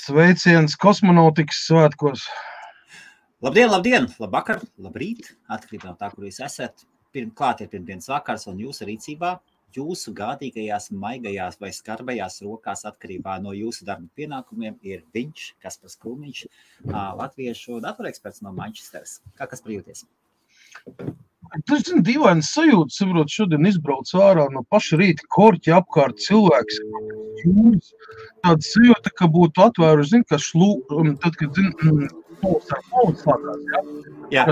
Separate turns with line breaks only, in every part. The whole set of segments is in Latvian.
Sveiciens kosmonautikas svētkos.
Labdien, labvakar, labrīt, atkarībā no tā, kur jūs esat. Klāt ir pirmdienas vakars un jūsu rīcībā, jūsu gādīgajās, maigajās vai skarbajās rokās atkarībā no jūsu darba pienākumiem ir viņš, Kaspars Krūmiņš, latviešu datoreksperts no Manchesteras. Kā Kaspar jūties?
Tas ir dīvains sajūta, saprot, šodien izbrauc ārā no paša rīta korķi apkārt cilvēks. Tāda sajūta, ka būtu atvēruši, tad, kad slākās,
jā.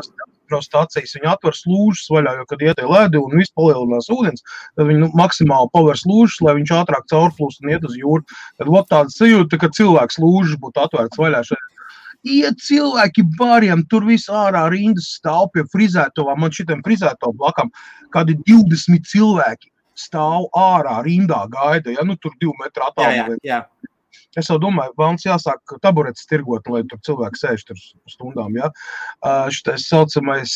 Stācijas, viņi atver slūžas vaļā, jo, kad iet ledi un viss palielinās ūdens, tad viņi maksimāli paver slūžas, lai viņš ātrāk caurplūst un iet uz jūru. Tad tāda sajūta, ka cilvēks slūžas būtu atvērts vaļā šeit. Iet cilvēki bariem, tur viss ārā rindas stāv pie frizētovām, man šitiem frizētovu blakam, kādi 20 cilvēki stāv ārā rindā gaida, ja, tur 2 metru attālumā.
Jā.
Es jau domāju, vēlams jāsāk taburetes tirgot, lai tur cilvēki sēž tur stundām, ja. Šitais saucamais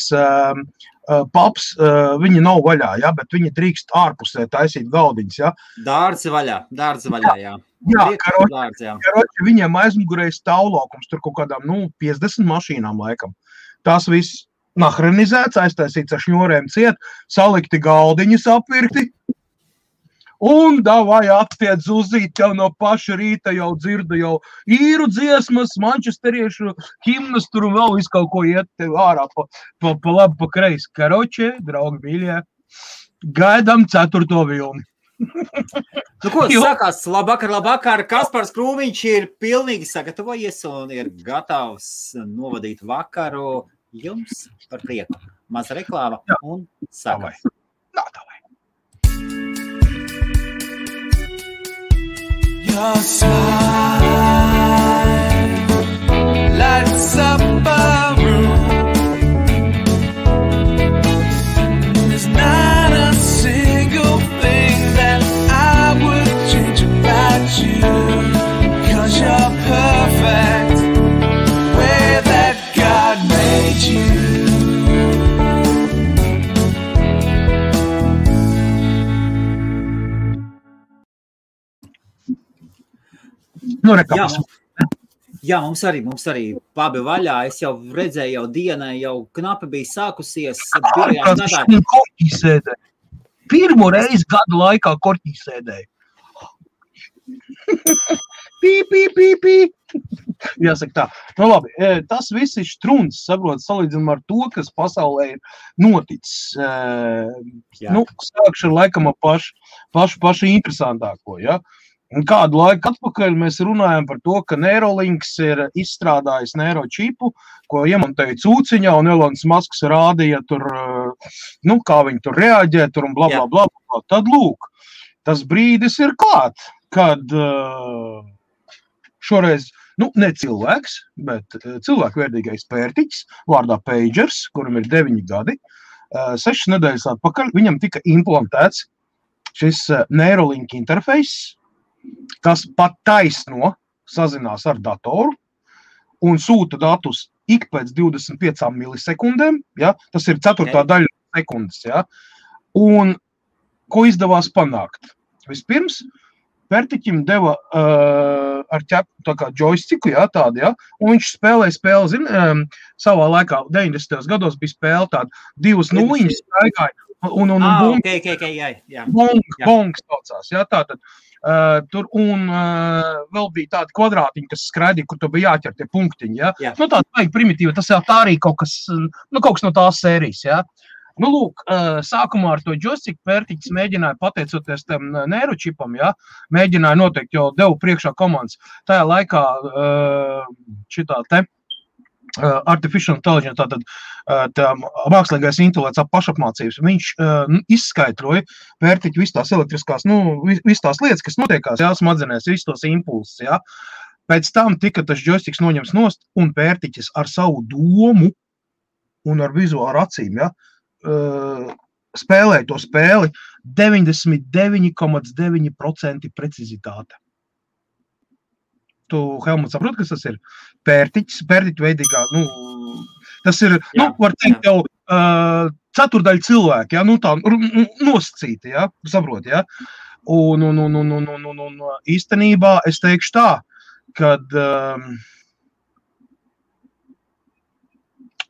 paps, viņi nav vaļā, ja, bet viņi drīkst ārpusē taisīt galdiņas, ja.
Dārzi vaļā, jā.
Jā, karoči, viņiem aizmugurē stāvlaukums, tur kaut kādām, 50 mašīnām laikam. Tās viss nahrenizēts, aiztaisīts ar šņorēm ciet, salikti galdiņas apvirkti, un davai attiec uzīt jau no paša rīta, jau dzirda jau īru dziesmas, mančesteriešu himnas, tur un vēl visu kaut ko iet ārā pa labi, pa kreisi. Karoči, draugi mīļie, gaidām 4. vilni.
Ko sakās? Labvakar, Kaspars Krūmiņš ir pilnīgi sagatavojies un ir gatavs novadīt vakaru jums par prieku. Maza reklāma un sākam.
Davai.
Your smile lights up a room. There's not a single thing that I would change about you, 'cause you're perfect the way that God made you.
Jā, mums arī pabi vaļā. Es jau redzēju, jau diena jau knapi bija sākusies.
Korķī sēdēju. Pirmo reizi gadu laikā korķī sēdēju. Pī. Jāsaka tā. Labi, tas viss ir štruns, saprot, salīdzinām ar to, kas pasaulē ir noticis. Sākšu ar laikam pašu interesantāko, ja. Un kādu laiku atpakaļ mēs runājam par to, ka Neuralinks ir izstrādājis neuročipu, ko iemontēja cūciņā, un Elons Musks rādīja tur, kā viņi tur reaģē, tur un bla. Tad lūk, tas brīdis ir klāt, kad šoreiz, ne cilvēks, bet cilvēkvērtīgais pērtiķis, vārdā Pagers, kuram ir 9 gadi, 6 nedēļas atpakaļ, viņam tika implantēts šis Neuralink interfejs, kas pat taisno sazinās ar datoru un sūta datus ik pēc 25 milisekundēm, ja? Tas ir 4. daļa sekundes, ja? Un ko izdevās panākt? Vispirms, pērtiķim deva ar ķepu tā kā joystiku, ja, tādu, ja? Un viņš spēlēja spēli, savā laikā 90. gados bija spēle tāda 2 nuliņas staigāja un bongs saucās, ja, tātad. Tur un vēl bija tādi kvadrātiņi, kas skraidīja, kur tu bija jāķer tie punktiņi, ja? Tāda vajag primitīva, tas jau tā arī kaut kas no tās sērijas, ja? Lūk, sākumā ar to joystick pērtiķis mēģināja, pateicoties tam neuročipam, ja? Mēģināja noteikti, jo devu priekšā komandas. Tajā laikā šitā te artificial intelligence, tātad mākslīgais intelekts pašapmācības, viņš izskaidroja pērtiķi visas tās elektriskās, visas tās lietas, kas notiekās, jā, smadzenēs, visas tos impulsus, jā. Pēc tam tika tas joysticks noņems nost, un pērtiķis ar savu domu un ar vizuālu acīm, jā, spēlēja to spēli 99,9% precizitāte. Tu, Helmut, saprot, kas tas ir? Pērtiķu veidīgā, tas ir, var teikt jau ceturdaļa cilvēki, ja, tā nosacīti, ja, saprot, ja. Un īstenībā es teikšu tā, kad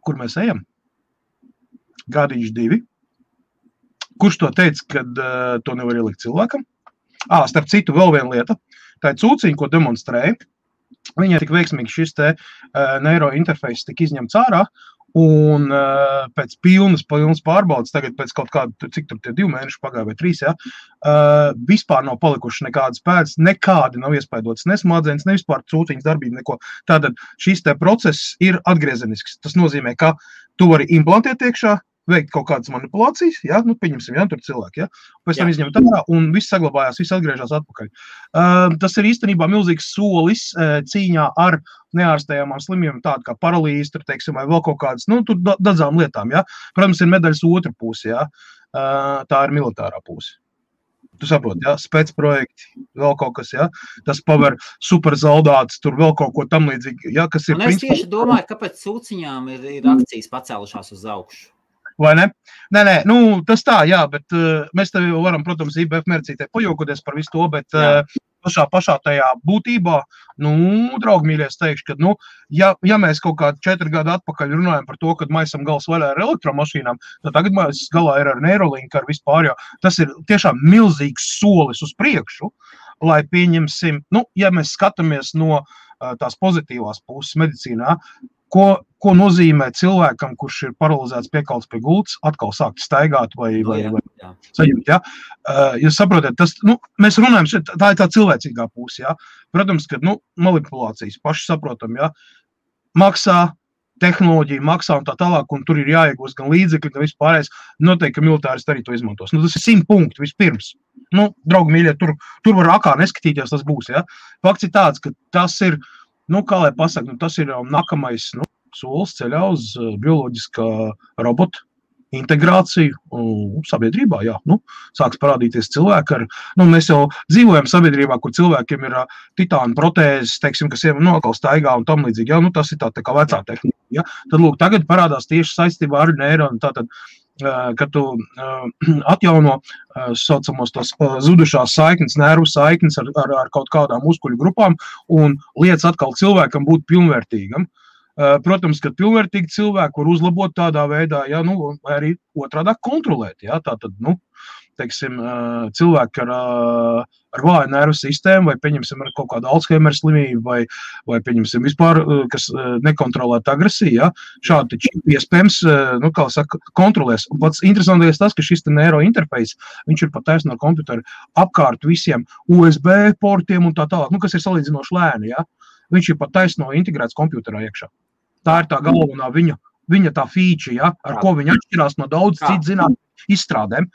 kur mēs ejam? Gadiņš 2. Kurš to teica, kad to nevar ielikt cilvēkam? Starp citu, vēl viena lieta. Tā ir cūciņa, ko demonstrēja. Viņai tik veiksmīgi šis te neurointerfejs tika izņemts ārā, un pēc pilnas pārbaudas, tagad pēc kaut kāda, cik tur tie 2 mēneši pagāja vai 3, ja, vispār nav palikuši nekādas pēdas, nekādi nav iespaidotas, ne smadzenes, ne vispār cūciņas darbība, neko. Tātad šis te process ir atgriezenisks. Tas nozīmē, ka tu vari implantēt iekšā, veikt kaut kādas manipulācijas, ja, nu, pieņemsim, ja, tur cilvēki, ja, pēc tam izņemt ārā, un viss saglabājās, viss atgriežās atpakaļ. Tas ir īstenībā milzīgs solis cīņā ar neārstējamām slimībām, tāda kā paralīze, tur, teiksim, vai vēl kaut kādas, nu, tur daudzām lietām, ja. Protams, ir medaļas otra puse, ja, tā ir militārā puse. Tu saproti, ja, specprojekti, vēl kaut kas, ja, tas paver superzaldāts, tur vēl kaut ko tam līdzīgi, ja, kas ir...
Un es tieši domāju, kāpēc cūciņām ir akcijas pacēlušās uz augšu.
Vai ne? Nē, nu, tas tā, jā, bet mēs tev jau varam, protams, IBF mērcītē pajokoties par visu to, bet pašā tajā būtībā, nu, draugi mīļie, es teikšu, ka, nu, ja mēs kaut kādu 4 gadu atpakaļ runājam par to, kad maisam gals vaļā ar elektromašīnām, tad tagad mēs galā ir ar Neuralink, ar vispār, jo tas ir tiešām milzīgs solis uz priekšu, lai pieņemsim, nu, ja mēs skatāmies no tās pozitīvās puses medicīnā, ko nozīmē cilvēkam, kurš ir paralizēts piekalts pie gultas, atkal sākt staigāt vai sajūt, ja? Jūs saprotat, tas, nu, mēs runājam, tā ir tā cilvēcīgā puse, ja? Protams, ka, nu, manipulācijas paši saprotam, ja? Maksā, tehnoloģija maksā un tā tālāk, un tur ir jāiegūst gan līdzekļi, gan vispārējais, noteikti, ka militāristi arī to izmantos. Nu, tas ir 100 punkti vispirms. Nu, draugi mīļie, tur var akā neskatīties, tas būs, ja? Fakts ir tāds, ka tas ir, nu, kā lai pasaka, nu, tas ir nākamais, nu, solis ceļā uz bioloģiskā robota integrāciju sabiedrībā, jā, nu, sāks parādīties cilvēki ar, nu, mēs jau dzīvojam sabiedrībā, kur cilvēkiem ir titāna protēzes, teiksim, kas jau nokal staigā un tam līdzīgi, jā, nu, tas ir tā kā vecā tehnika, jā, tad, lūk, tagad parādās tieši saistībā ar neironu, tātad, kad tu atjauno saucamos tos zudušās saiknes, nervu saiknes ar kaut kādām muskuļu grupām un liec atkal cilvēkam būt pilnvērtīgam. Protams, ka pilnvērtīgi cilvēki var uzlabot tādā veidā, ja, nu, vai arī otrādāk kontrolēt, ja, tātad, nu, teiksim, cilvēki ar vāju nervu sistēmu, vai pieņemsim ar kaut kādu Alzheimer slimību, vai pieņemsim vispār, kas nekontrolēt agresiju, ja, šādi iespējams, nu, kā saka, kontrolēs. Un pats interesantais tas, ka šis neurointerfejs, viņš ir pat taisno ar komputeru apkārt visiem USB portiem un tā tālāk, nu, kas ir salīdzinoši lēni, ja, viņš ir pat taisno integrēts komputerā iekšā. Tā ir tā galvenā viņa tā feature, ja, ar ko viņa atšķirās no daudz citu zinātņu izstrādēm.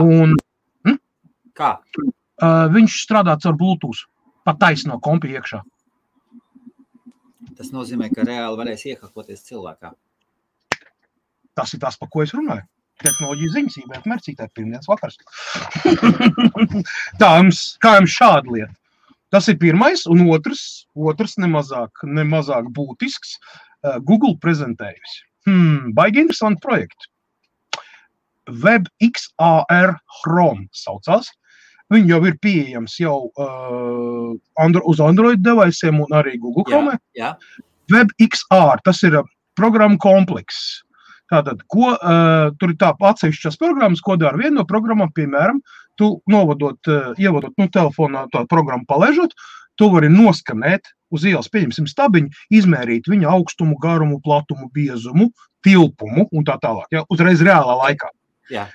Un,
Kā?
Viņš strādā caur Bluetooth, pat taisno kompi iekšā.
Tas nozīmē, ka reāli varēs iekakoties cilvēkā.
Tas ir tas, par ko es runāju. Tehnoloģija ziņas, IBF mērcītē, pirmdienas vakars. Tā, kā jums šāda lieta? Tas ir pirmais, un otrs nemazāk būtisks. Google prezentējusi. Baigi interesanti projekti. WebXR Chrome saucās. Viņi jau ir pieejams jau uz Android deviceiem un arī Google Chrome.
Jā.
WebXR, tas ir programma komplekss. Tātad, tur ir tā atsevišķas programmas, ko dara viena no programmām, piemēram, tu ievadot telefonā tā programmu palaižot, tu vari noskanēt uz ielas, pieņemsim stabiņu, izmērīt viņa augstumu, garumu, platumu, biezumu, tilpumu un tā tālāk, ja, uzreiz reālā laikā.
Jā.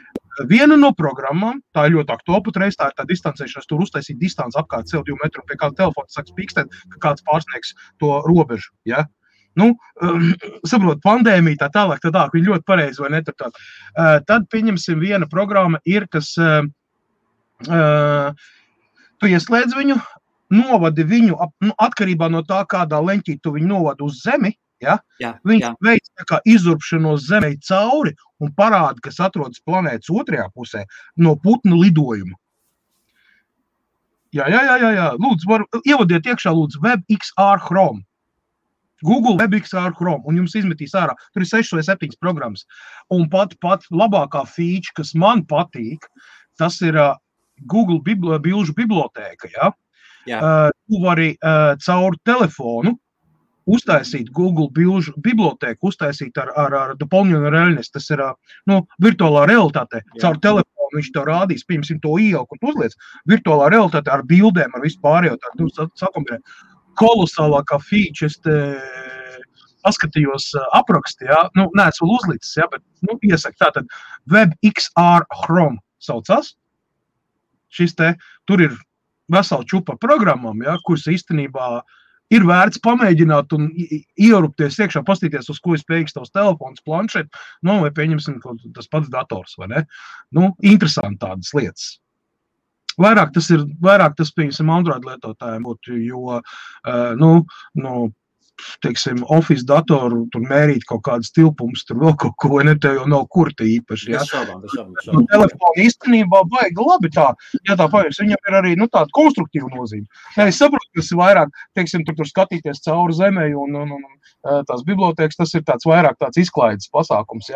Viena no programmām, tā ir ļoti aktuāla patreiz, tā ir tā distancēšanās, tur uztaisīt distanci apkārt sev 2 metru, pie kāda telefona sāks pīkstēt, ka kāds pārsniegs to robežu, ja. Nu, saprot, pandēmija tā tālāk, viņi ļoti pareizi vai netur. Tad, pieņemsim, viena programma ir, kas tu ieslēdz viņu, novadi viņu, atkarībā no tā, kādā leņķī tu viņu novadi uz zemi, ja? Viņš veic tā kā izurbšanos zemei cauri un parāda, kas atrodas planētas otrajā pusē no putnu lidojuma. Jā. Lūdzu, ievadiet iekšā, lūdzu, WebXR Chrome. Google WebXR Chrome, un jums izmetīs ārā. Tur ir 6 vai 7 programmas. Un pat labākā feature, kas man patīk, tas ir Google bilžu bibliotēka, ja? Tu vari caur telefonu uztaisīt Google bibliotēku, uztaisīt ar doполненную реальность, tas ir virtuālā realitāte. Caur telefonu viņš tev rādīs, piemēram, to ieelku un uzliec virtuālā realitāte ar bildēm, ar visu pārējo. Tu sakombinē kolosālākā feature, es te paskatījos apraksti, neesmu vēl uzlicis, bet iesaku tātad WebXR Chrome saucās. Tur ir vesela čupa programmām, kuras īstenībā ir vērts pamēģināt un ierupties iekšā, pastīties, uz ko ir spējīgs tavs telefons, planšet, vai pieņemsim tas pats dators, vai ne? Interesanti tādas lietas. Vairāk tas pieņemsim Android lietotājiem būtu, jo, teiksim, Office datoru, tur mērīt kaut kādas tilpumus, tur vēl kaut ko, te jau nav kurti īpaši, Telefoni īstenībā baigi labi tā, tā paies, viņam ir arī, tāda konstruktīva nozīme. Es saprotu, kas ir vairāk, teiksim, tur skatīties cauri zemē un tās bibliotēkas, tas ir tāds vairāk tāds izklaides pasākums,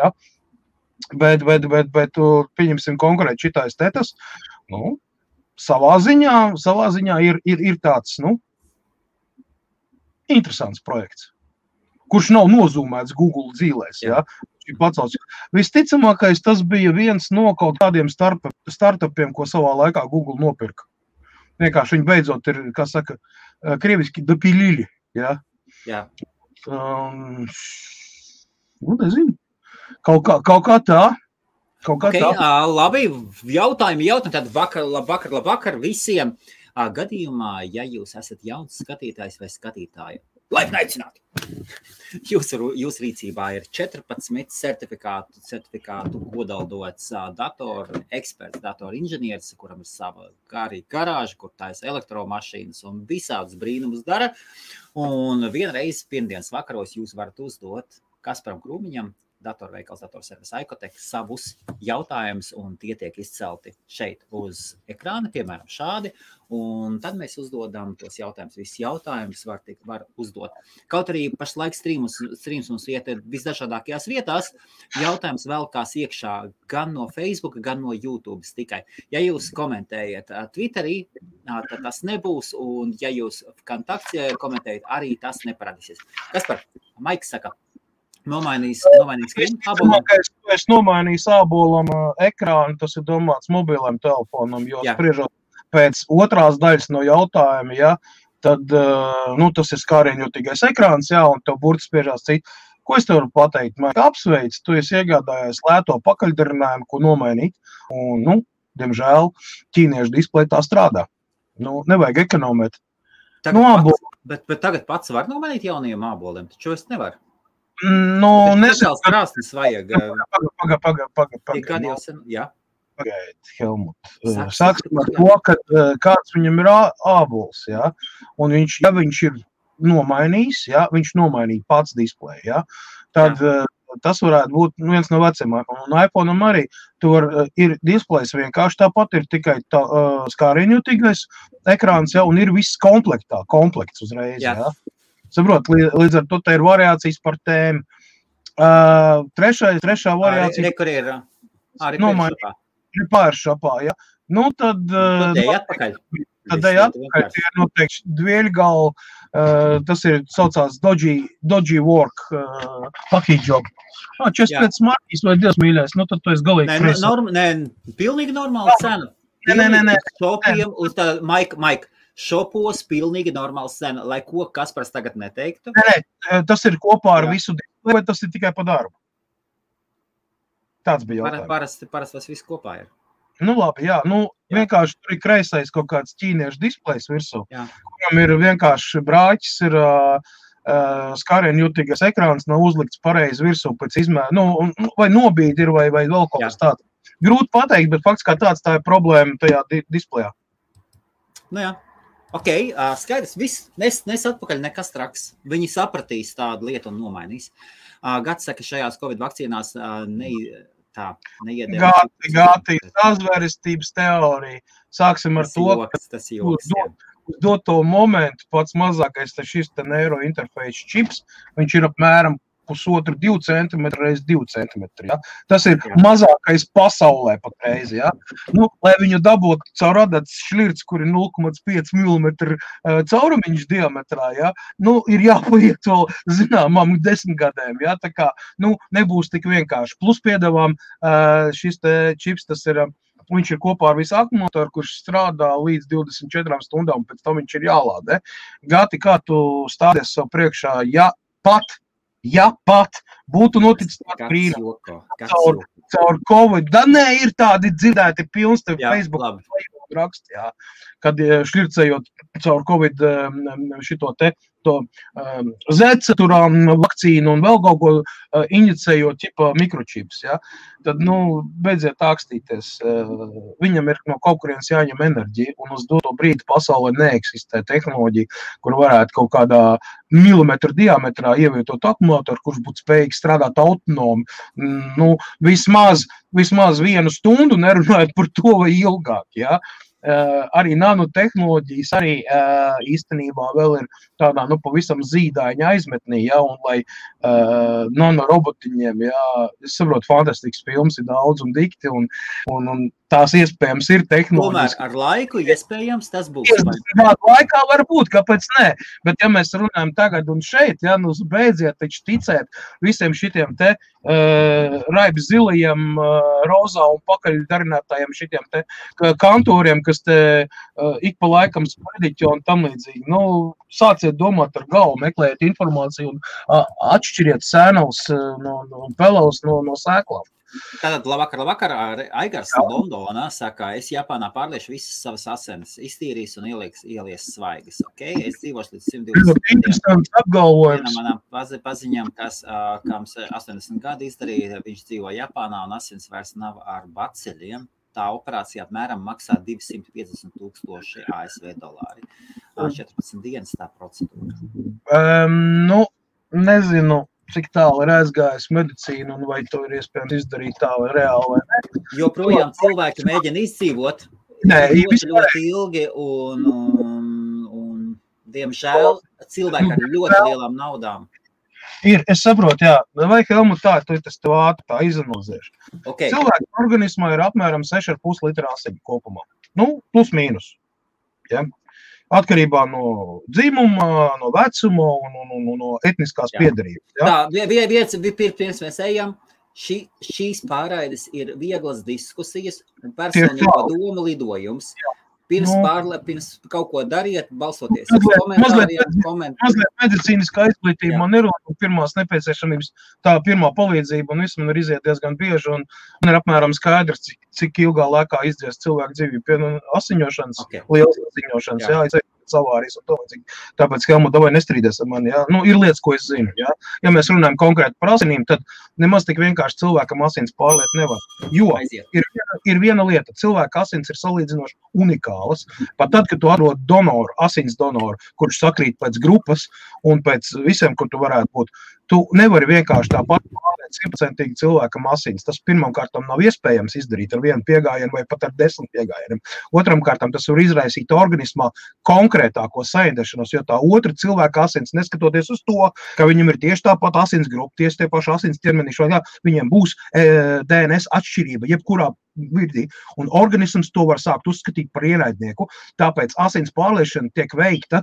Bet, pieņemsim konkrēti šitais tetas, savā ziņā ir tāds, interesants projekts, kurš nav nozūmēts Google dzīlēs, Visticamākais tas bija viens no kaut kādiem startupiem, ko savā laikā Google nopirka. Vienkārši viņi beidzot ir, kā saka, krieviski dopilili, nezinu, kaut kā tā.
Labi, jautājumi, tad labvakar visiem. Gadījumā, ja jūs esat jauns skatītājs vai skatītāja, laipni aicināti! Jūs rīcībā ir 14 certifikātu kodaldots datoru eksperts, datoru inženieris, kuram ir sava garāža, kur taisa elektromašīnas un visādus brīnumus dara. Un vienreiz pirmdienas vakaros jūs varat uzdot Kasparam Krūmiņam, datorveikals, datorservis Aikotek, savus jautājumus, un tie tiek izcelti šeit uz ekrāna, piemēram, šādi, un tad mēs uzdodam tos jautājumus. Visus jautājumus var uzdot. Kaut arī pašlaik streams mums iet visdažādākajās vietās, jautājums velkās iekšā gan no Facebook, gan no YouTube tikai. Ja jūs komentējat Twitterī, tad tas nebūs, un ja jūs kontaktē komentējat, arī tas neparādīsies. Kaspar, Maiks saka, nomainīs ābolam.
Es nomainīju ābolam ekrānu, tas ir domāts mobiliem telefonam, jo spriežot pēc otrās daļas no jautājuma, tad tas ir skārieņotīgais ekrāns, un tev burti spiežās citi. Ko es tev varu pateikt? Man apsveic, tu esi iegādājies lēto pakaļdarinājumu, ko nomainīt, un, diemžēl, ķīniešu displeja tā strādā. Nevajag ekonomēt.
Bet tagad pats var nomainīt jaunajiem āboliem, taču es nevaru.
Nesāks
krāsnes vajag.
Pagaid, Helmut. Sāksim ar to, ka kāds viņam ir ābols, un viņš ir nomainījis, viņš nomainīja pats displeju, tad tas varētu būt viens no vecumākam. Un iPhone'am arī ir displejs vienkārši tāpat, ir tikai skārieņotīgais ekrāns, un ir viss komplekts uzreiz, Saprot, līdz ar to te ir variācijas par tēmu. Trešā variācija.
Kur ir?
Ir pāršapā, Tad ej atpakaļ. Tie ir noteikti dvieļgali. Tas ir saucās Dodgy Work package job. 45 markīs vai Dievs mīļais, tad tu esi galīgi
frēs. Pilnīgi normāla cena.
Nē.
Šopiem uz tā, Mike. Šopos pilnīgi normāls cena, lai ko Kaspars tagad neteiktu?
Nē, tas ir kopā ar visu displeju, vai tas ir tikai pa darbu? Tāds bija jautājums.
Parasti tas viss kopā ir.
Labi, vienkārši tur ir kreisais kaut kāds ķīniešu displejs virsū, kuram ir vienkārši brāķis, ir skārieņotīgais ekrāns, nav uzlikts pareizi virsū pēc izmēra, vai nobīdi ir, vai vēl kaut kas tāds. Grūti pateikt, bet fakts kā tāds, tā ir problēma tajā displejā.
Ok, skaidrs, viss, nes atpakaļ nekas traks. Viņi sapratīs tādu lietu un nomainīs. Gats saka, šajās Covid vakcīnās neiedēv.
Gāti, sazvērestības teorija. Sāksim ar to,
tas joks,
uz doto momentu pats mazākais šis neurointerfejs čips, viņš ir apmēram 1,5–2 centimetri reiz 2 centimetri. Ja? Tas ir mazākais pasaulē patreiz. Ja? Nu, lai viņu dabūtu caur adatas šļirts, kur ir 0,5 mm caurumiņš diametrā, ja? Nu, ir jāpaiet vēl zināmām 10 gadiem. Ja? Tā kā nebūs tik vienkārši. Plus piedāvām šis te čips, tas ir... Viņš ir kopā ar visu akumulatoru, kurš strādā līdz 24 stundām, pēc tam viņš ir jālādē. Gati, kā tu stādies sev priekšā, ja pat būtu noticis tāds brīnums caur Covid. Da nē, ir tādi dzirdēti pilns tev Facebook raksti, jā, kad šļircējot caur Covid šito te zeceturām vakcīnu un vēl kaut ko injicējot ķipa mikročips, ja? Tad, beidziet ākstīties. Viņam ir no kaut kurienes jāņem enerģija, un uz doto brīdi pasaulē neeksistē tehnoloģija, kur varētu kaut kādā milimetru diametrā ievietot akumulatoru, kurš būtu spējīgs strādāt autonomi. Vismaz 1 stundu nerunājot par to vai ilgāk, ja? Arī nanotehnoloģijas arī īstenībā vēl ir tādā, pavisam zīdaiņa aizmetnī, ja, un lai nanorobotiņiem, ja, es saprotu, fantastisks films ir daudz un dikti, un tās iespējams ir tehnoloģijas.
Tomēr ar laiku iespējams tas būs.
Laikā var būt, kāpēc ne, bet ja mēs runājam tagad un šeit, ja, beidziet taču ticēt visiem šitiem te raibs zilajiem, rozā un pakaļdarinātājiem šitiem te kantoriem, kas te ik pa laikam sprediķo un tam līdzīgi. Sāciet domāt ar galvu, meklējiet informāciju un atšķiriet sēnavus no pelavus no sēklām.
Tātad labvakar, Aigars Londonā saka, es Japānā pārliešu visas savas asinis, iztīrīs un ielies svaigas, ok? Es dzīvošu līdz 120
apgalvojums.
Manām paziņām, kam 80 gadi izdarīja, viņš dzīvo Japānā un asins vairs nav ar baceļiem. Tā operācija apmēram maksā 250,000 ASV dolāri. 14 dienas tā procedūra.
Nezinu, cik tālu ir aizgājis medicīnu un vai to ir iespējams izdarīt tā vai reāli vai ne.
Joprojām cilvēki mēģina izdzīvot ļoti ilgi un diemžēl cilvēki ar ļoti lielām naudām.
Es saprotu, jā. Vai Helmut tā, tu tas tev ātri tā izanalizēšu.
Okay.
Cilvēku organismā ir apmēram 6,5 litra asiņu kopumā. Plus mīnus. Ja? Atkarībā no dzimuma, no vecuma un no etniskās piedarības. Ja?
Tā, pirms mēs ejam, šīs pārraides ir vieglas diskusijas un personīgo domu lidojums. Pirms kaut ko dariet, balsoties uz komentāriem.
Mazliet medicīniskā izglītība man ir un pirmās nepieciešamības tā pirmā palīdzība un viss man ir iziet diezgan bieži un man ir apmēram skaidrs, cik ilgā laikā izdzies cilvēku dzīvību pie asiņošanas, lielas asiņošanas, jā, savārīs un to līdzīgi. Tāpēc, Helmut, davai nestrīdies ar mani, jā. Ir lietas, ko es zinu, jā. Ja mēs runājam konkrēti par asinīm, tad nemaz tik vienkārši cilvēkam asins pārliet nevar. Jo ir viena lieta, cilvēka asins ir salīdzinoši unikālas. Pat tad, kad tu atrod donoru, asins donoru, kurš sakrīt pēc grupas un pēc visiem, kur tu varētu būt, tu nevari vienkārši tāpat pārliet 100% cilvēkam asins. Tas pirmam kārtam nav iespējams izdarīt ar vienu piegājienu vai pat ar 10 piegājieniem. Otram kārtam tas var izraisīt organismā konkrētāko saindēšanos, jo tā otra cilvēka asins, neskatoties uz to, ka viņam ir tieši tāpat asins grupa, tieši tie paši asins ķermenīši, viņiem būs DNS atšķirība, jebkurā virdī, un organisms to var sākt uzskatīt par ienaidnieku, tāpēc asins pārliešana tiek veikta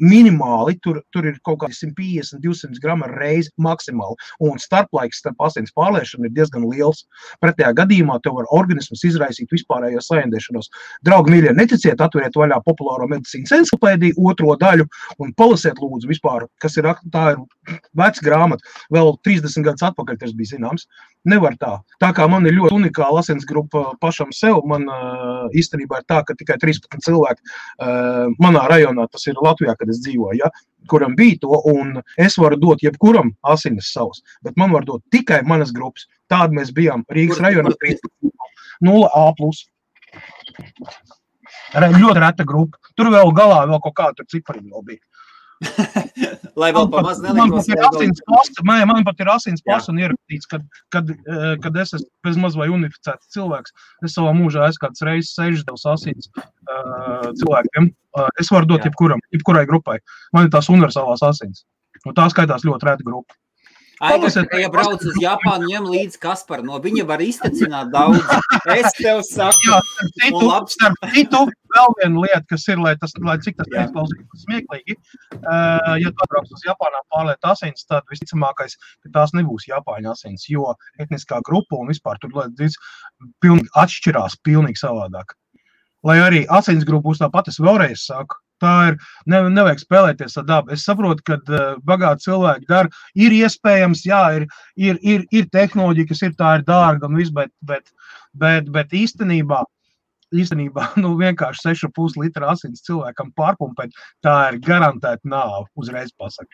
minimāli, tur ir kaut kādi 150-200 grama reizi maksimāli, un starplaiks starp asins pārliešanu ir diezgan liels. Pretējā gadījumā tev var organisms izraisīt vispārējo saindēšanos. Draugi mīļie, neticiet, atveriet vaļā populāro medicīnas encyklopēdiju 2. daļu un palasiet lūdzu vispār, kas ir, tā ir veca grāmata, vēl 30 gadus atpakaļ tas bija zināms. Nevar tā. Tā kā man ir ļoti unikāla asins grupa pašam sev, man īstenībā ir tā, ka tikai 13 cilvēki manā rajonā, tas ir Latvijā, kad es dzīvoju, ja, kuram bija to, un es varu dot jebkuram asinis savus, bet man var dot tikai manas grupas. Tāda mēs bijām Rīgas rajonā 0A+. Ļoti reta grupa. Tur vēl galā vēl kaut kādu cipariņu vēl bija.
Lai vēl pa maz nelikos.
Man pat ir asins pasa un ierakstīts, kad es esmu bez maz vai unificēts cilvēks. Es savā mūžā esmu kāds reizes 6 devs asins cilvēkiem. Es varu dot jebkurai grupai. Man ir tās universālās asins. Un tā skaitās ļoti reta grupa.
Ja brauc uz Japānu, ņem līdz Kasparu, no viņa var iztecināt daudz. Es tev saku.
Jā, starp citu, vēl viena lieta, kas ir, lai cik tas neizklausītos smieklīgi, ja tu atbrauc uz Japānā pārliet asins, tad visticamākais, ka tās nebūs Japāņu asins, jo etniskā grupa un vispār tur pilnīgi atšķirās, pilnīgi savādāk. Lai arī asins grupa būs tāpat, es vēlreiz saku, tā ir, nevajag spēlēties ar dabu. Es saprotu, ka bagāti cilvēki dara, ir iespējams, jā, ir tehnoloģija, kas tā ir dārga un viss, bet īstenībā, vienkārši 6,5 litra asins cilvēkam pārpumpēt, tā ir garantēta nāve, uzreiz pasaka.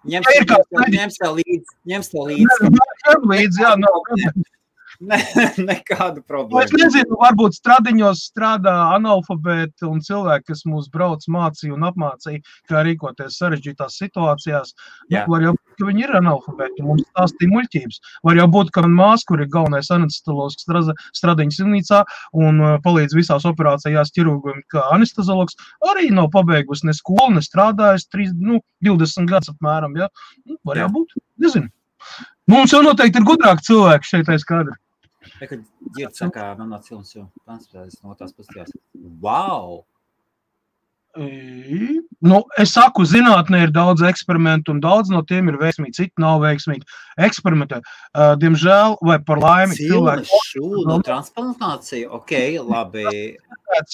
Ņems tev līdzi. Jā, nekādu problēmu.
Es nezinu, varbūt stradiņos strādā analfabēti un cilvēki, kas mūs brauc mācīja un apmācīja, kā rīkoties sarežģītās situācijās. Var jau būt, ka viņi ir analfabēti un mums stāstīja muļķības. Var jau būt, ka man māsa, kur ir galvenais anesteziologs stradiņas slimnīcā un palīdz visās operācijās ķirurgiem kā anesteziologs, arī nav pabeigusi ne skolu, ne strādājis 20 gadus apmēram. Ja? Var jau būt, nezinu. Mums jau noteikti ir gudrāki cilvēki šeit aiz kadra.
Kad ģird sakā, man no cilmas jau transportēs no tās pasties. Wow!
Es saku, zinātnē ir daudz eksperimentu un daudz no tiem ir veiksmīgi, citi nav veiksmīgi. Eksperimentē. Diemžēl vai par laimi cilvēki.
Cilmes šūnu transplantācija, ok, labi.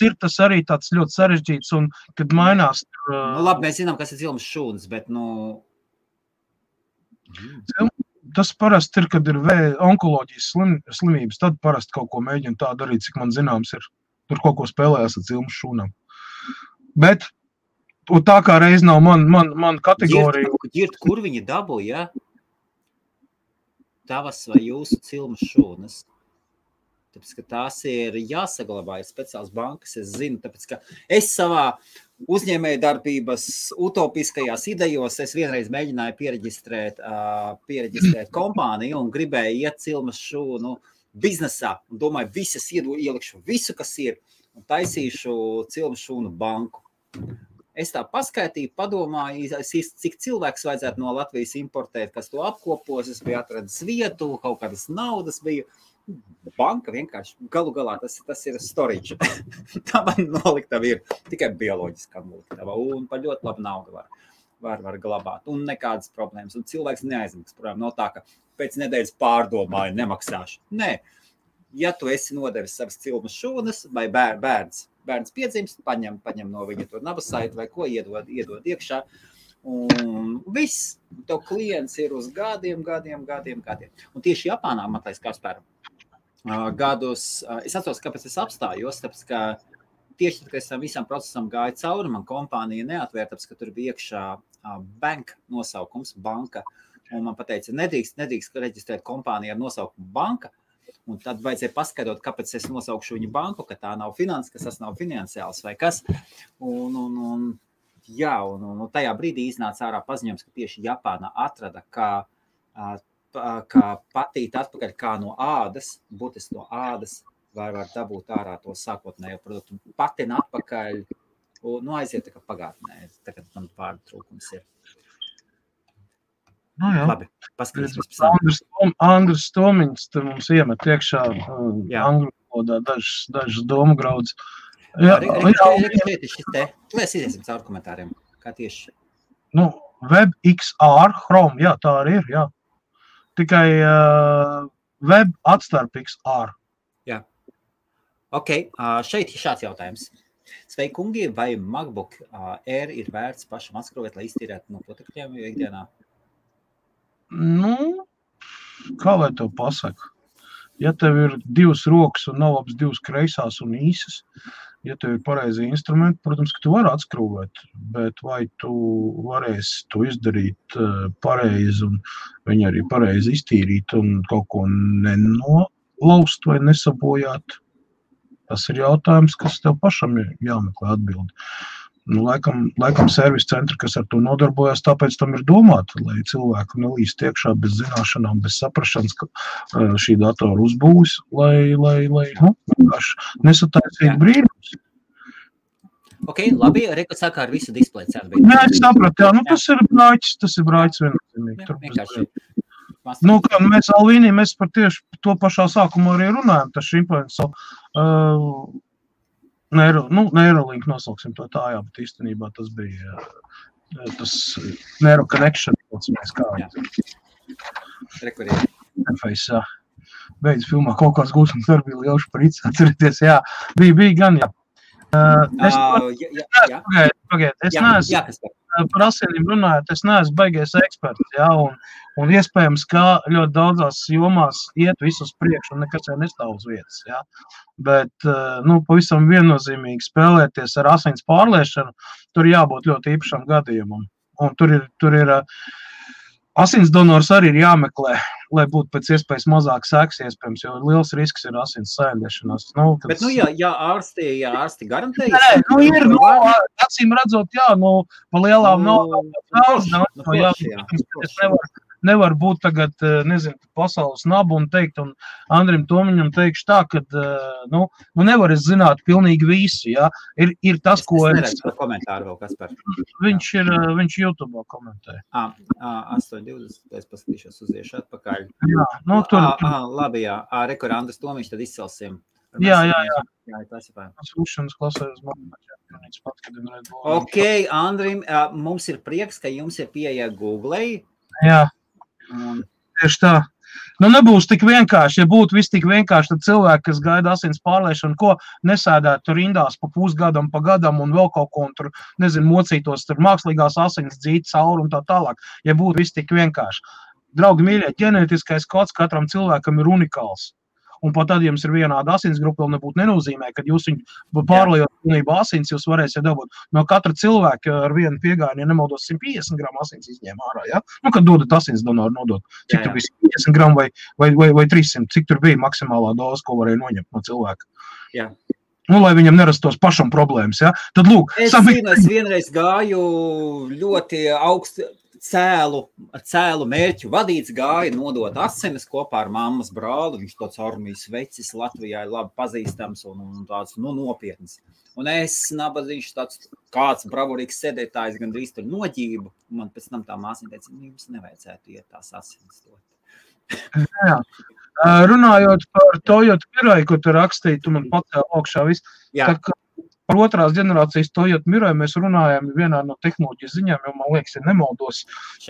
Ir tas arī tāds ļoti sarežģīts un, kad mainās.
Labi, mēs zinām, kas ir cilmes šūnas, bet,
Tas parasti ir, kad ir onkoloģijas slimības, tad parasti kaut ko mēģina tā darīt, cik man zināms ir. Tur kaut ko spēlējās ar cilmes šūnām. Bet tā kā reiz nav man kategorija.
Ģirt, kur viņi dabū, ja? Tavas vai jūsu cilmes šūnas? Tāpēc, ka tās ir jāsaglabā, ir speciāls bankas, es zinu, tāpēc, ka es savā uzņēmēju darbības utopiskajās idejos, es vienreiz mēģināju piereģistrēt kompāniju un gribēju iet cilmes šūnu biznesā un domāju, ielikšu visu, kas ir un taisīšu cilmes šūnu banku. Es tā paskaitīju, padomāju, cik cilvēks vajadzētu no Latvijas importēt, kas to apkopos, es biju atradis vietu, kaut kādas naudas bija. Banka vienkārši, galu galā, tas ir storage. Tā man noliktava ir tikai bioloģiskā noliktava un par ļoti labu naudu var glabāt un nekādas problēmas. Un cilvēks neaizmaksā, protams, no tā, ka pēc nedēļas pārdomāju, nemaksāšu. Nē, ja tu esi nodevis savas cilmes šūnas vai bērns piedzimst, paņem no viņa to nabasaiti vai ko iedod iekšā. Un viss, tev klients ir uz gadiem. Un tieši Japānā, Matais Kasparu, gadus, es atceros, kāpēc es apstājos, tāpēc, ka tieši tad, kad es tam visam procesam gāju cauri, man kompānija neatvēr, tāpēc, ka tur bija iekšā bank nosaukums, banka, un man pateica, nedrīkst reģistrēt kompāniju ar nosaukumu banka, un tad vajadzēja paskaidrot, kāpēc es nosaukšu viņu banku, ka tā nav tas nav finansiāls vai kas, un tajā brīdī iznāca ārā paziņojums, ka tieši Japāna atrada, kā patīt atpakaļ kā no ādas, būtiski no ādas, var dabūt ārā to sākotnējo produktu. Patina atpakaļ, aiziet tā kā pagātnē, tagad man vārdu trūkums ir. Labi, paskatīsimies pēc
Andris Tomiņš te mums iemet iekšā angļu valodā dažas domu graudus.
Mēs iziesim caur komentāriem, kā tieši.
WebXR, Chrome, jā, tā arī ir, jā. Tikai web atstarp XR.
Jā. Ok, šeit ir šāds jautājums. Sveiki, kungi, vai MacBook Air ir vērts pašam atskrūvēt, lai iztīrētu no protekļiem ikdienā?
Kā lai tev pasaka? Ja tev ir 2 rokas un nav labas 2 kreisās un īsas, ja tev ir pareizi instrumenti, protams, ka tu vari atskrūvēt, bet vai tu varēsi to izdarīt pareizi un viņu arī pareizi iztīrīt un kaut ko nenolaust vai nesabojāt? Tas ir jautājums, kas tev pašam ir jāmeklē atbildi. Laikam servis centri, kas ar to nodarbojas, tāpēc tam ir domāti, lai cilvēku nelīst iekšā bez zināšanām, bez saprašanas, ka šī datora uzbūvis, lai nesataisīt brīnums.
Ok, labi, Reku saka ar visu displeju cenu.
Nē, es sapratu, jā, tas ir brāķis viennozīmīgi.
Vienkārši.
Kā mēs Alvīnī, mēs par tieši to pašā sākumu arī runājam, tas šimpansu Neuralink nosauksim to tā, jā, bet īstenībā tas bija tas Neuro Connection, interface, jā. Beidz filmā kaut kāds gūšanas darbi bija lielši par īci, atcerieties, jā, bija gan, jā. Es neesmu par asinīm runājot, es neesmu baigies eksperts, jā, un iespējams, ka ļoti daudzās jomās iet visus priekš un nekas jau nestāv uz vietas, jā. Bet, pavisam viennozīmīgi spēlēties ar asins pārliešanu, tur jābūt ļoti īpašam gadījumam. Un tur ir asins donors arī ir jāmeklē, lai būtu pēc iespējas mazāk seks iespējams, jo liels risks ir asins saindēšanās.
Bet, ja ārsti garantējas?
Nē, acīm redzot, jā, pa lielām nevar būt tagad, pasaules nabu un teikt, un Andrim Tomiņam teikšu tā, ka, nevar es zināt pilnīgi visu, jā. Ir tas, ko
es neredzu par komentāru vēl, Kaspar.
Viņš YouTube komentē.
8.20, es paskatīšos uz iešu atpakaļ.
Jā,
labi, jā. Rekur Andris Tomiņš, tad izcelsim.
Jā,
tas ir pār.
Sūšanas klasēs
Ok, Andrim, mums ir prieks, ka jums ir pieeja Google.
Jā, tieši tā. Nebūs tik vienkārši. Ja būtu viss tik vienkārši, tad cilvēki, kas gaida asins pārliešanu, ko nesēdētu rindās pa pusgadam, pa gadam un vēl kaut ko, un tur, mocītos tur mākslīgās asins dzīt cauri un tā tālāk. Ja būtu viss tik vienkārši. Draugi mīļie, ģenētiskais kods katram cilvēkam ir unikāls. Un pat tad, ja jums ir vienāda asins grupa, vēl nebūtu nenozīmē, kad jūs viņu pārliejot pilnībā asins, jūs varēsiet dabūt no katra cilvēka ar vienu piegājienu, ja nemaldos 150 gramu asins izņēma ārā, ja? Kad dodat asins donoru nodot, cik tur bija 50 gramu vai 300, cik tur bija maksimālā doza, ko varēja noņemt no cilvēka.
Jā.
Lai viņam nerastos pašam problēmas, ja? Tad lūk.
Es vienreiz gāju ļoti augstu cēlu mērķu vadīts, gāja nodot asinis kopā ar mammas brāli. Viņš tāds armijas vecis Latvijā ir labi pazīstams un tāds nopietns. Un es nabadziņš tāds kāds bravurīgs sēdētājs gandrīz tur noģību. Man pēc tam tā māsiņa teica, jums nevajadzētu iet tās asinis dot.
Jā. Runājot par Toyota Mirai, ko tu rakstīji, tu man pacēl augšā viss.
Jā.
Par otrās ģenerācijas Toyota Mirai mēs runājam vienā no tehnoloģijas ziņām, jo man liekas, ja nemaldos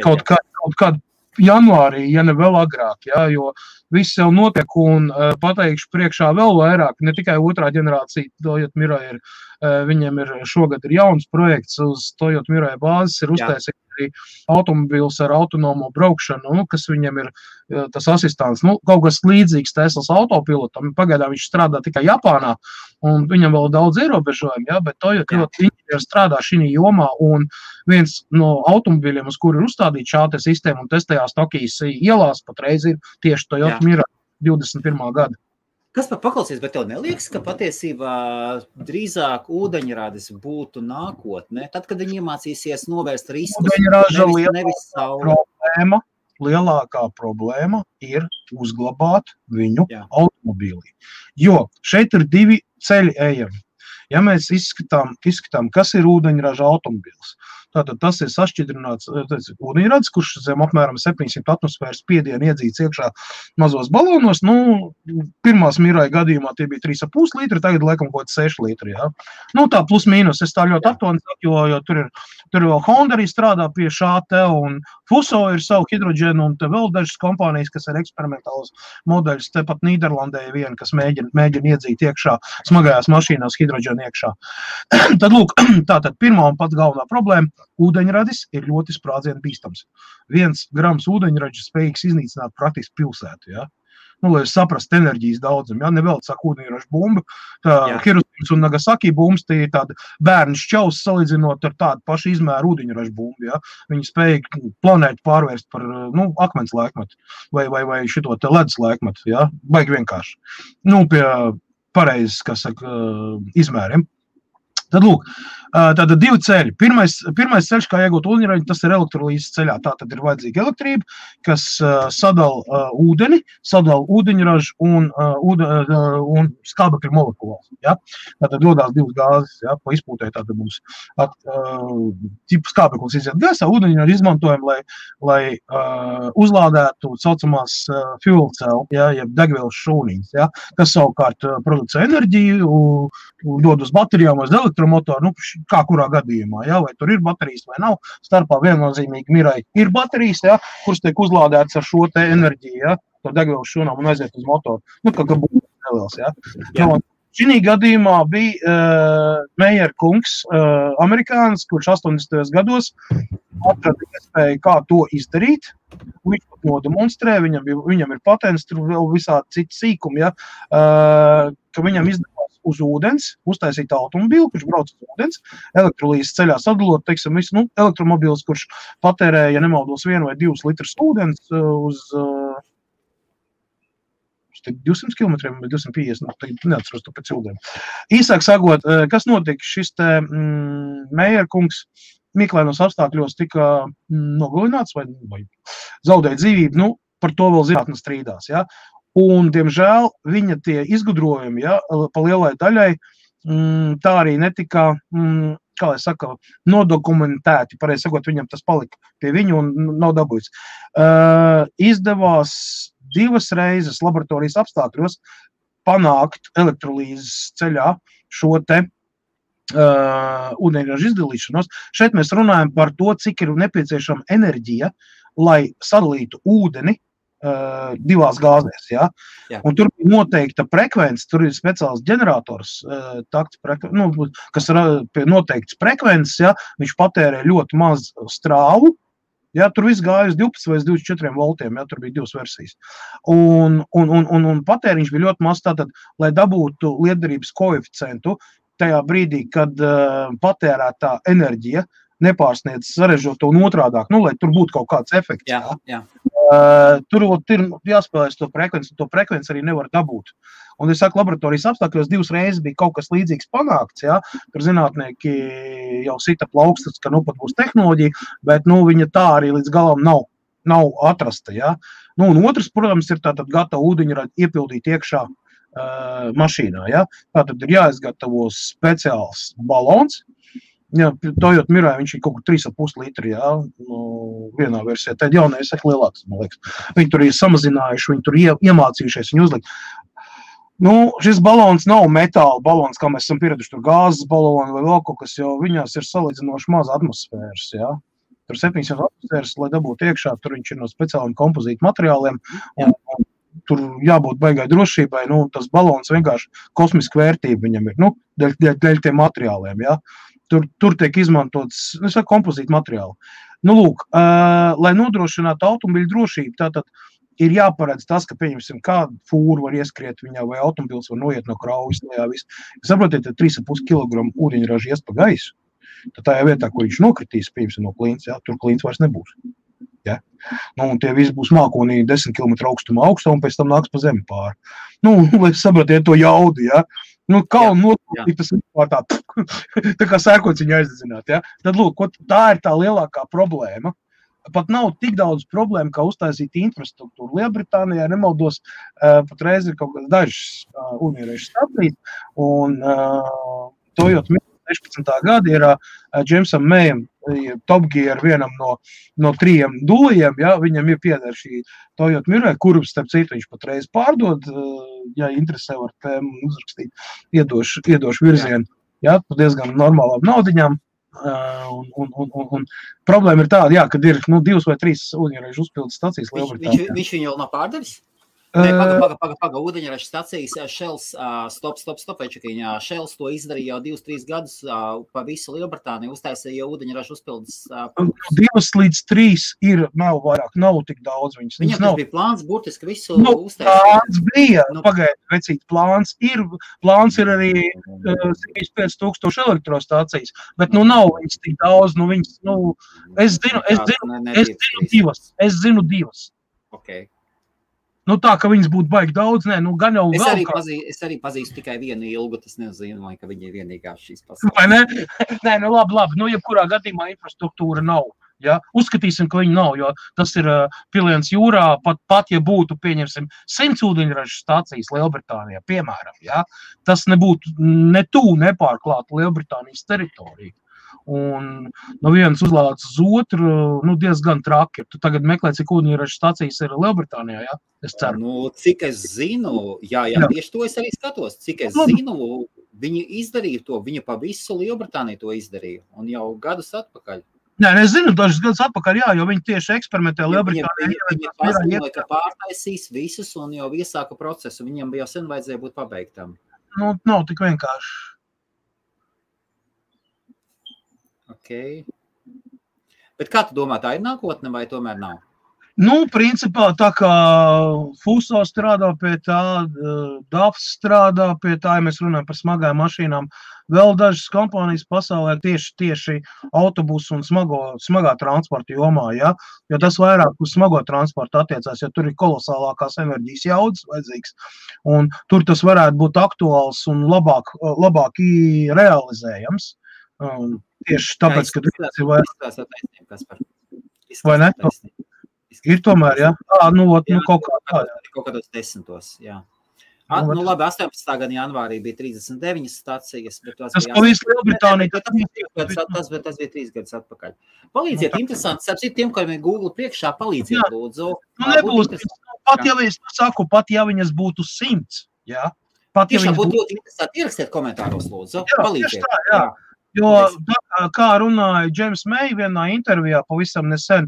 kaut kādu janvārī, ja ne vēl agrāk, jā, jo viss jau notiek un pateikšu priekšā vēl vairāk, ne tikai otrā ģenerācija Toyota Mirai viņiem ir šogad ir jauns projekts uz Toyota Mirai bāzes, ir uztaisīt arī automobīls ar autonomo braukšanu, kas viņiem ir tas asistants, kaut kas līdzīgs Teslas autopilotam, pagaidām viņš strādā tikai Japānā, un viņam vēl daudz ierobežojumi, jā, bet Toyota inženieri strādā šī jomā, un viens no automobīļiem, uz kuru ir uzstādīta šāda sistēma un testējās Tokijas ielās, patreiz ir tieši Toyota Mirai 21. gada.
Kas par paklausies, bet tev neliekas, ka patiesībā drīzāk ūdeņradis būtu nākotne, tad, kad viņi iemācīsies novērst riskus?
Ūdeņraža lielākā problēma ir uzglabāt viņu automobīlī. Jo šeit ir divi ceļi ejami. Ja mēs izskatām, kas ir ūdeņraža automobīls, tātad tas ir sašķidrināts ūdeņradis, kurš zem apmēram 700 atmosfēras spiedienu iedzīts iekšā mazos balonos. Pirmās Mirai gadījumā tie bija 3,5 litri, tagad laikam kaut 6 litri. Ja? Tā plus mīnus, es tā ļoti aptuveni saku, jo tur vēl Honda arī strādā pie šā te, un Fuso ir savu hidroģenu, un te vēl dažas kompānijas, kas ir eksperimentāls modeļus, tepat Nīderlandē viena, kas mēģina iedzīt iekšā smagajās mašīnās hidroģenu iekšā. Tad lūk, tātad pirmā un pats galvenā problēma. Ūdeņradis ir ļoti sprādzienu bīstams. 1 grams ūdeņradis spējīgs iznīcināt praktiski pilsētu, ja? Lai jūs saprast enerģijas daudzumu, ja? Nevēl saka ūdeņraža bumba, Hiroshimas un Nagasaki bumbas, tie ir tādi bērni šķaus salīdzinot ar tādu pašu izmēru ūdeņraža bumbu, ja? Viņi spēja planētu pārvērst par, akmens laikmetu vai šito te ledus laikmetu, ja? Baigi vienkārši. Pie pareizes, izmēriem. Tad lūk, tātad divi ceļi. Pirmais ceļš, kā iegūt ūdeņražu, tas ir elektrolīzes ceļā. Tātad ir vajadzīga elektrība, kas sadala ūdeni, sadala ūdeņražu un skābekļa molekulas. Ja? Tātad dodās divas gāzes, ja? Pa izpūtē tātad mums skābeklis iziet gaisā, ūdeņražu izmantojam, lai uzlādētu saucamās fuel cell, ja? Jeb degvielas šūniņas, ja? Kas savukārt producē enerģiju, dod uz baterijām, uz elektromotoru, kā kurā gadījumā, ja? Vai tur ir baterijas vai nav. Starpā viennozīmīgi mirai ir baterijas, ja? Kuras tiek uzlādētas ar šo te enerģiju, ja? To degvielas šūnām un aiziet uz motoru. Kā būtu neliels, ja? Šī gadījumā bija Meyer kungs, amerikānis, kurš 80. gados atrada iespēju, kā to izdarīt. Viņš pat nodemonstrē, viņam ir patents, tur vēl visādi citi sīkumi, ja? Ka viņam izdevās uz ūdens, uztaisīt automobīlu, kurš brauc uz ūdens, elektrolīzes ceļā sadalot, teiksim, visu, elektromobīls, kurš patērē, ja nemaldos, 1 vai 2 litrus ūdens uz 200 km vai 250, neatceros to pēc ūdeni. Īsāk sakot, kas notika, šis te Meyer kungs mīklainos apstākļos tika nogalināts vai zaudēja dzīvību, par to vēl zinātne strīdās, ja? Un, diemžēl, viņa tie izgudrojumi, ja, pa lielai daļai, tā arī netika, kā lai saka, nodokumentēti. Pareizi sakot, viņam tas palika pie viņu un nav dabūjis. Izdevās 2 reizes laboratorijas apstākļos panākt elektrolīzes ceļā šo te ūdeņraža izdalīšanos. Šeit mēs runājam par to, cik ir nepieciešama enerģija, lai sadalītu ūdeni 2 gāzēs, ja? Un tur ir noteikta frekvence, tur ir speciāls ģenerators, kas ir pie noteiktas frekvences, ja? Viņš patērē ļoti maz strāvu, ja? Tur viss gāja uz 12 vai 24 voltiem, ja? Tur bija 2 versijas. Un patēriņš bija ļoti maz, tātad, lai dabūtu lietderības koeficientu tajā brīdī, kad patērētā enerģija nepārsniedz sarežģoto un otrādāk, lai tur būtu kaut kāds efekts.
Jā.
Tur ir jāspēlēs to frekvenci arī nevar dabūt. Un es saku, laboratorijas apstākļos 2 reizes bija kaut kas līdzīgs panākts, ja? Tur zinātnieki jau sita plaukstas, ka pat būs tehnoloģija, bet viņa tā arī līdz galam nav atrasta. Ja? Un otrs, protams, ir tātad gatavu ūdeņražu iepildīt iekšā mašīnā. Ja? Tātad ir jāizgatavo speciāls balons. Jā, Toyota Mirai viņš ir kaut kur 3,5 litri, jā, vienā versijā. Tad jaunais ir lielāks, man liekas. Viņi tur ir samazinājuši, viņi tur iemācījušies, viņi uzlikt. Šis balons nav metāla balons, kā mēs esam pieraduši, tur gāzes baloni vai vēl kaut kas, jo viņās ir salīdzinoši maz atmosfēras, jā. Tur 700 atmosfēras, lai dabūtu iekšā, tur viņš ir no speciāliem kompozītu materiāliem, un tur jābūt baigai drošībai, tas balons vienkārši kosmiska vērtība viņam ir, dēļ tiem materiāliem, jā. Tur tiek izmantots, kompozīta materiāli. Lūk, lai nodrošinātu automobiļu drošību, tātad ir jāparedz tas, ka, pieņemsim, kādu fūru var ieskriet viņā, vai automobils var noiet no kraujas, saprotiet, 3,5 kg ūdeņraža ies pa gaisu, tad tajā vietā, kur viņš nokritīs, pieņemsim, no klīns, jā, tur klīns vairs nebūs. Ja? Un tie visi būs mākonī 10 km augstā, un pēc tam nāks pa zemi pāri. Lai saprotiet to jaudu, ja? Kalnu notūtīt, tas vispār tā kā sēkots viņu aizdedzināt, ja? Tad, lūk, tā ir tā lielākā problēma. Pat nav tik daudz problēma, kā uztaisīt infrastruktūru. Lielbritānijā, nemaldos, patreiz ir kaut kāds dažs ūdeņraža stacijas, un Toyota Mirai 16. gada ir Jamesam Mayam Top Gear vienam no 3 dulajiem, ja, viņam ir pieder šī Toyota Mirai, kuru, starp citu, viņš patreiz pārdod, ja interesē var tēmu uzrakstīt, iedošu virzienu, ja, diezgan normālām naudiņām. Un problēma ir tāda, jā, kad ir 2 vai 3 ūdeņraža uzpildes stacijas Lielbritānijā.
Viņš viņu vēl nav pārdevis? Paga, ūdeņraža stacijas, Shells, stop, večakiņā, Shells to izdarīja jau 2-3 gadus pa visu Lielbritāniju, uztaisīja veidoņraža uzpildes.
2 līdz 3 ir, nav vairāk, nav tik daudz viņas.
Viņam tas bija plāns, burtiski visu uztaisīja.
Plāns bija, pagaid, vecīt, plāns ir arī 75,000 elektrostācijas, bet nav viņas tik daudz, viņas, es zinu 2.
Ok.
Nu tā, ka viņas būtu baigi daudz, nē, nu gan jau
Es
vēl
arī pazīstu tikai vienu ilgu, tas nenozīmē, ka viņa ir vienīgā šīs pasaules.
Vai ne? Nē, nu labi, nu jebkurā gadījumā infrastruktūra nav. Ja? Uzskatīsim, ka viņi nav, jo tas ir piliens jūrā, pat ja būtu, pieņemsim, 100 ūdeņražu stācijas Lielbritānijā, piemēram, ja? Tas nebūtu ne tuvu nepārklāta Lielbritānijas teritorija. Un no vienas uzlādes uz otru, nu diezgan traki. Tu tagad meklē, cik ūdeņražu stācijas ir Lielbritānijā, ja? Es ceru.
Nu, cik es zinu, jā, tieši to es arī skatos, cik es zinu, viņi izdarīja to, viņa pa visu Lielbritāniju to izdarīja, un jau gadus atpakaļ.
Nē, es zinu, dažas gadus atpakaļ, jā, jo viņi tieši eksperimentē Lielbritānijā.
Viņi paziņoja, ka pārtaisīs visus un jau iesāka procesu. Viņam jau sen vajadzēja būt pabeigtam.
Nu, nav tik vienkārši.
Ok. Bet kā tu domā, tā ir nākotne vai tomēr nav?
Nu, principā, tā kā Fuso strādā pie tā, DAFs strādā pie tā, ja mēs runājam par smagām mašīnām, vēl dažas kompānijas pasaulē tieši autobusu un smagā transporta jomā, ja? Jo tas vairāk uz smago transportu attiecās, jo tur ir kolosālākās enerģijas jaudas vajadzīgs, un tur tas varētu būt aktuāls un labāk realizējams. Tieši tāpēc, ka tas ir vairāk. Vai ne? Ir tomēr, jā? Nu kaut kā tā, jā.
Kaut kādos 10, jā. Nu labi, 18. gada janvārī bija 39 stacijas, bet
tas pa visu Lielbritāniju.
Tas bija 3 gadus atpakaļ. Palīdziet, interesanti, sapsīt tiem, kuriem ir Google priekšā, palīdziet, lūdzu.
Nu nebūs, pat ja viņas būtu 100, jā.
Tiešām būtu ļoti interesanti, ierakstiet komentāros, lūdzu, palīdziet.
Tieši tā, jā. Jo, kā runāja James May vienā intervijā pavisam nesen,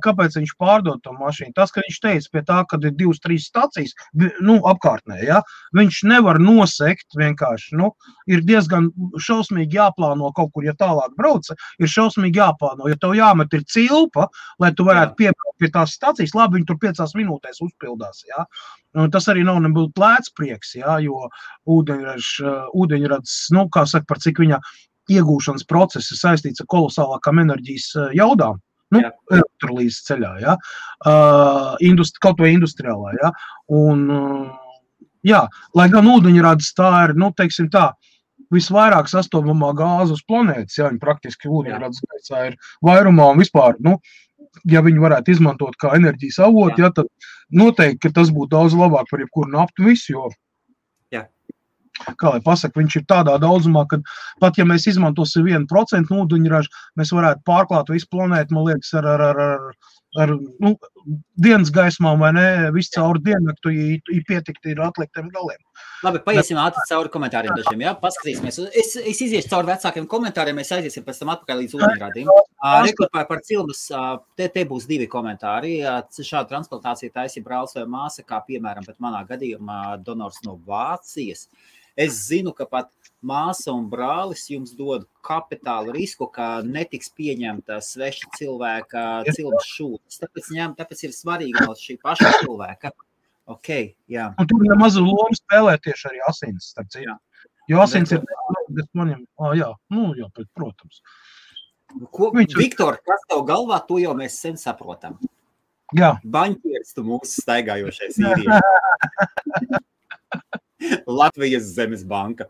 kāpēc viņš pārdod to mašīnu. Tas, ka viņš teica pie tā, kad ir 2-3 stacijas, nu, apkārtnē, ja, viņš nevar nosekt vienkārši, nu, ir diezgan šausmīgi jāplāno kaut kur, ja tālāk brauca, ir šausmīgi jāplāno, ja tev jāmet ir cilpa, lai tu varētu piebraukt pie tās stacijas, labi, viņi tur 5 minūtēs uzpildās, ja. Tas arī nav nebūtu lēts prieks, ja, jo ūdeņrads, nu, kā saka, par cik viņa iegūšanas process ir saistīts ar kolosālākām enerģijas jaudām, nu, elektrolīzes ceļā, ja, kaut vai industriālā, ja, un, jā, lai gan ūdeņrads tā ir, nu, teiksim tā, visvairāk sastopamā gāze uz planētas, ja, viņi praktiski ūdeņrads gaisā ir vairumā un vispār, nu, ja viņi varētu izmantot kā enerģijas avotu, ja, tad noteikti, ka tas būtu daudz labāk par jebkuru naftu visu, jo kā lai pasaka, viņš ir tādā daudzumā, ka pat ja mēs izmantosim 1% ūdeņražu, mēs varētu pārklāt visu planētu, man liekas, ar nu, dienas gaismām vai ne, visu cauri diennaktu, ja pietikti ir atliktiem galiem.
Labi, paiesim ātri cauri komentāriem dažiem, jā, paskatīsimies. Es iziešu cauri vecākiem komentāriem, mēs aiziesim pēc tam atpakaļ līdz ūdeņradiem. Rekurpāja par cilmas, te būs 2 komentāri. Šāda transplantācija taisīja brālis vai māsa, kā piemēram, bet manā gadījumā donors no Vācijas. Es zinu, ka pat māsa un brālis jums dod kapitālu risku, ka netiks pieņemta sveša cilvēka cilmas šūtas. Tāpēc ir svarīgi no šī paša cilvēka. Ok, jā. Un
tur mazu lomu spēlē tieši arī asins, starp citu. Jo asins ir, kas maņem, jā, nu jā, protams.
Viktor, kas tev galvā, to jau mēs sen saprotam.
Jā.
Baņķieris tu mūsu staigājošais īrieši. Latvijas Zemes banka.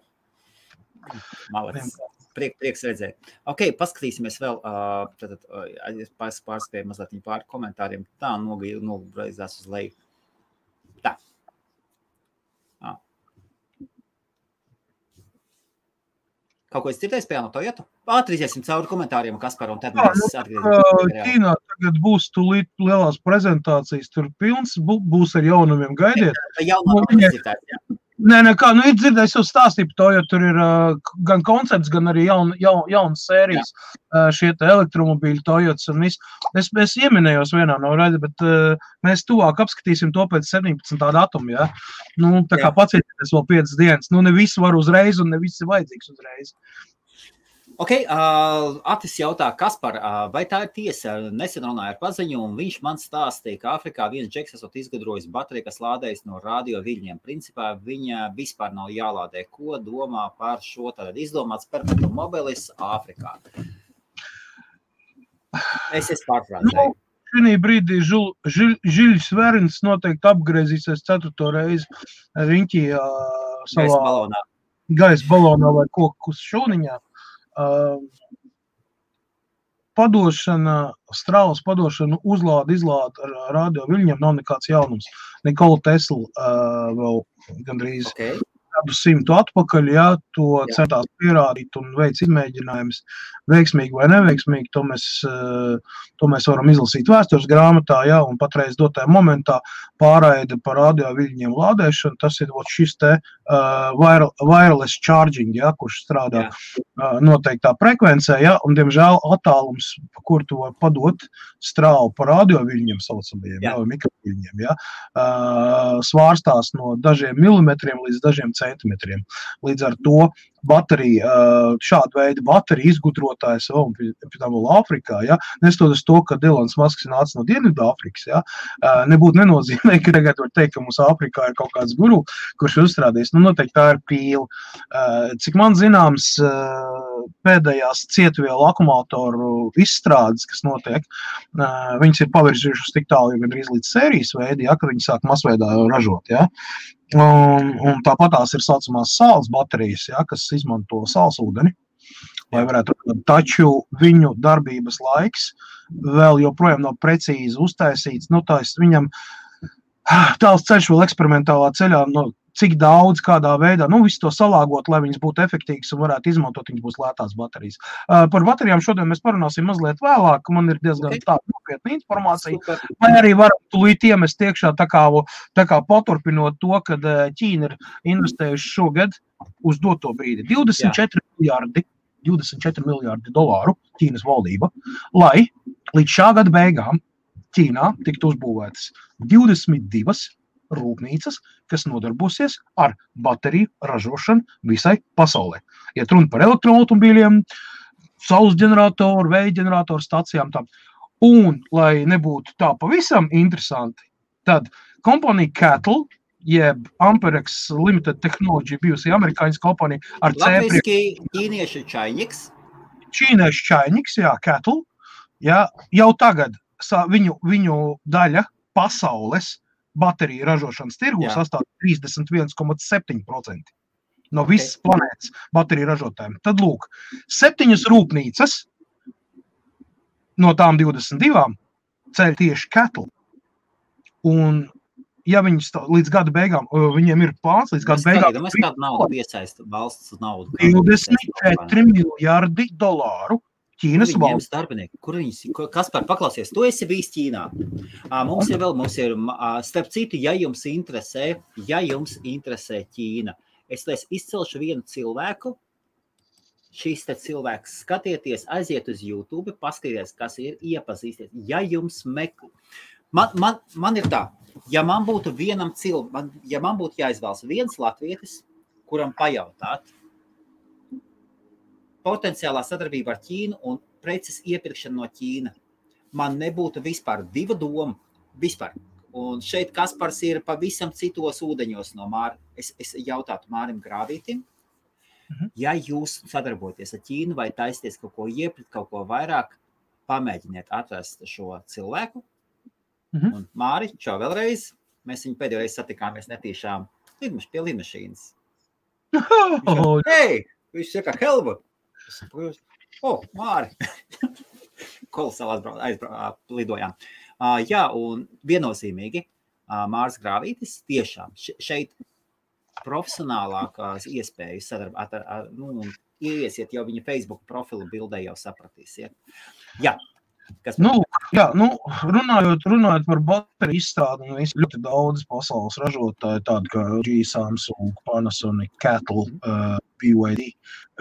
Malacis. Prieks redzēt. Ok, paskatīsimies vēl, pārspēju mazliet pār komentāriem. Tā nogreizās uz leju. Tā. Kaut ko es dzirdēju spējā no Toyota? Ātrīziesim cauri komentāriem, Kaspar, un tad mēs atgriezīsim.
Ķīnā tagad būs tūlīt lielās prezentācijas, tur pilns, būs ar jaunumiem, gaidiet.
Jaunumiem dzirdēt, jā.
Nē, kā, ir dzirdējis jau stāstību to, jo tur ir gan koncepts, gan arī jaunas sērijas šie te elektromobīļi Toyotas un viss. Es ieminējos vienā no raidi, bet mēs tuvāk apskatīsim to pēc 17. datuma, ja? Nu, tā kā pacietieties vēl 5 dienas. Nu, ne visi var uzreiz un ne visi vajadzīgs uzreiz.
Ok, Atis jautā, Kaspar, vai tā ir tiesa? Nesen runāju ar paziņu, un viņš man stāstīja, ka Afrikā viens džeks esot izgudrojis bateriju, kas lādējas no radio viļņiem. Principā viņa vispār nav jālādē. Ko domā par šo tad izdomāts perpetuum mobilis Āfrikā? Es pārfrāzēju.
šī brīdī Žiļs Verins noteikti apgriezīsies 4. reizi riņķī savā gaisa balonā vai koku šūniņā. Strāvas padošana, uzlāda, izlāda ar radio viļņiem nav nekāds jaunums. Nikola Tesla vēl gandrīz gadu 100 atpakaļ, to centās pierādīt un veic izmēģinājumus veiksmīgi vai neveiksmīgi, to mēs varam izlasīt vēstures grāmatā, un patreiz dotajā momentā pārraide par radio viļņiem lādēšanu, tas ir šis te wireless charging, kurš strādā noteiktā frekvencē, un diemžēl attālums, kur tu var padot strāvu par radio viļņiem saucamajiem, mikroviļņiem, svārstās no dažiem milimetriem līdz dažiem centimetriem. Līdz ar to baterija, šāda veida baterija izgudrotājs vēl Āfrikā, nestoties to, ka Elons Musks nāca no Dienvidāfrikas, nebūtu nenozīmē, ka tagad var teikt, ka mums Āfrikā ir kaut kāds guru, kurš uzstrādījis. Noteikti tā ir pīle. Cik man zināms, pēdējās cietvielu akumulātoru izstrādes, kas notiek, viņas ir pavirzījušas tik tālu, gandrīz līdz sērijas veidi, kad viņi sāk masveidā ražot, Un tāpatās ir saucamās sāls baterijas, kas izmanto sāls ūdeni, lai varētu, taču viņu darbības laiks vēl joprojām nav precīzi uztaisīts, viņam tāls ceļš vēl eksperimentālā ceļā, cik daudz, kādā veidā, visu to salāgot, lai viņas būtu efektīgas un varētu izmantot, viņas būs lētās baterijas. Par baterijām šodien mēs parunāsim mazliet vēlāk, man ir diezgan tāda nopietna informācija, vai arī varam tūlīt iemest iekšā tā kā paturpinot to, kad Ķīna ir investējuši šogad uz doto brīdi 24 miljārdi dolāru Ķīnas valdība, lai līdz šā gada beigām Ķīnā tiktu uzbūvētas 22 rūpnīcas, kas nodarbosies ar bateriju ražošanu visai pasaulē. Iet runa par elektroautomobīļiem, saules ģeneratoru, vēja ģeneratoru stacijām. Un, lai nebūtu tā pavisam interesanti, tad kompānija Cattle, jeb Amperex Limited Technology, bijusi amerikāņas kompānija ar
Latviski ķīniešu čainiks.
Ķīniešu čainiks, Cattle. Jau tagad viņu daļa pasaules bateriju ražošanas tirgu sastāv 31,7% no visas planētas bateriju ražotājiem. Tad lūk, 7 rūpnīcas no tām 22 ceļ tieši Cattle. Un, ja viņi līdz gada beigām, viņiem ir plāns līdz gada beigām...
Mēs kādu naudu piesaista valsts naudu.
24 miljārdi dolāru. Ķīnas valsts.
Kur Kaspar, paklausies, tu esi bijis Ķīnā. Mums ir, starp citu, ja jums interesē Ķīna, es izcelšu vienu cilvēku, šīs te cilvēks skatieties, aiziet uz YouTube, paskaties, kas ir, iepazīsties. Ja jums man ir tā, ja man būtu jāizvēlas viens latvietis, kuram pajautāt, potenciālā sadarbība ar Ķīnu un preces iepirkšana no Ķīna. Man nebūtu vispār divu domu. Vispār. Un šeit Kaspars ir pavisam citos ūdeņos no Māra. Es jautātu Mārim Grāvītim, ja jūs sadarbojaties ar Ķīnu vai taisties kaut ko iepirkt, kaut ko vairāk, pamēģiniet atrast šo cilvēku. Un Māri, čau vēlreiz. Mēs viņu pēdējo reizi satikāmies netīšām pie lidmašīnas. Viņš saka, Helmut. Māri. Kolosāli lidojām. Un viennozīmīgi Mārs Grāvītis tiešām šeit profesionālākās iespējas sadarbāt ieiesiet jau viņa Facebook profilu bildē jau sapratīsiet.
Runājot par bateriju izstrādi, ļoti daudz pasaules ražotāji, tādi kā LG, Samsung, Panasonic, Cattle, BYD,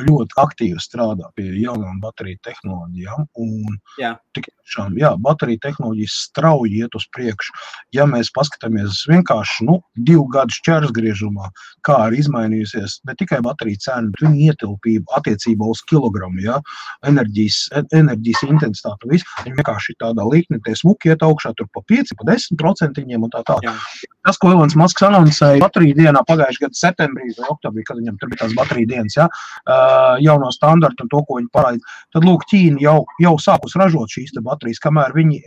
ļoti aktīvi strādā pie jaunām bateriju tehnoloģijām. Un tiešām, bateriju tehnoloģijas strauji iet uz priekšu. Ja mēs paskatāmies vienkārši 2 gadu šķērsgriežumā, kā ir izmainījusies ne tikai bateriju cena, bet viņa ietilpība attiecībā uz kilogramu, enerģijas intensitāte, viss. Viņi vienkārši tādā līknī, tie smuki iet augšā, tur pa 5, pa 10% un tā. Tas, ko Elons Musks anoncēja bateriju dienā pagājušajā gada septembrī vai oktobrī, kad viņam tur bija tās bateriju dienas, ja, jauno standartu un to, ko viņi parāda. Tad, lūk, Ķīna jau sākus ražot šīs te baterijas, kamēr viņi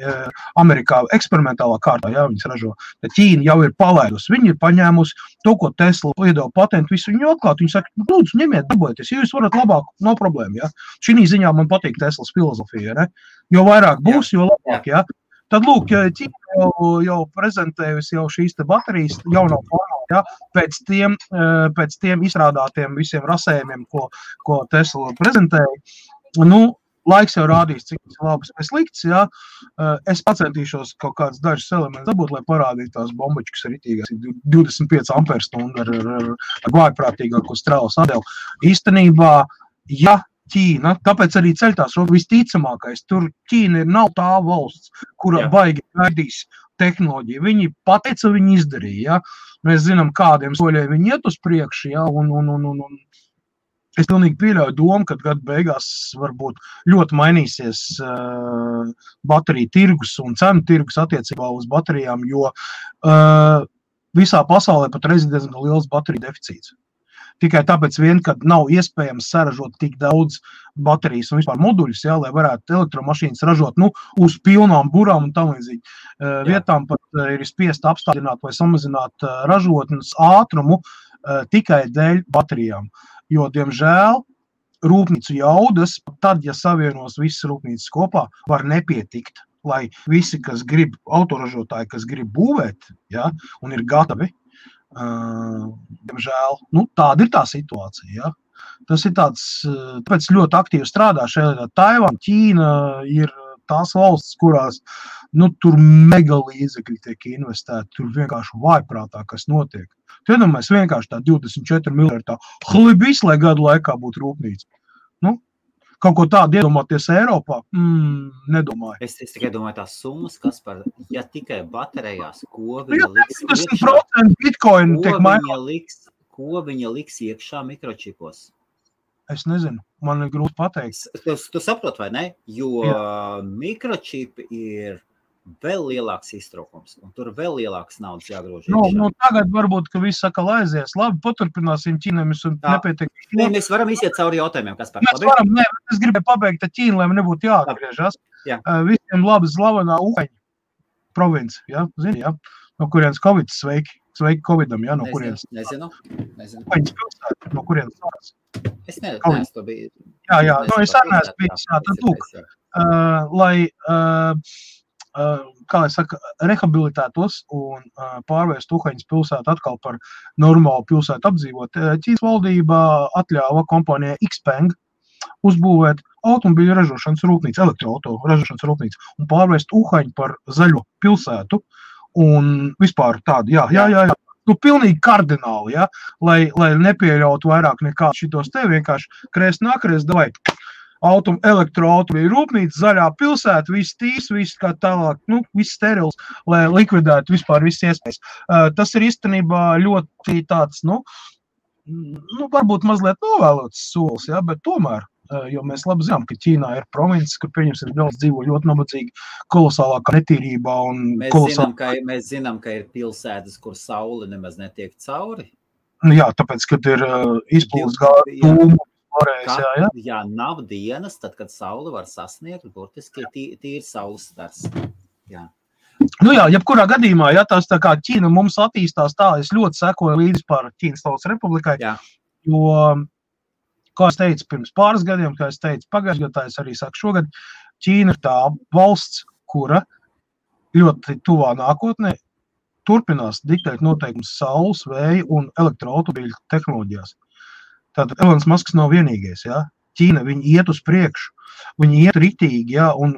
Amerikā eksperimentālā kārtā, ja, viņas ražo. Tad Ķīna jau ir palaidusi, viņi ir paņēmusi to, ko Tesla iedeva patentu, visu viņu atklāt. Viņi saka, lūdzu, ņemiet, darbojieties, ja jūs varat labāk, nav problēma, ja. Šī ziņā man patīk Teslas filozofija, ne? Jo vairāk būs, jo labāk, ja. Tad, lūk, Ķīna jau prezentējusi jau šīs te baterijas jauno formā, ja, pēc tiem izstrādātiem visiem rasējumiem, ko Tesla prezentēja. Nu, laiks jau rādīs, cik tas labas vai slikts, ja. Es pacentīšos kaut kāds dažus elementus dabūt, lai parādītu tās bombačkas ritīgās 25 amperstundu ar vājprātīgāko strālu sadēlu. Īstenībā, ja Ķīna, tāpēc arī ceļtās visticamākais. Tur Ķīna nav tā valsts, kura baigi gaidīs tehnoloģiju. Viņi pateica, viņi izdarīja. Ja? Mēs zinām, kādiem soļiem viņi iet uz priekšu. Ja? Un es pilnīgi pieļauju domu, ka gadu beigās varbūt ļoti mainīsies bateriju tirgus un cenu tirgus attiecībā uz baterijām, jo visā pasaulē pat reiz ir diezgan liels bateriju deficīts. Tikai tāpēc vien, ka nav iespējams saražot tik daudz baterijas un vispār moduļus, ja, lai varētu elektromašīnas ražot uz pilnām burām un tam līdzīgi. Vietām pat ir spiest apstādināt vai samazināt ražotnes ātrumu tikai dēļ baterijām. Jo, diemžēl, rūpnīcu jaudas, tad, ja savienos visas rūpnīcas kopā, var nepietikt, lai visi, kas grib, autoražotāji, kas grib būvēt, ja, un ir gatavi, diemžēl, tāda ir tā situācija, ja. Tas ir tāds, tāpēc ļoti aktīvi strādā šeit, Taivāna, Ķīna ir tās valsts, kurās, tur mega līdzekļi tiek investēti, tur vienkārši vājprātā, kas notiek. Tu iedomājies vienkārši tā 24 miljardi tā hlibis, lai gadu laikā būtu rūpnīca. Kaut ko tādu iedomāties Eiropā? Nedomāju.
Es tikai domāju tās summas, kas ja tikai baterijās, ko viņa liks
iekšā, Bitcoin tiek mainīt.
Ko viņa liks iekšā mikročipos?
Es nezinu, man ir grūti pateikt.
Tu saprot, vai ne? Jo mikročipi ir vēl lielāks iztraukums, un tur vēl lielāks naudas jāgrož iekšā.
Tagad varbūt, ka viss saka aizies. Labi, paturpināsim Ķīnēmis un nepietiek.
Mēs varam iziet cauri jautājumiem, kas par
labi? Mēs varam, es gribēju pabeigt ar Ķīnu, lai man nebūtu jāatgriežas. Visiem labi slavenā Uhaņa province, ja? Zini, ja? No kurienes Covid sveiki. Sveiki Covidam, ja? No kurienes?
Nezinu.
Uhaņas pilsēta, no kurienes sāks.
Es neesmu to biju.
Jā, es arī neesmu bijis, tad lūk, lai kā es saku, rehabilitētos un pārvērst Uhaņas pilsētu atkal par normālu pilsētu apdzīvot. Ķīnas valdība atļāva kompānijai Xpeng uzbūvēt automobīļu ražošanas rūpnīcu, elektroauto ražošanas rūpnīcu un pārvērst Uhaņu par zaļo pilsētu un vispār tādu, jā. Pilnīgi kardināli, ja, lai nepieļautu vairāk nekā šitos te vienkārši krēst nākreiz, davai. Elektroautomobīļu rūpnīca, zaļā pilsēta, viss tīrs, viss kā tālāk, viss sterils, lai likvidētu vispār visas iespējas. Tas ir īstenībā ļoti tāds, varbūt mazliet novēlots solis, ja, bet tomēr, jo mēs labi zinām, ka Ķīnā ir provinces, kur pieņemsim daudz dzīvo ļoti nabadzīgi, kolosālākā netīrībā un
Mēs zinām, ka ir pilsētas, kur saule nemaz netiek cauri.
Jā, tāpēc, kad ir izpūles gāju,
Jā, nav dienas, tad, kad saule var sasniegt, burtiski tīri saules stars. Jā.
Jebkurā gadījumā, ja tās tā kā Ķīna mums attīstās tā, es ļoti sekoju līdzi par Ķīnas Tautas Republikai, jo, kā es teicu pirms pāris gadiem, kā es teicu pagājušajā gadā, es arī saku šogad, Ķīna ir tā valsts, kura ļoti tuvā nākotnē turpinās diktēt noteikumus saules, vēja un elektroautomobīļu tehnoloģijās. Tātad Elons Musks nav vienīgais, ja? Ķīna, viņi iet uz priekšu, viņi iet ritīgi, ja? un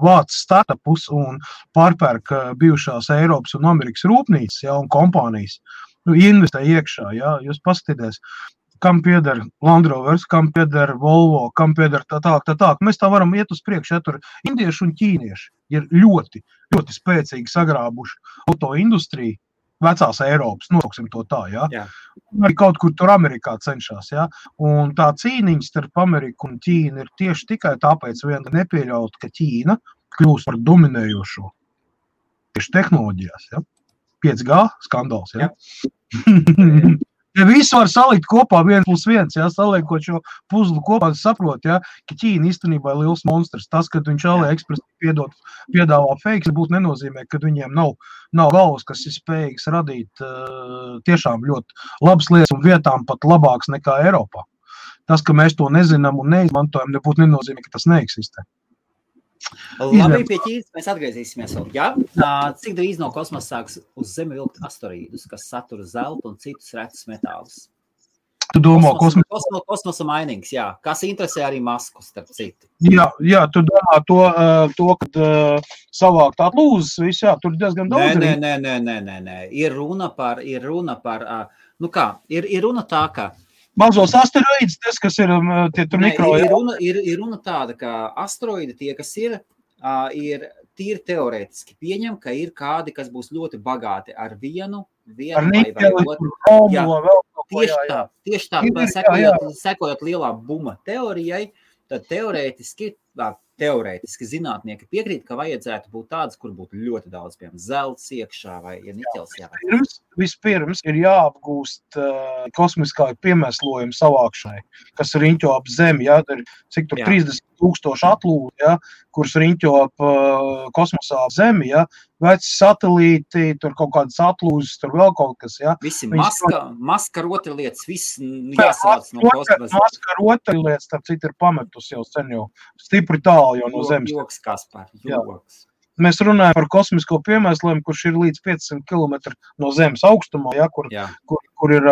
vāc startupus un pārpērk bijušās Eiropas un Amerikas rūpnīcas, ja? Un kompānijas, investē iekšā, ja? Jūs paskatīties, kam pieder Land Rovers, kam pieder Volvo, kam pieder tā. Mēs tā varam iet uz priekšu, ja? Tur indieši un ķīnieši ir ļoti, ļoti spēcīgi sagrābuši autoindustriju, vecās Eiropas, nosauksim to tā, ja? Arī kaut kur tur Amerikā cenšas, ja? Un tā cīniņa starp Ameriku un Ķīnu ir tieši tikai tāpēc vien nepieļaut, ka Ķīna kļūst par dominējošo tieši tehnoloģijās, ja? 5G skandāls, ja? Ja visu var salikt kopā 1+1, ja, saliekot šo puzlu kopā, saprot, ja, ka Ķīna īstenībā ir liels monstrs. Tas, kad viņš AliExpress piedāvā fakes, būtu nenozīmē, ka viņiem nav galvas, kas ir spējīgs radīt tiešām ļoti labas lietas un vietām pat labāks nekā Eiropā. Tas, ka mēs to nezinām un neizmantojam, nebūtu nenozīmē, ka tas neeksistē.
Labi, pie Ķīnas mēs atgriezīsimies vēl. Jā? Cik drīz no kosmosa sāks uz Zemi vilkt asteroīdus, kas satura zeltu un citus retus metālus?
Tu domā
kosmosa mainings, jā. Kas interesē arī Masku, starp citu?
Jā, tu domā to kad savākt atlūzes, viss, jā, tur diezgan daudz.
Nē. Ir runa par, ir runa tā, ka
mazos asteroīdus, tas, kas ir tie tur mikro...
Ir runa tāda, ka asteroīdi tie, kas ir tīri teorētiski pieņem, ka ir kādi, kas būs ļoti bagāti ar vienu vai otru. Tieši tā, sekojot lielā buma teorijai, tad teorētiski zinātnieki piekrīt, ka vajadzētu būt tādas, kur būtu ļoti daudz, piemēram, zelts iekšā vai niķels jāvajag.
Vispirms ir jāapgūst kosmiskā piemēslojuma savākšanai, kas riņķo ap Zemi, ja, cik tur 30,000 atlūdi, ja, kuras riņķo ap kosmosā ap Zemi, ja, veci satelīti, tur kaut kādas atlūzes, tur vēl kaut kas, ja.
Visi maska rotaļlietas, viss jāsavāc no kosmosa.
Maska rotaļlietas, starp citu, ir pametus jau sen jau stipri tālu jau no Zemes.
Joks, Kaspar, joks.
Mēs runājam par kosmisko piemēslojumu, kurš ir līdz 500 km no Zemes augstumā, ja, kur ir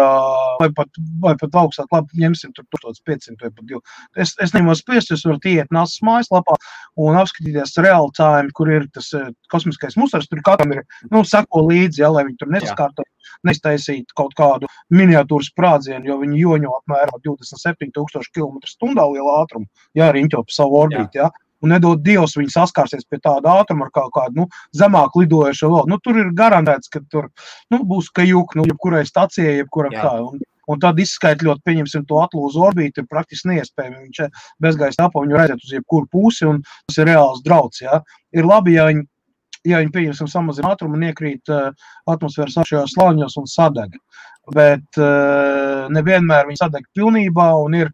vai pat augstāk, labi, ņemsim tur 1500 vai pat 2. Es neņemos spiest, jūs varat iet NASA's mājaslapā un apskatīties real time, kur ir tas kosmiskais musars, tur katram ir, seko līdzi, ja, lai viņi tur nesaskārto, neiztaisītu kaut kādu miniatūras sprādzienu, jo viņi joņo apmēram 27,000 km/h liela ātrumu, ja, riņķo pa savu orbīti, ja. Un nedod Dievs, viņi saskārsies pie tāda ātruma ar kaut kādu, zemāk lidojušo vēl. Tur ir garantēts, ka tur, būs kajuk, jebkurai stacijai, jebkuram kā. Un tad izskaitļot, pieņemsim to atlūzu orbīti, ir praktiski neiespējami. Viņš bezgaisa telpā, viņu redzēt uz jebkuru pusi, un tas ir reāls drauds, jā. Ir labi, ja viņi pieņemsim samazina ātrumu un iekrīt atmosfēras šajos slāņos un sadeg. Bet nevienmēr viņi sadeg pilnībā un ir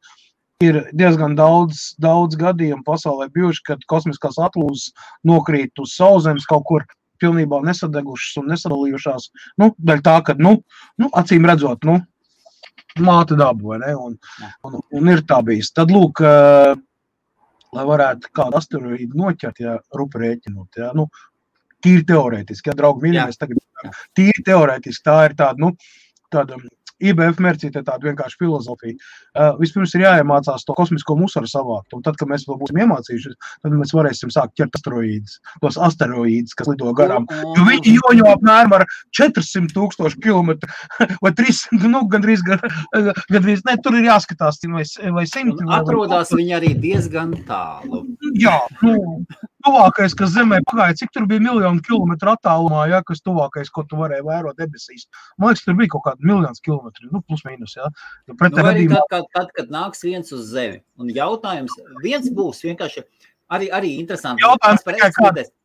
diezgan daudz gadījumu pasaulē bijuši, kad kosmiskās atlūzes nokrīt uz Sauszemes kaut kur pilnībā nesadegušas un nesadalījušās. Daļ tā, ka, acīm redzot, māte daba, vai ne? Un ir tā bijis. Tad, lūk, lai varētu kādu asteroīdu noķert, ja rupi rēķinot, ja, tīri teorētiski, ja, draugi mīļi, mēs tagad tīri teorētiski, tā ir tāda IBF mērcīte tāda vienkārši filozofija. Vispirms ir jāiemācās to kosmisko musaru savākt, un tad, kad mēs vēl būsim iemācījušies, tad mēs varēsim sākt ķert tos asteroīdus, kas lido garām. Jo viņi joņo apmēram ar 400,000 kilometru vai 300, gandrīz, ne, tur ir jāskatās, vai 100.
Atrodās viņi arī diezgan tālu.
Jā, tuvākais, kas Zemē pagāja, cik tur bija 1,000,000 kilometru attālumā, ja, kas tuvākais, ko tu varēji vērot debesīs. Man liekas, tur bija kaut kādi 1,000,000 kilometri, plus mīnus, ja.
Arī tad, kad nāks viens uz Zemi. Un jautājums, viens būs vienkārši, arī interesanti.
Jautājums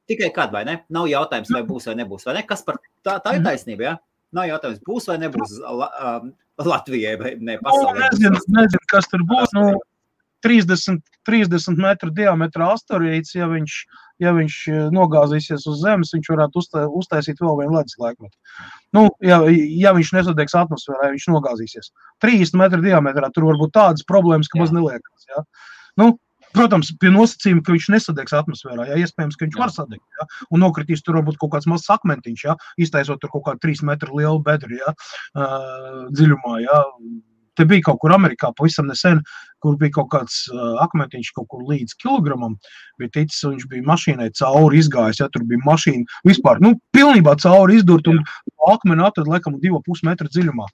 tikai kad, vai ne? Nav jautājums, vai būs vai nebūs, vai ne? Kas par tā ir taisnība, ja? Nav jautājums, būs vai nebūs Latvijai vai ne pasaulē.
Nezinu, kas tur būs, 30 metru diametra asteroīds, ja viņš nogāzīsies uz Zemes, viņš varētu uztaisīt vēl vienu ledus laikmetu. Ja viņš nesadegs atmosfērā, viņš nogāzīsies. 30 metru diametrā tur var būt tādas problēmas, ka maz neliekas. Ja? Protams, pie nosacījuma, ka viņš nesadegs atmosfērā, ja? Iespējams, ka viņš var sadegt. Ja? Un nokritīs tur varbūt kaut kāds mazs akmentiņš, ja? Iztaisot tur kaut kādu 3 metru lielu bedri, ja? Dziļumā. Ja? Te bija kaut kur Amerikā pavisam nesen, kur bija kaut kāds akmentiņš kaut kur līdz kilogramam, bija ticis, un viņš bija mašīnai cauri izgājis, ja tur bija mašīna vispār, pilnībā cauri izdurt, un akmeni atrad, laikam, 2,5 metru dziļumā.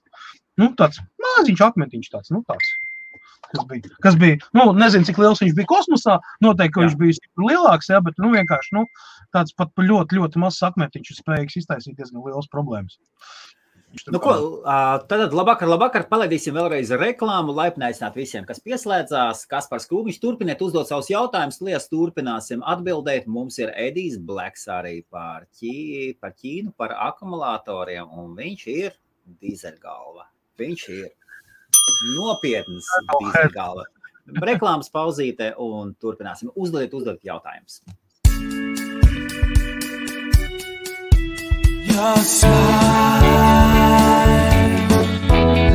Tāds maziņš akmentiņš tāds, kas bija, nezinu, cik liels viņš bija kosmosā, noteikti, ka viņš bija lielāks, ja, bet, vienkārši, tāds pat ļoti, ļoti mazs akmentiņš ir spējīgs iztaisīt diezgan liels problēmas.
Tad labvakar, palaidīsim vēlreiz reklāmu, laipni aicināt visiem, kas pieslēdzās. Kaspars Krūmiņš, turpiniet uzdot savus jautājumus, lies turpināsim atbildēt. Mums ir Edijs Bleks arī par Ķīnu, par akumulatoriem, un viņš ir dīzeļgalva. Viņš ir nopietns dīzeļgalva. Reklāmas pauzīte un turpināsim. Uzdodiet jautājumus.
Your smile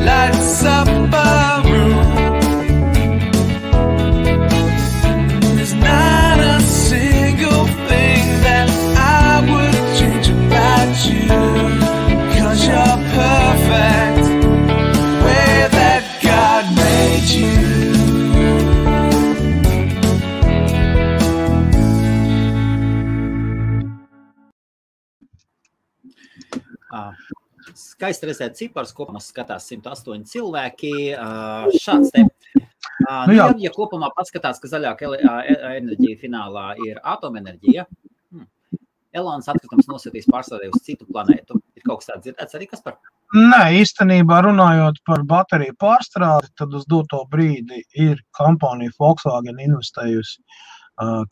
lights up a room. There's not a single thing that I would change about you, 'cause you're perfect way that God made you.
Skaisti redzēt cipars, kopumā skatās 108 cilvēki. Šāds te. Ja kopumā paskatās, ka zaļāka enerģija finālā ir atomenerģija, Elonas atkritums nosūtīs pārstāvē uz citu planētu. Ir kaut kas tāds dzirdēts arī, kas par?
Nē, īstenībā runājot par bateriju pārstrādi, tad uz doto brīdi ir kompānija Volkswagen investējusi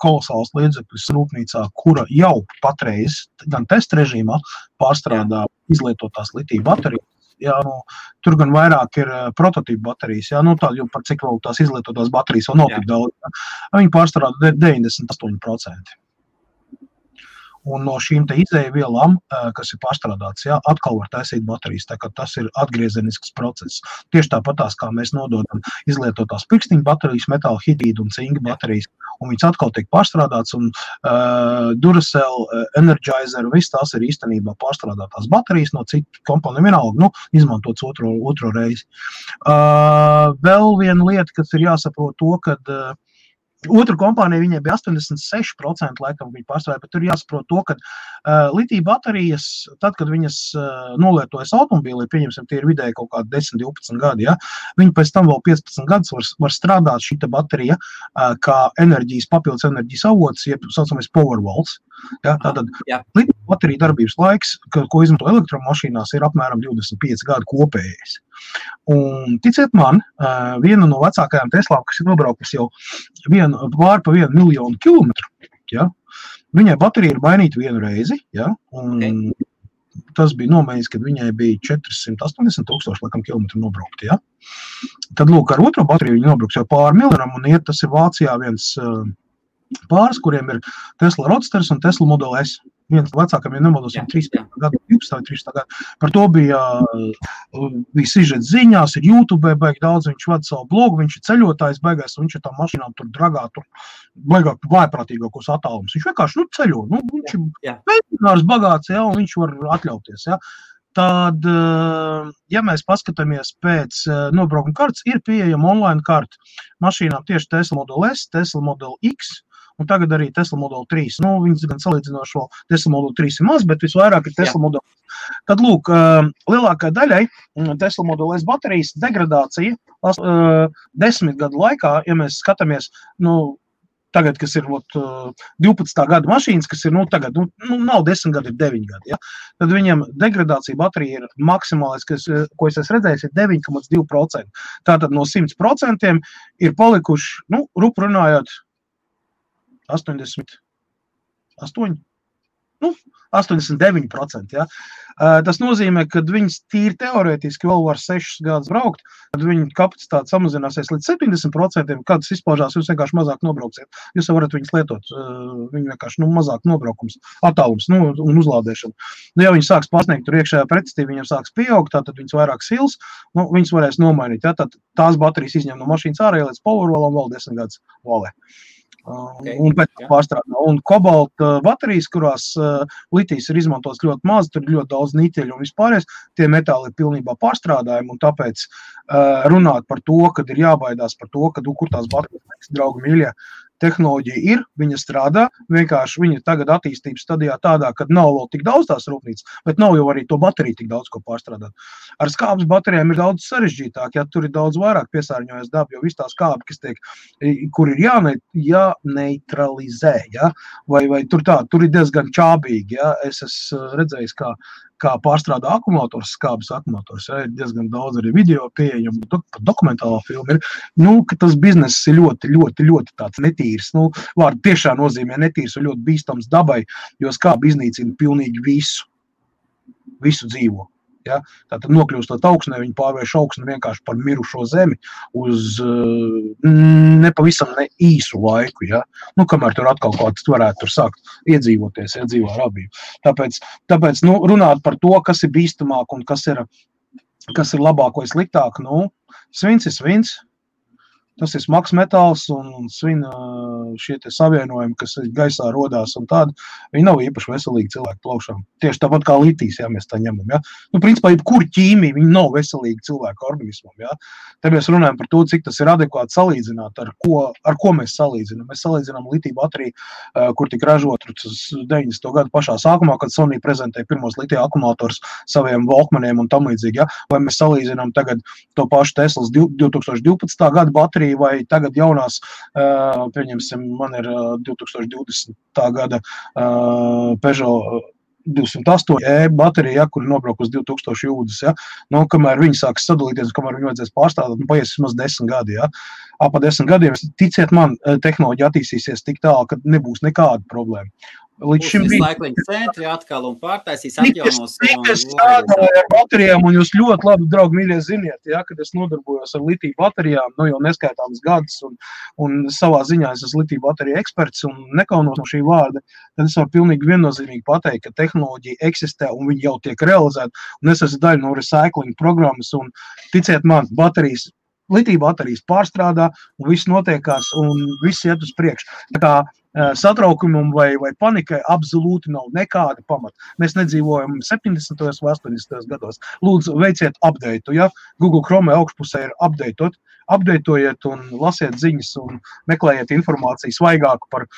kolosāls līdzekļus rūpnīcā, kura jau patreiz gan test režīmā pārstrādā izlietotās litija baterijas. Jā, tur gan vairāk ir prototīpu baterijas, jā, tā, jo par cik vēl tās izlietotās baterijas vēl nav tik daudz. Jā. Viņi pārstrādā 98%. Un no šīm te izēvielām, kas ir pārstrādāts, jā, atkal var taisīt baterijas, tā kā tas ir atgriezenisks process. Tieši tāpatās, kā mēs nododam izlietotās pirkstiņu baterijas, metāla hidrīdu un cinka baterijas, un viņas atkal tiek pārstrādāts, un Duracell, Energizer, viss tās ir īstenībā pārstrādātās baterijas no citu komponiju vienalga, izmantots otro reizi. Vēl viena lieta, kas ir jāsaprot to, kad otra kompānija, viņai bija 86% laikam viņa pārstrādāja, bet tur jāsaprot to, ka litija baterijas, tad, kad viņas nolietojas automobīlī, pieņemsim, tie ir vidēji kaut kādi 10-12 gadi, ja, viņi pēc tam vēl 15 gadus var strādāt šita baterija kā papildus enerģijas avots, jeb saucamais Powerwalls. Ja, tātad litija baterija darbības laiks, ko izmanto elektromašīnās, ir apmēram 25 gadu kopējais. Un ticiet man, viena no vecākajām Teslām, kas ir nobraukusi jau pār pa 1 miljonu kilometru, ja, viņai baterija ir mainīta vienu reizi, ja, un tas bija nomēģis, kad viņai bija 480 000 laikam kilometru nobraukt, ja. Tad, lūk, ar otro bateriju viņi nobrauks jau pār miljonam, un tas ir Vācijā viens pāris, kuriem ir Tesla Roadsters un Tesla Model S. Viens vecākam, ja nemaldos, 13 gadu, 12 gadu. Par to bija sižets ziņās, ir YouTube, baigi daudz, viņš vada savu blogu, viņš ir ceļotājs, baigais, un viņš ir tā mašīnām tur dragā, tur baigāk vājprātīgākos attālums. Viņš vienkārši, ceļo, viņš ir veicinārs bagāts, ja, un viņš var atļauties, ja. Tad, ja mēs paskatāmies pēc nobraukuma kartes, ir pieejama online karta mašīnām tieši Tesla Model S, Tesla Model X, un tagad arī Tesla Model 3. Viņas gan salīdzinoši vēl Tesla Model 3 ir maz, bet visvairāk ir Tesla Model S. Tad, lūk, lielākai daļai Tesla Model S baterijas degradācija 10 gadu laikā, ja mēs skatāmies, tagad, kas ir 12. gada mašīnas, kas ir, tagad, nav 10 gadi, ir 9 gadi, ja? Tad viņam degradācija baterija ir maksimālais, ko es esmu redzējis, ir 9,2%. Tātad no 100% ir palikuši, rupu runājot, 89%, ja. Tas nozīmē, ka viņas tīri teorētiski vēl var 6 gadus braukt, tad viņa kapacitāte samazināsies līdz 70%, kad tas izpaužās, jūs vienkārši mazāk nobrauksiet. Jūs varat viņas lietot, viņi vienkārši mazāk nobraukums, attālums, un uzlādēšana. Ja viņi sāks pasniegt tur iekšējā pretestība, viņiem sāks pieaugt, tad viņas vairāk sils, viņas varēs nomainīt, ja, tad tās baterijas izņem no mašīnas ārā, līdz Powerwallam vēl 10 gadus valē. Un pēc pārstrādā. Un kobalta baterijas, kurās litijas ir izmantots ļoti maz, tur ir ļoti daudz niķeļu un vispārējais, tie metāli ir pilnībā pārstrādājumi, un tāpēc runāt par to, kad ir jābaidās par to, kad kur tās baterijas, draugi mīļie, tehnoloģija ir, viņa strādā, vienkārši viņa tagad attīstības stadijā tādā, kad nav vēl tik daudz tās rūpnīcas, bet nav jau arī to bateriju tik daudz, ko pārstrādāt. Ar skābes baterijām ir daudz sarežģītāk, ja tur ir daudz vairāk piesārņojas daba, jo viss tā skābe, kas tiek, kur ir jāneutralizē, ja? vai tur ir diezgan čābīgi, ja? Es esmu redzējis, kā pārstrādā akumulators, skābes akumulators, ja? Ir diezgan daudz arī video pieejam, dokumentālā filma ir, ka tas bizness ir ļoti, ļoti, ļoti tāds netīrs, vārdu tiešā nozīmē netīrs un ļoti bīstams dabai, jo skābe iznīcina pilnīgi visu dzīvo. Ja? Tātad nokļūstot augsnē, viņi pārvērš augsni vienkārši par mirušo zemi uz nepavisam ne īsu laiku, ja? Nu, kamēr tur atkal kaut kas varētu tur sākt iedzīvoties, ja, dzīvo rabību. Tāpēc nu, runāt par to, kas ir bīstamāk un kas ir labāk vai sliktāk, nu, svins ir svins. Tas ir smags metāls un svina šie te savienojumi, kas gaisā rodās un tādi, viņi nav īpaši veselīgi cilvēku plaušām. Tieši tāpat kā litijs, ja mēs tā ņemam, ja. Nu, principā, jebkur ķīmija, viņi nav veselīgi cilvēku organismam, ja. Te mēs runājam par to, cik tas ir adekvāti salīdzināt, ar ko mēs salīdzinām. Mēs salīdzinām litiju bateriju, kur tika ražot 90. gadu pašā sākumā, kad Sony prezentēja pirmos litija akumulators saviem Walkmaniem un tam līdzīgi, ja. Vai mēs salīdzinām tagad to pašu Teslas 2012. gada bateriju, vai tagad jaunās, pieņemsim, man ir 2020. Gada Peugeot 208 baterija, ja, kur ir nobraukt uz 2000 jūdzes, ja. Nu, kamēr viņi sāks sadalīties, kamēr viņi vajadzēs pārstrādāt, nu, paies vismaz 10 gadi, ja. Pa 10 gadiem, ticiet man, tehnoloģija attīstīsies tik tālu, ka nebūs nekāda problēma. Līdz šim
Recycling centri atkal un pārtaisīs atjaunos.
Es strādāju ar baterijām, un jūs ļoti labi, draugi, mīļie, ziniet, ja, kad es nodarbojos ar litiju baterijām, nu jau neskaitāmas gadus, un savā ziņā es esmu litiju bateriju eksperts un nekaunos no šī vārda, tad es varu pilnīgi viennozīmīgi pateikt, ka tehnoloģija eksistē un viņi jau tiek realizēta, un es esmu daļa no recycling programmas, un ticiet man, litiju baterijas pārstrādā, un viss notiekās, un viss iet uz priekšu. Tā kā satraukumam vai panikai absolūti nav nekāda pamata. Mēs nedzīvojam 70. vai 80. gados. Lūdzu, veiciet updateu, ja? Google Chrome augšpusē ir updatetojiet un lasiet ziņas un meklējiet informāciju svaigāku par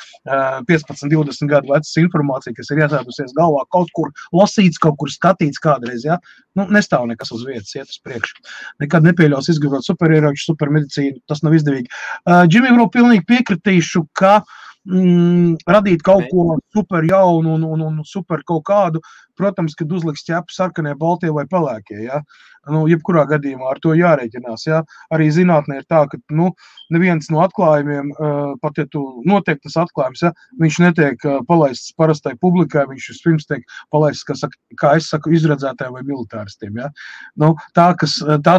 15-20 gadu vecas informāciju, kas ir iesēdusies galvā, kaut kur lasīts, kaut kur skatīts kādreiz, ja? Nu, nestāv nekas uz vietas, iet uz priekšu. Nekad nepieļaus izgudrot superieroču, supermedicīnu, tas nav izdevīgi. Džimim, pilnīgi piekritīšu, ka radīt kaut ko super jaunu un super kaut kādu, protams, kad uzliks ķepu sarkanie, baltie vai pelēkie, ja? Nu, jebkurā gadījumā ar to jārēķinās, ja? Arī zinātnē ir tā, ka, nu, neviens no atklājumiem, pat ja tu notiek tas atklājums, ja? Viņš netiek palaists parastai publikai, viņš vispirms tiek palaists, kā es saku, izredzētājiem vai militāristiem, ja? Nu, tā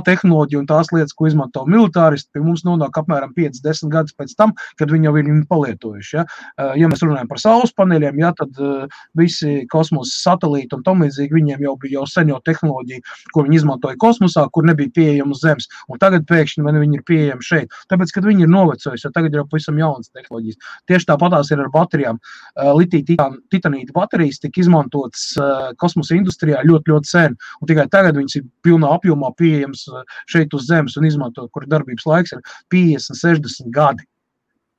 tehnoloģija un tās lietas, ko izmanto militāristi, pie mums nonāk apmēram 5-10 gadus pēc tam, kad viņi jau ir viņu palietojuši, ja? Ja mēs runājam par saules paneļiem, ja, tad visi kosmosa satelīti un tam līdzīgi, viņiem jau bija sen tehnoloģija, ko viņi izmantoja kosmosā, kur nebija pieejama uz Zemes, un tagad pēkšņi viņi ir pieejami šeit. Tāpēc, kad viņi ir novecojuši, jo tagad ir jau pavisam jaunas tehnoloģijas. Tieši tāpatās ir ar baterijām. Litija-titanīta baterijas tika izmantotas kosmosa industrijā ļoti, ļoti sen, un tikai tagad viņas ir pilnā apjomā pieejams šeit uz Zemes un izmantot, kur darbības laiks ir 50-60 gadi.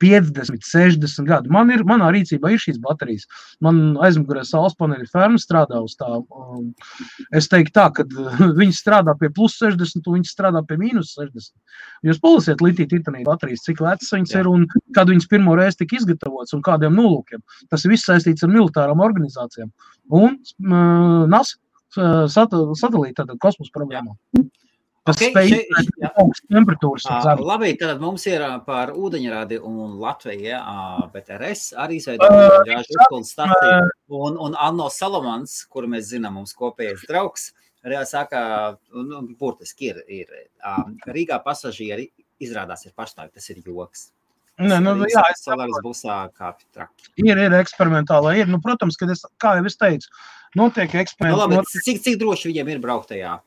50-60 gadu. Manā rīcībā ir šīs baterijas. Man aizmugurē saules paneļa ferma strādā uz tā. Es teiktu tā, ka viņi strādā pie plus 60 un viņi strādā pie mīnus 60. Jūs palasiet litija-titanīta baterijas, cik vecas viņas ir un kad viņas pirmo reizi tika izgatavotas un kādiem nolūkiem. Tas ir viss saistīts ar militārām organizācijām. Un NASA sadalīja tātad kosmosa programmā. Tas spēj augsts temperatūras.
Labi, tad mums ir par ūdeņradi un Latviju, BTRS arī izveidot gāžu uzpildes staciju. Un Anno Salamans, kuru mēs zinām, mums kopējais draugs, saka, burtiski ir Rīgā pasažieri izrādās ir pašnāvi, tas ir joks.
Jā,
Solaris busā kāpj traki.
Ir eksperimentālā, ir. Nu, protams, kad kā jau es teicu, notiek eksperimenti.
Labi, cik droši viņiem ir brauktajā?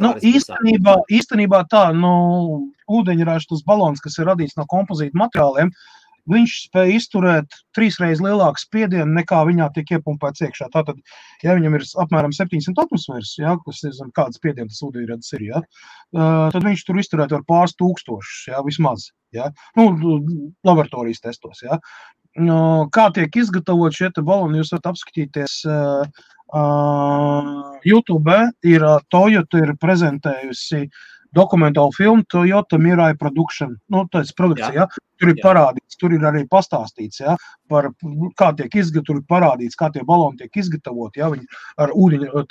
Nu, īstenībā tā, ūdeņraža tas balons, kas ir radīts no kompozīta materiāliem, viņš spēj izturēt 3 reizes lielāku spiedienu, nekā viņā tiek iepumpēts iekšā. Tātad, ja viņam ir apmēram 700 atmosfēras, ja, kas ir kāds spiediens tas ūdeņradis ir, ja, tad viņš tur izturēt var pāris tūkstošus, ja, vismaz. Ja. Nu, laboratorijas testos. Ja. Kā tiek izgatavot šie baloni, jūs varat apskatīties YouTube, ir Toyota ir prezentējusi dokumentālu filmu Toyota Mirai Production. Nu, tas ir produkcija, ja? Tur ir parādīts, tur ir arī pastāstīts, ja? Par kā tiek tur ir parādīts, kā tie baloni tiek izgatavoti, ja? Viņi ar ūdeņu,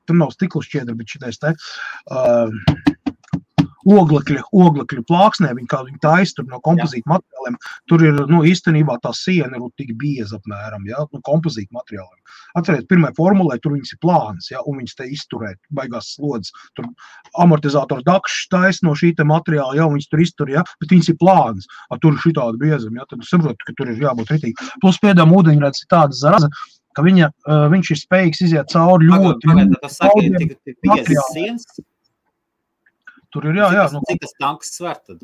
tur nav stiklu šķiedra, bet šitais te, oglekļa plāksnē, viņi taisa tur no kompozīta materiāliem, tur ir, īstenībā tā siena ir tik bieza apmēram, no kompozīta materiāliem. Atcerēt, pirmajā formulē tur viņas ir plānas, un viņas te izturēt, baigās slodzes, tur amortizātoru dakšs taisa no šī te materiāla, viņas tur iztur, bet viņas ir plānas, tur ir šitāda biezuma, tad saprotu, ka tur ir jābūt ritīgi. Plus pēdām ūdeņradis ir tāda zaraza, ka viņš ir spējīgs iziet cauri ļoti
materiāliem.
Tur ir, jā.
Cik tas tanks sver tad?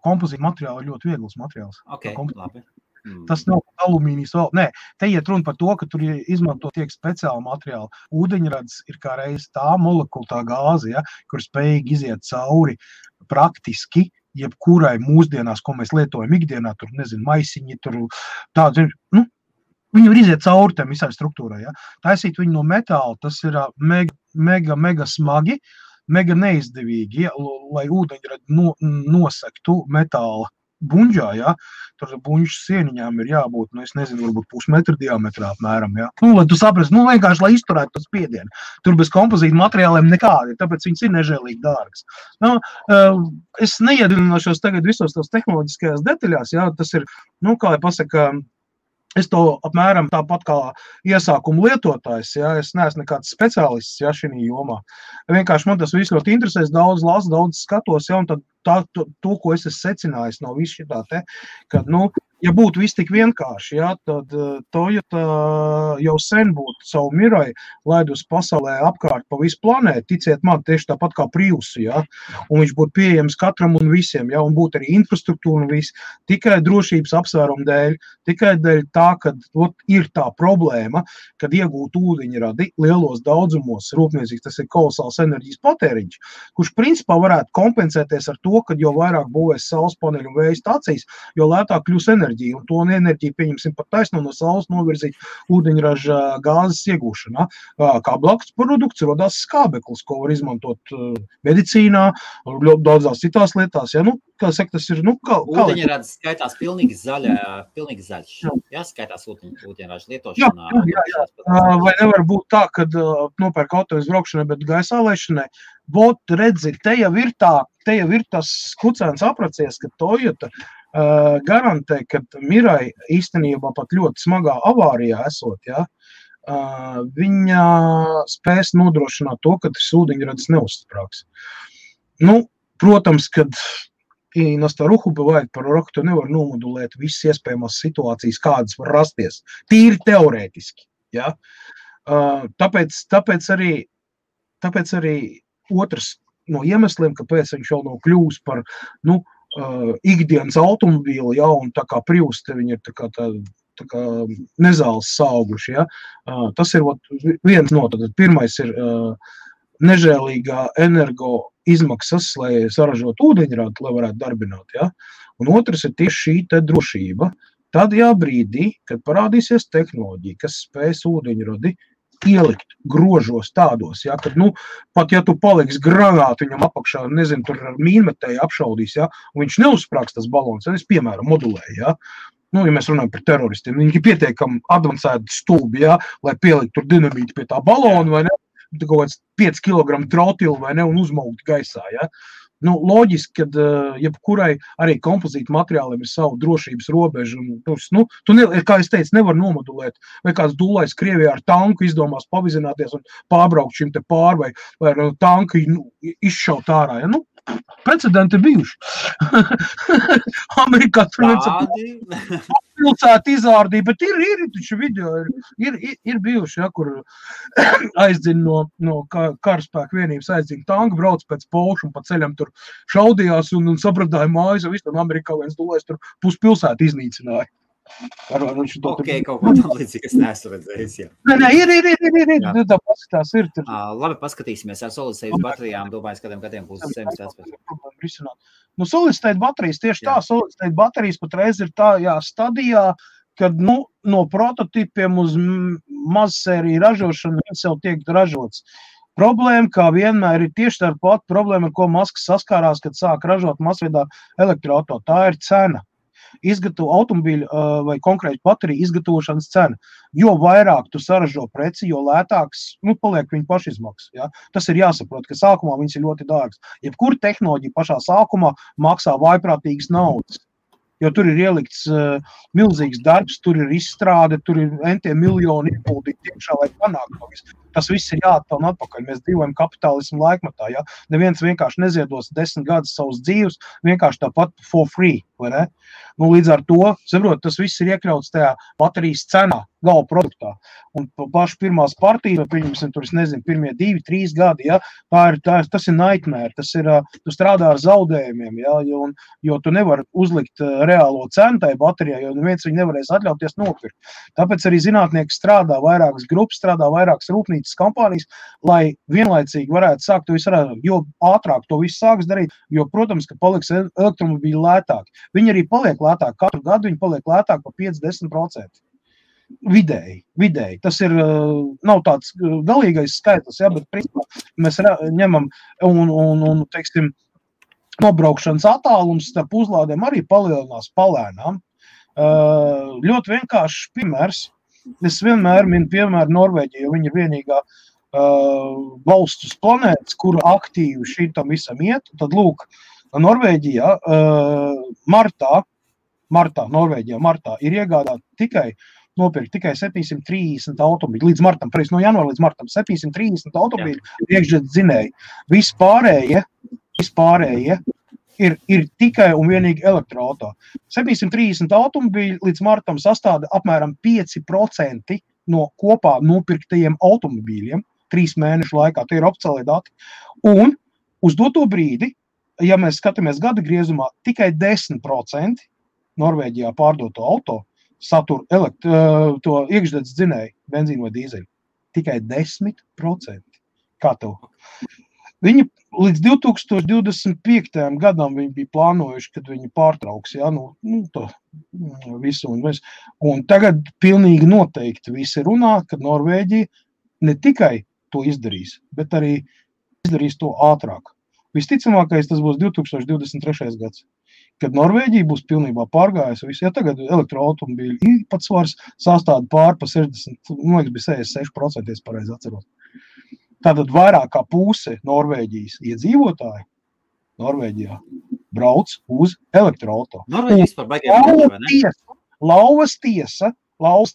Kompozīta materiāli ir ļoti viegls materiāls.
Ok, labi.
Tas nav alumīnijas vēl. Nē, te iet runa par to, ka tur izmanto tiek speciāli materiāli. Ūdeņradis ir kā reiz tā molekula, tā gāze, kur spējīgi iziet cauri praktiski jebkurai mūsdienās, ko mēs lietojam ikdienā, tur, maisiņi, tur tādi, viņi var iziet cauri tam visai struktūrai, Taisīt viņu no metāla, tas ir mega smagi, mega neizdevīgi, lai ūdeņradi nosektu metāla buņģā, tur buņģu sieniņām ir jābūt, es nezinu, varbūt pusmetra diametrā apmēram, lai tu saprasti, vienkārši, lai izturētu tas spiedienu. Tur bez kompozīta materiāliem nekādi, tāpēc viņas ir nežēlīgi dārgas. Es neiedināšos tagad visos tos tehnoloģiskajās detaļās, tas ir, kā lai pasaka, es to apmēram tāpat kā iesākumu lietotājs, es neesmu nekāds speciālists, šī jomā. Vienkārši man tas viss ļoti interesēs, daudz lasu, daudz skatos, un tad to, ko es esmu secinājis no visu šitā te, kad, ja būtu viss tik vienkārši, tad Toyota jau sen būtu savu Mirai laidus pasaulē apkārt pa visu planētu, ticiet man, tieši tāpat kā Priusu, un viņš būtu pieejams katram un visiem, un būtu arī infrastruktūra un viss, tikai drošības apsvērumu dēļ, tikai dēļ tā, kad ir tā problēma, kad iegūt ūdeņradi lielos daudzumos, rūpniecīgs, tas ir kolosāls enerģijas patēriņš, kurš principā varētu kompensēties ar to, kad jo vairāk būvēs saules paneļu un vēja stācijas, jo lētāk kļūs enerģija, un to enerģiju pieņemsim pat taisno no saules novirzīt ūdeņraža gāzes iegūšanā. Kā blakus produkts rodās skābeklis, ko var izmantot medicīnā, daudzās citās lietās. Kā saka, tas ir,
Ūdeņrads skaitās pilnīgi zaļš. Skaitās ūdeņraža lietošanā.
Jā. Vai nevar būt tā, kad nopērk auto izbraukšanai, bet gaisā laišanai? Redzi, te jau ir tas kucēns apracies, ka Toyota garantē, ka Mirai īstenībā pat ļoti smagā avārijā esot, viņa spēs nodrošināt to, ka tas ūdeņradis neuzsprāgs. Protams, kad на старуху бывает пророк, то nevar nomodulēt visas iespējamās situācijas, kādas var rasties. Tīri teorētiski. Tāpēc arī otrs no iemesliem, kāpēc viņš jau nav kļūst par ikdienas automobīli, un tā kā Prius, te viņi ir tā kā nezāles sauguši. Tas ir viens no, tad pirmais ir nežēlīgā energo izmaksas, lai saražotu ūdeņradi, lai varētu darbināt. Un otrs ir tieši šī te drošība. Tad brīdī, kad parādīsies tehnoloģija, kas spēs ūdeņradi ielikt grožos tādos, kad, pat ja tu paliks granātu viņam apakšā, nezinu, tur ar mīnmetēju apšaudīs, un viņš neuzsprāgs tas balons, tad es, piemēram, modulēju, ja mēs runājam par teroristiem, viņi ir pietiekami advancēti stulbi, lai pielikt tur dinamīti pie tā balona, vai ne, kaut kāds 5 kg trotilu, vai ne, un uzmaukt gaisā, loģiski, kad jebkurai arī kompozīta materiāliem ir savu drošības robežu. Kā es teicu, nevar nomodulēt, vai kāds dūlais Krievijā ar tanku izdomās pavizināties un pārbraukt šim te pār, vai tanku izšaut ārā. Precedenti ir bijuši. Amerikā pilsēta izārdīja, bet ir taču video, ir bijuši, kur aizdina no karaspēka vienības aizdina tanku, brauc pēc Polšu un pa ceļam tur šaudījās un sabradāja mājas, un viss tam Amerikā viens dulēs tur puspilsētu iznīcināja.
Kaut ko tam līdzīgi, es neesmu redzējis,
Nē, ir, tā paskatās ir.
Labi, paskatīsimies ar solid-state baterijām, domāju, kādiem gadiem būs zemes aspēs.
Solid-state baterijas, tieši tā, solid-state baterijas patreiz ir tā stadijā, kad, no prototipiem uz mazsēriju ražošanu viņas jau tiek ražots. Problēma, kā vienmēr, ir tieši tā pat problēma, ar ko Masks saskārās, kad sāk ražot masveidā elektroauto. Tā ir cena. automobīļu vai konkrēti bateriju izgatavošanas cena. Jo vairāk tu saražo preci, jo lētāks, paliek viņa pašizmaksas. Ja? Tas ir jāsaprot, ka sākumā viņas ir ļoti dārgas. Jebkura tehnoloģija pašā sākumā maksā vaiprātīgas naudas. Jo tur ir ielikts milzīgs darbs, tur ir izstrāde, tur ir entiem miljoni ieguldīti tiekšā, lai panāktu to visu. Tas viss ir jāatpelna atpakaļ. Mēs dzīvojam kapitālismu laikmatā. Ja? Neviens vienkārši neziedos 10 gadus savus dzīves, vienkārši tāpat for free. Vai ne? Līdz ar to, saprot, tas viss ir iekļauts tajā baterijas cenā, gala produktā. Un paši pirmās partijas, pieņemsim, tur, es nezinu, pirmie 2-3 gadi, ja? Tas ir nightmare, tas ir, tu strādā ar zaudējumiem, ja? Jo tu nevari uzlikt reālo cenu tai baterijai, jo neviens viņu nevarēs atļauties nopirkt. Tāpēc arī zinātnieki strādā vairākas grupas, strādā vairākas rūpnīcas kompānijas, lai vienlaicīgi varētu sākt to visu rādīt. Jo ātrāk to visu sāks darīt, jo, protams, ka paliks elektromobīļi lētāki. Viņi arī paliek lētāk. Katru gadu viņi paliek lētāk par 5-10%. Vidēji. Tas ir, nav tāds galīgais skaitlis, ja, bet principā mēs ņemam un teiksim, nobraukšanas attālums starp uzlādēm arī palielinās palēnām. Ļoti vienkāršs piemērs. Es vienmēr minu piemēru Norvēģiju, jo viņi ir vienīgā valsts uz planētas, kura aktīvi šitam visam iet. Tad lūk, Norvēģijā martā ir iegādāt nopirkt tikai 730 automobīļu. Līdz martam, no janvāra līdz martam, 730 automobīļu iekšzemes dzinēji. Vispārējie ir tikai un vienīgi elektroauto. 730 automobīļu līdz martam sastāda apmēram 5% no kopā nopirktajiem automobīļiem 3 mēnešu laikā. Tie ir oficiālie dati. Un uz doto brīdi, ja mēs skatāmies gada griezumā, tikai 10% Norvēģijā pārdoto auto satur to iekšzemes dzinēju, benzīnu vai dīzeļu. Tikai 10%. Kā tev? Viņi līdz 2025. Gadam viņi bija plānojuši, kad viņi pārtrauks, ja, to visu un visu. Un tagad pilnīgi noteikti visi runā, ka Norvēģija ne tikai to izdarīs, bet arī izdarīs to ātrāk. Visticamākais tas būs 2023. gads, kad Norvēģija būs pilnībā pārgājusi visu. Ja tagad elektroautomobīļu īpatsvars sastāda pār pa 60, man liekas, bija 66%, es pareizi atceros. Tātad vairāk kā puse Norvēģijas iedzīvotāji Norvēģijā brauc uz elektroauto.
Norvēģijas par baigiem, vai ne?
Lauvas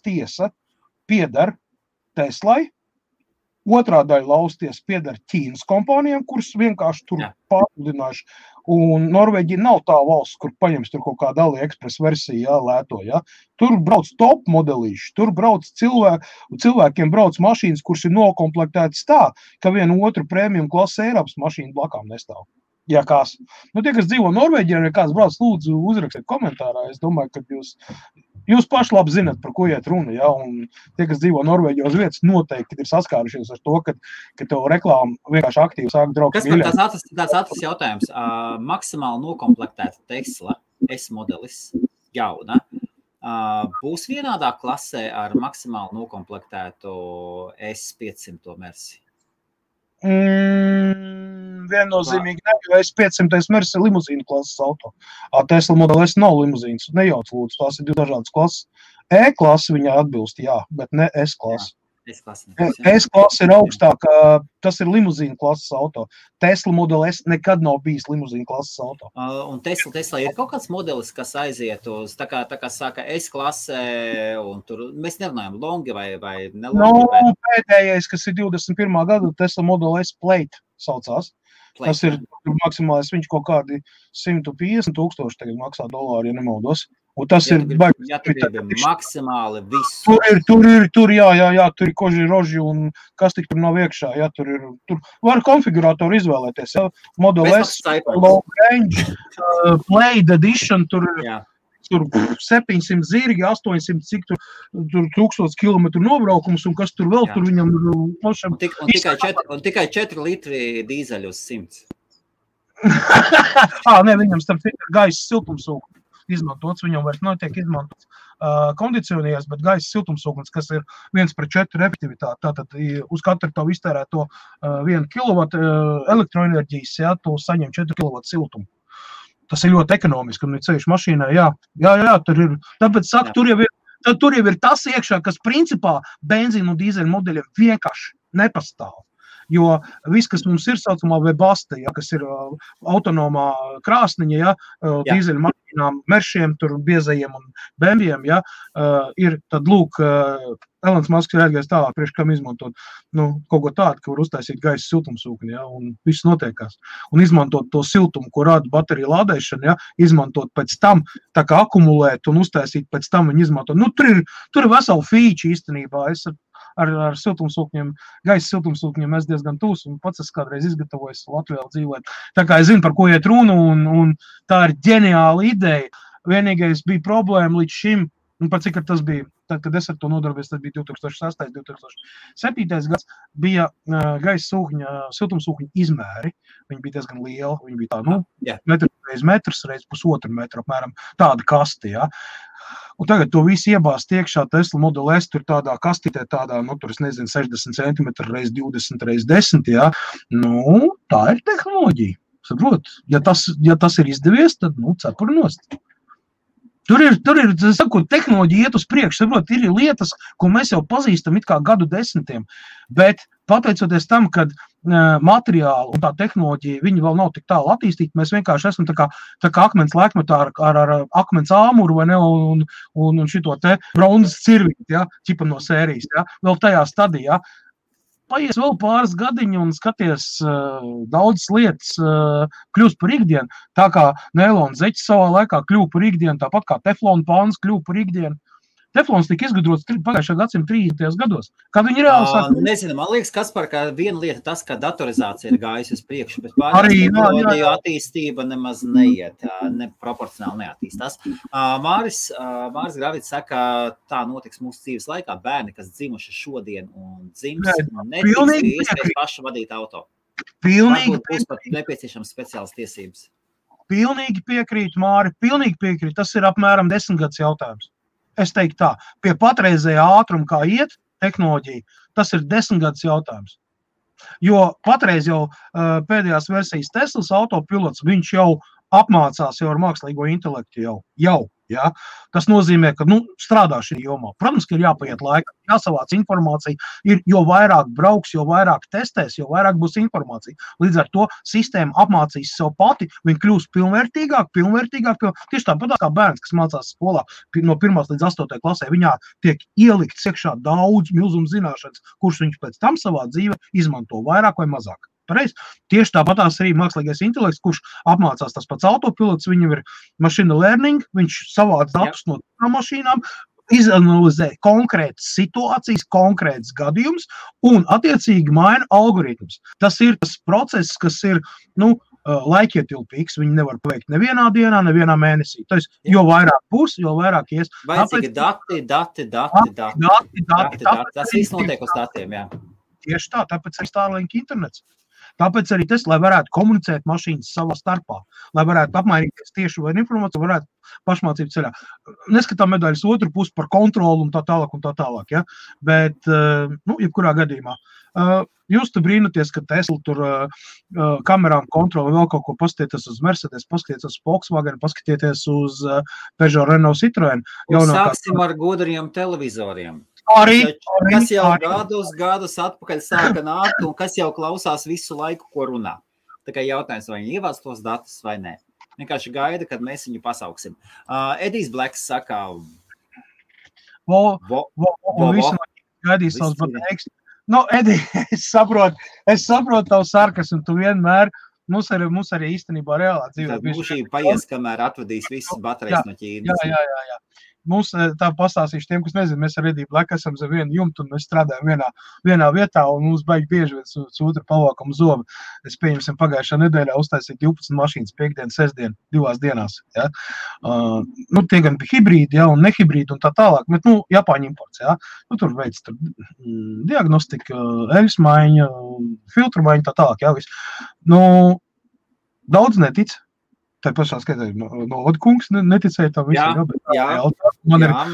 tiesa piedar Teslai, otrā daļa lauvas tiesa piedar Ķīnas kompānijām, kuras vienkārši tur pārpludinājuši. Un Norvēģija nav tā valsts, kur paņems tur kaut kāda AliExpress versija, lēto, ja. Tur brauc top modelīši, tur brauc cilvēkiem brauc mašīnas, kuras ir nokomplektētas tā, ka vienu otru premium klases Eiropas mašīnu blakām nestāv. Ja kāds. Tie, kas dzīvo Norvēģijā, ja kāds brauc, lūdzu uzrakstiet komentārā. Es domāju, ka jūs paši labi zinat, par ko iet runa, ja, un tie, kas dzīvo Norvēģijā uz vietas, noteikti ir saskārušies ar to, ka tev reklāma vienkārši aktīvi sāk draugt.
Kas man tāds ātrs jautājums? Maksimāli nokomplektēta Tesla S-modelis jauna būs vienādā klasē ar maksimāli nokomplektētu S500 versiju?
Viennozīmīgi ne, jo S500 Mercedes ir limuzīna klases auto. Tesla Model S nav limuzīnas, nejauc lūdzu, tās ir 2 dažādas klases. E-klase viņai atbilst, jā, bet ne S-klase. S-klase ir augstāk, tas ir limuzīna klases auto. Tesla Model S nekad nav bijis limuzīna klases auto.
Un Tesla ir kaut kāds modelis, kas aiziet uz, tā kā saka S-klase, un tur mēs nerunājam longi vai nelongi?
Pēdējais, kas ir 21. gada, Tesla Model S Plate saucās. Tas ir maksimālais, viņš kaut kādi 150,000 tagad maksā dolāri, ja nemaldos. Un tas ir baigi.
Ja tur ir maksimāli viss.
Tur ir koži, roži un kas tik tur nav iekšā. Ja, tur var konfigurātoru izvēlēties. Ja. Model S, Long Range, Plate Edition, tur 700 zirgi, 800 cik tur 1000 kilometru nobraukums un kas tur vēl tur viņam
un tikai 4 litri dīzeļu uz 100.
Ne, viņam starp gaisa siltumsūknis izmantots, viņam vairs netiek izmantots kondicionieris, bet gaisa siltumsūknis, kas ir 1/4 efektivitāte. Tātad uz katru tavu iztērēto 1 kW elektroenerģijas, ja, tu saņem 4 kW siltumu. Tas ir ļoti ekonomiski, un ceļš mašīnā, jā, tur ir, tāpēc saka, tur jau ir tas iekšā, kas principā benzīnu un dīzeļu modeļiem vienkārši nepastāv. Jo viss, kas mums ir saucamā Webaste, ja, kas ir autonomā krāsniņa, ja, dīzeļu mašīnām, meršiem, tur biezajiem un bembiem, ja, ir tad lūk, Elons Musks ir aizgājis tālāk, priekš kam izmantot kaut ko tādu, ka var uztaisīt gaisa siltumsūkni, ja, un viss notiekās. Un izmantot to siltumu, ko rada baterija lādēšana, ja, izmantot pēc tam, tā kā akumulēt un uztaisīt pēc tam viņu izmantot. Tur ir vesela feature īstenībā. Es ar siltumsūkņiem, gaisa siltumsūkņiem es diezgan tūs, un pats es kādreiz izgatavojos Latvijā dzīvot. Tā kā es zinu, par ko iet runa, un tā ir ģeniāla ideja. Vienīgais bija problēma līdz šim, un par cik tas bija, tad, kad es ar to nodarbojos, tas bija 2006. 2007. Gads, bija gaisa siltumsūkņa izmēri. Viņi bija diezgan lieli, viņi bija metrs reiz pusotru metru, apmēram tāda kasti, ja. Un tagad to visu iebāzt iekšā Tesla Model S, tur tādā kastītē, tādā, tur es nezinu, 60 cm reiz 20 reiz 10, ja. Tā ir tehnoloģija. Saprot, ja tas ir izdevies, tad, cepuri nost. Tur ir, sakot, tehnoloģija iet uz priekšu, saprot, ir lietas, ko mēs jau pazīstam it kā gadu desmitiem, bet pateicoties tam, kad materiāli un tā tehnoloģija, viņi vēl nav tik tālu attīstīti, mēs vienkārši esam tā kā akmens laikmetā ar akmens āmuru, vai ne, un šito te bronzas cirvīti, ja, ķipa no sērijas, ja, vēl tajā stadijā. Paies vēl pāris gadiņi un skaties daudzas lietas kļūst par ikdienu, tā kā neilona zeķis savā laikā kļuva par ikdienu, tāpat kā teflona pāns kļuva par ikdienu. Teflons tika izgudrots pagājušā gadsimta 30. gados. Kad viņi reāli sāk...
Nezinu, man liekas, Kaspar, ka viena lieta tas, ka datorizācija ir gājusi uz priekšu, bet pārējā attīstība nemaz neiet, proporcionāli neattīstās. Māris Gravits saka, tā notiks mūsu dzīves laikā, bērni, kas dzimuši šodien un dzims, netiks iespējas paši vadīt auto.
Pilnīgi
būs pat nepieciešams speciālas tiesības.
Pilnīgi piekrīt, Māri, pilnīgi piekrīt. Tas ir apmēram 10 gads jautājums. Es teiktu tā, pie patreizējā ātruma, kā iet tehnoloģija, tas ir 10 gadus jautājums. Jo patreiz jau pēdējās versijas Teslas autopilots, viņš jau apmācās jau ar mākslīgo intelektu jau. Ja? Tas nozīmē, ka strādā šī jomā. Protams, ka ir jāpaiet laika, jāsavāc informācija, jo vairāk brauks, jo vairāk testēs, jo vairāk būs informācija. Līdz ar to sistēma apmācīs sev pati, viņa kļūs pilnvērtīgāk. Tieši tāpat kā bērns, kas mācās skolā no 1. līdz 8. klasē, viņā tiek ielikts iekšā daudz milzumu zināšanas, kurš viņš pēc tam savā dzīvē izmanto vairāk vai mazāk. Pareiz. Tieši tāpatās arī mākslīgais intelekts, kurš apmācās tas pats autopilots, viņam ir machine learning, viņš savāc datus no mašīnām, izanalizē konkrētas situācijas, konkrētas gadījumus un attiecīgi maina algoritmus. Tas ir tas process, kas ir, laikietilpīgs, viņi nevar paveikt nevienā dienā, nevienā mēnesī. Tas, jo vairāk būs, jo vairāk ies.
Vajadzīgi dati. Tas viss notiek uz datiem, jā.
Tieši tā, tāpēc ir Starlink internets. Tāpēc arī tas, lai varētu komunicēt mašīnas savā starpā, lai varētu apmainīties tieši vai informāciju, varētu pašmācību ceļā. Neskatām medaļas otru pusi par kontroli un tā tālāk, ja? Bet, jebkurā gadījumā. Jūs te brīnaties, ka Tesla tur kamerām kontroli vēl kaut ko paskatieties uz Mercedes, paskatieties uz Volkswagen, paskatieties uz Peugeot, Renault, Citroen.
Sāksim ar gudriem televizoriem. Kas jau gadus atpakaļ sāka nākt un kas jau klausās visu laiku, ko runā. Tā kā jautājums, vai viņi ievāc tos datus vai nē. Vienkārši gaida, kad mēs viņu pasauksim. Edijs Bleks saka...
Visam gaidīs savus pateiks. Edi, es saprotu tavu sarkasmu, tu vienmēr... Mums arī īstenībā reālā dzīvē.
Tad mūžīgi paies, kamēr atvedīs visas baterijas no Ķīnas.
Jā. Mums tā pastāstīšu tiem, kas nezinu, mēs ar Ediju Bleku esam zem vienu jumtu un mēs strādājam vienā vietā un mums baigi bieži viens otru palvākam zobu. Es pieņemsim pagājušā nedēļā uztaisīt 12 mašīnas, 5. sestdien, 2 dienās. Ja? Tie gan bija hibrīdi, ja, un nehibrīdi un tā tālāk, bet, Japāņu imports, ja? Tur veids diagnostika, eļas maiņa, filtru maiņa, tā tālāk, ja, viss. Daudz netic. Tā pašā skaitā no Odkungs neticēja tam visam.
Jā,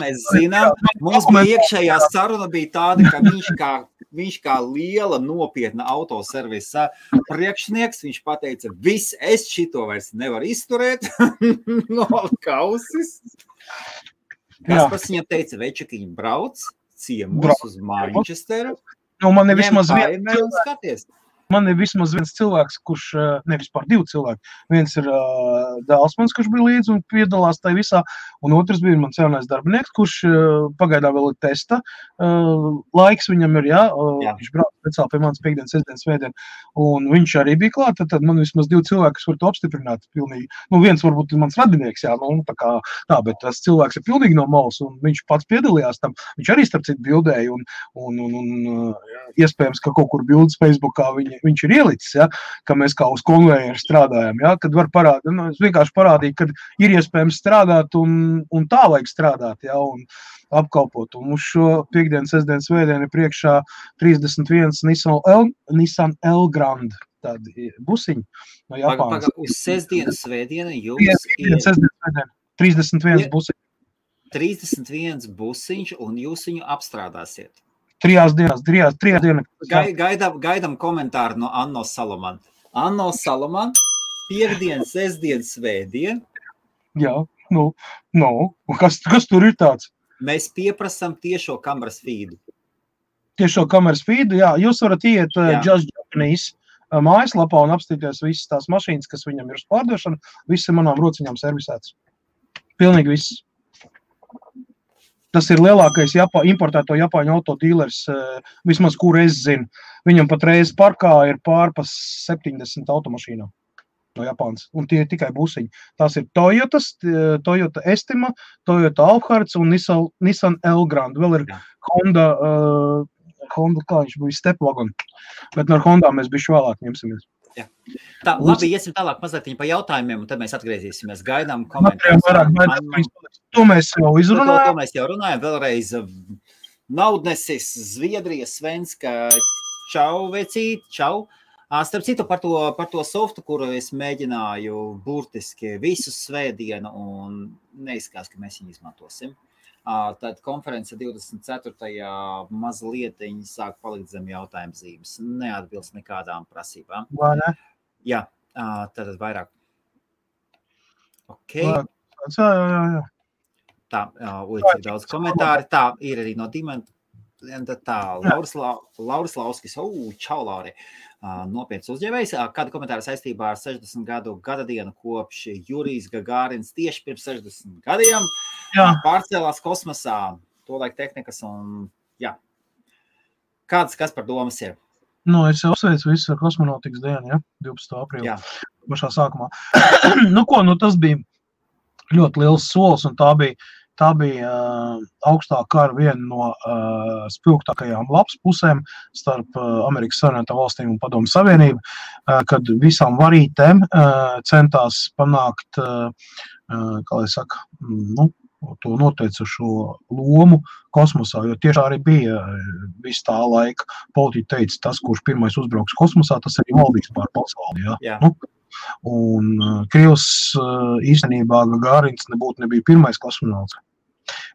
mēs zinām. Mums bija iekšējā saruna bija tāda, ka viņš kā viņš kā liela nopietna autoservisa priekšnieks, viņš pateica, viss, es šito vairs nevaru izturēt, no kausis. Kaspars viņam teica, Večakiņi brauc, ciemos uz Manchesteru,
man ir
vismaz
viens cilvēks, kurš, nevis pār 2 cilvēki, viens ir Dēlsmans, kurš bija līdzi un piedalās tai visā, un otrs bija mans jaunais darbinieks, kurš pagaidā vēl ir testa, laiks viņam ir, viņš brauc speciāli pie manas piekdienas, sestdienas, svētdien, un viņš arī bija klāt, tad man vismaz 2 cilvēki, kas var to apstiprināt pilnīgi, viens varbūt ir mans radinieks, bet tas cilvēks ir pilnīgi no malas, un viņš pats piedalījās tam, viņš arī starp citu bildēja, un iespējams, ka kaut kur bildes Facebookā viņš ir ielicis, ka mēs kā uz konvejeru strādājam, kad var parādīt, es vienkārši parādīju, ka ir iespējams strādāt un tā vajag strādāt, un apkalpot. Un uz šo piekdienas, sestdienas, svētdienu ir priekšā 31 Nissan L-Grand, tādi busiņi no Japānas.
Uz sestdienu, svētdienu jums ir
31 busiņi.
31 busiņš un jūs viņu apstrādāsiet.
3 dienas.
Gaidam komentāru no Anno Salaman. Anno Salaman, piekdien, sestdien, svētdien.
Jā, kas tur ir tāds?
Mēs pieprasam tiešo kameras feedu.
Tiešo kameras feedu, jā. Jūs varat iet Just Japanese mājaslapā un apstīties visas tās mašīnas, kas viņam ir uz pārdošanu. Viss ir manām rociņām servisēts. Pilnīgi viss. Tas ir lielākais importēto Japāņu autodīlers, vismaz, kur es zinu. Viņam patreiz parkā ir pārpa 70 automašīnām no Japānas, un tie ir tikai busiņi. Tās ir Toyota Estima, Toyota Alphard un Nissan L-Grand. Vēl ir Honda, kā viņš bija, Stepwagon, bet no Hondā mēs bišķi vēlāk ņemsimies.
Jā. Tā, labi, iesim tālāk mazliet pa jautājumiem, un tad mēs atgriezīsimies. Gaidām komentārus.
To mēs jau izrunājām.
To mēs jau runājām. Vēlreiz Naudnesis, Zviedrija, Svenska, čau, vecīt, čau. Starp citu par to softu, kuru es mēģināju burtiski visu svētdienu, un neizskās, ka mēs viņu izmantosim. Tad konference 24. mazlietiņi sāk palikt zem jautājuma zīmes. Neatbilst nekādām prasībām.
Vai ne?
Jā, tad vairāk. Ok.
Jā.
Tā, cik daudz komentāri. Tā, ir arī no Dimenta. Tā, Lauris Lauskis. Čau, Lauri. Nopietns uzņēmējs. Kādu komentāru saistībā ar 60 gadu gadadienu kopš Jurijs Gagārins tieši pirms 60 gadiem pārcēlās kosmosā, tolaik tehnikas un, kas par domas ir?
Es jau sveicu visu ar kosmonautikas dienu, 12. aprīlī, pašā sākumā. Tas bija ļoti liels solis, un tā bija augstā kara viena no spilgtākajām labs pusēm starp Amerikas Savienotām valstīm un Padomju Savienību, kad visām varītēm centās panākt, kā lai saka, to noteicošo lomu kosmosā, jo tieši arī bija visu tā laika politiķi teica, tas, kurš pirmais uzbrauks kosmosā, tas arī valdīs pār pasauli, Un Krievs īstenībā Gagārins nebija pirmais kosmonauts.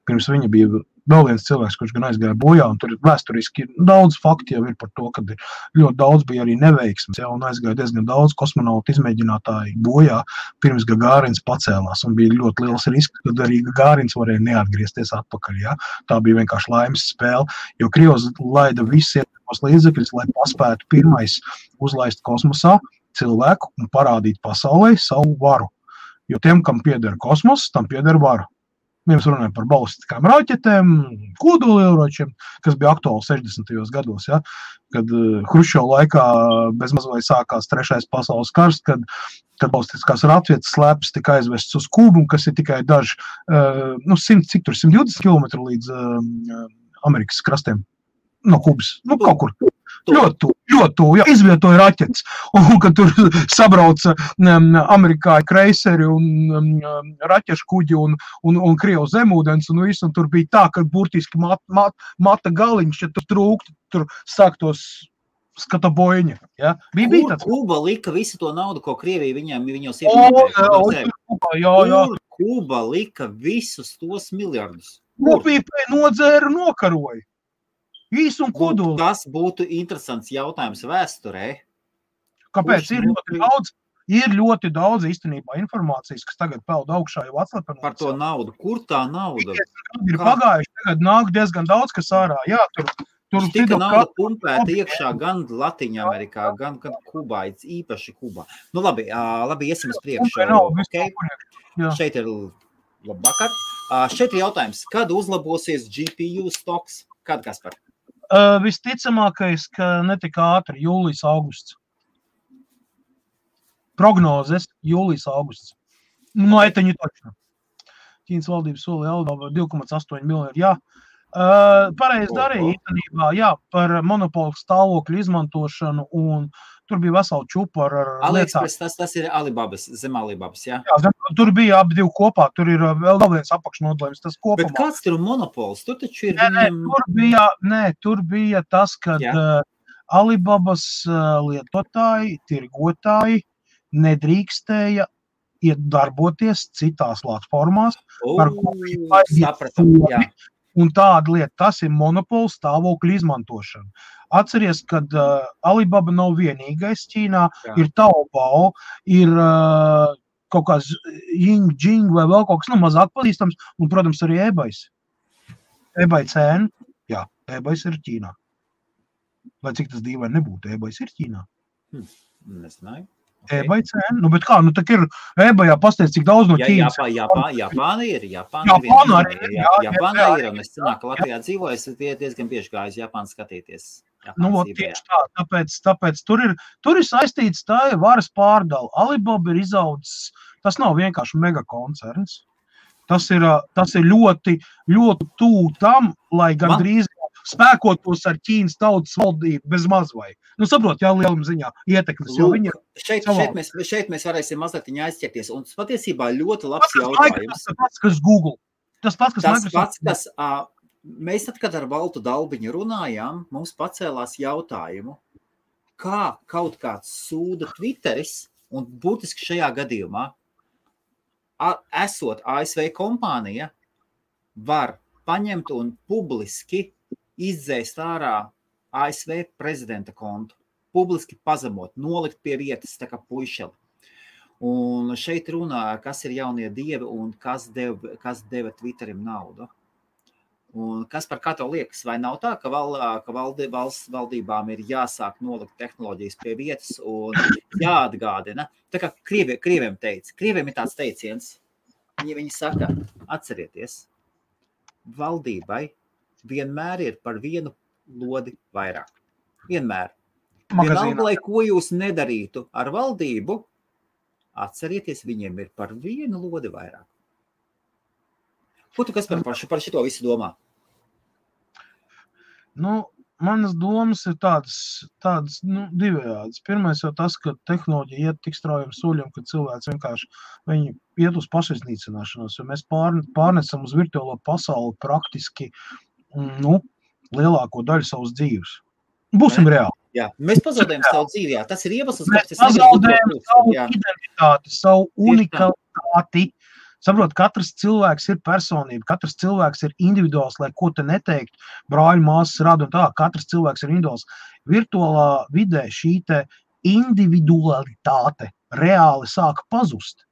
Pirms viņa bija vēl viens cilvēks, kurš gan aizgāja bojā, un tur vēsturiski daudz fakti jau ir par to, ka ļoti daudz bija arī neveiksmes, un aizgāja diezgan daudz kosmonautu izmēģinātāji bojā, pirms Gagārins pacēlās, un bija ļoti liels risks, kad arī Gagārins varēja neatgriezties atpakaļ, Tā bija vienkārši laimes spēle, jo Krievs laida visus iespējamos līdzekļus, lai paspētu pirmais uzlaist kosmosā cilvēku un parādīt pasaulē savu varu. Jo tiem, kam pieder kosmos, tam pieder varu. Mēs runājam par balistiskām raķetēm, kodolieročiem, kas bija aktuāli 60. gados, kad Hruščova laikā bezmaz vai sākās 3. pasaules karš, kad balistiskās raķetes slēpes tika aizvests uz Kubu, kas ir tikai daži, 120 km līdz Amerikas krastiem no Kubas, kaut kur. Ļoti tuvu, izvietoja raķetes, un kad tur sabrauca amerikāņu kreiseri un raķešu kuģi un Krievu zemūdens, un visu, un tur bija tā, ka burtiski mata galiņš, ja tur trūktu, tur sāktos skata boiņa. Bija tāds.
Kuba lika visu to naudu, ko Krievija viņos iepirkēja. Kuba lika visus tos miljardus.
Kopīpē nodzēra un nokaroja. Īsi un kodoli.
Tas būtu interesants jautājums vēsturē.
Kāpēc? Ir ļoti daudz īstenībā informācijas, kas tagad peld augšā jau atslepenoties.
Par to naudu. Kur tā nauda?
Ir pagājuši, tagad nāk diezgan daudz, kas ārā. Jā, tur
tika nauda pumpēta iekšā gan Latiņa Amerikā, gan Kubā, īpaši Kubā. Nu labi, iesim uz priekšu. Okay. Šeit ir labvakar. Šeit ir jautājums, kad uzlabosies GPU stoks? Kad, Kaspar?
Visticamākais, ka netika ātri, jūlijas, augusts. Prognozes jūlijas, augusts. No eteņu točno. Ķīnas valdības solīja Alibaba 2,8 miljardi, jā. Pareizi darīja īstenībā, jā, par monopolu stāvokļu izmantošanu, un tur bija vesela čupa ar lietām.
AliExpress, tas ir Alibabas, zem Alibabas, jā?
Jā, tur bija abi divi kopā, tur ir vēl viens apakšnodalījums, tas kopumā.
Bet kāds tur monopols? Tur taču ir...
Tur bija tas, kad Alibabas lietotāji, tirgotāji nedrīkstēja darboties citās platformās, par ko un tāda lieta, tas ir monopola stāvokļu izmantošana. Atceries, kad Alibaba nav vienīgais Ķīnā, ir Taobao, ir kaut kāds Jing vai vēl kaut kas, mazāk pazīstams, un, protams, arī eBays. eBay cēna, jā, eBays ir Ķīnā. Lai cik tas dīvaini nebūtu, eBays ir Ķīnā.
Nesināju.
Okay. eBay cēna, bet kā, tak ir eBayā pasteidz, cik daudz no Ķīnas.
Japāna ir, un es cenāku, ka Latvijā dzīvoju, es diezgan bieži gāju uz Japānu skatīties.
Tieši tā, tāpēc tur ir saistīts tā varas pārdala. Alibaba ir izaudzis, tas nav vienkārši megakoncerns. Tas ir ļoti, ļoti tū tam, lai gandrīz spēkotos ar Ķīnas tautas valdību bez mazvai. Saprot, jā, lielam ziņā ietekmes, jo viņi...
Šeit mēs varēsim mazliet aizķerties, un patiesībā ļoti labs jautājums.
Tas pats, kas Google. Tas pats,
kas mēs tad, kad ar Valtu Dalbiņu runājām, mums pacēlās jautājumu, kā kaut kāds sūda Twitteris, un būtiski šajā gadījumā, esot ASV kompānija, var paņemt un publiski izdzēst ārā ASV prezidenta kontu, publiski pazemot, nolikt pie vietas, tā kā puišeli. Un šeit runā, kas ir jaunie dievi un kas deva Twitterim naudu. Un kas par kā tev liekas, vai nav tā, ka valsts valdībām ir jāsāk nolikt tehnoloģijas pie vietas un jāatgādina? Tā kā krieviem ir tāds teiciens, viņi saka, atcerieties, valdībai vienmēr ir par vienu lodi vairāk. Vienmēr. Vienalga, lai ko jūs nedarītu ar valdību, atcerieties, viņiem ir par vienu lodi vairāk. Ko tu, kas par šito visu domā?
Manas domas ir tādas divējādas. Pirmais jau tas, ka tehnoloģija iet tik straujiem soļiem, ka cilvēks vienkārši viņi iet uz pašiznīcināšanos, jo mēs pārnesam uz virtuālo pasauli praktiski lielāko daļu savas dzīves. Būsim reāli.
Jā, mēs pazaudējam savu dzīvi, jā. Tas ir iemesls,
mēs pazaudējam savu identitāti, savu unikalitāti. Saprot, katrs cilvēks ir personība, katrs cilvēks ir individuāls, lai ko te neteikt, brāļu māsas rāda un tā, katrs cilvēks ir individuāls. Virtuālā vidē šī te individualitāte reāli sāk pazust.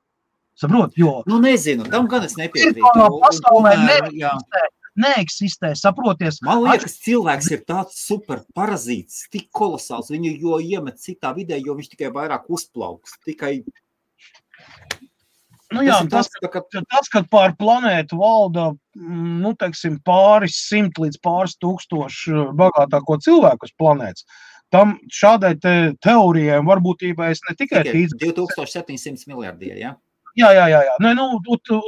Saprot, jo...
nezinu, tam gan es nepiekrītu.
Pasaulē neeksistē, saproties.
Man liekas, cilvēks ir tāds super parazīts, tik kolosāls, viņu jo iemet citā vidē, jo viņš tikai vairāk uzplauks, tikai...
Tas, kad pār planētu valda, pāris simt līdz pāris tūkstoši bagātāko cilvēku uz planētas, tam šādai teorijai un varbūtībai es ne tikai...
2700 miljardie, jā?
Jā.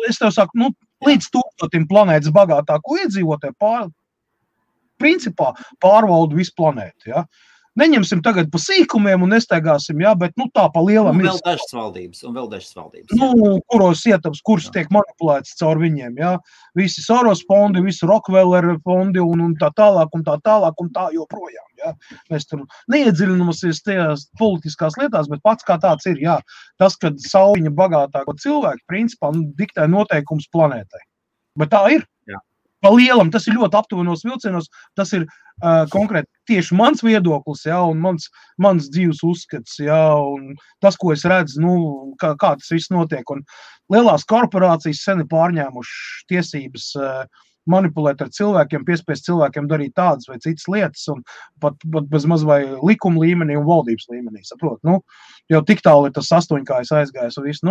Es tev saku, līdz 1000 planētas bagātāko iedzīvotāju principā pārvalda visu planētu, jā? Neņemsim tagad pa sīkumiem un nestaigāsim, jā, bet tā pa lielam
un vēl dažas valdības.
Kuros ietams, kurš tiek manipulēts caur viņiem, jā. Visi Soros fondi, visi Rockefeller fondi un tā tālāk un tā joprojām, jā. Mēs tur neiedziļināmies tajās politiskās lietās, bet pats kā tāds ir, jā. Tas, kad sauļiņa bagātāko cilvēku, principā, diktē noteikums planētai. Bet tā ir.
Jā.
Pa lielam, tas ir ļoti aptuvenos vilcienos, tas ir konkrēti tieši mans viedoklis, ja, un mans dzīves uzskats, ja, un tas, ko es redzu, kā tas viss notiek. Un lielās korporācijas sen ir pārņēmuši tiesības manipulēt ar cilvēkiem, piespiest cilvēkiem darīt tādas vai citas lietas, un pat bez maz vai likuma līmenī un valdības līmenī, saprot. Jau tik tālu ir tas astoņkājs aizgājis un viss,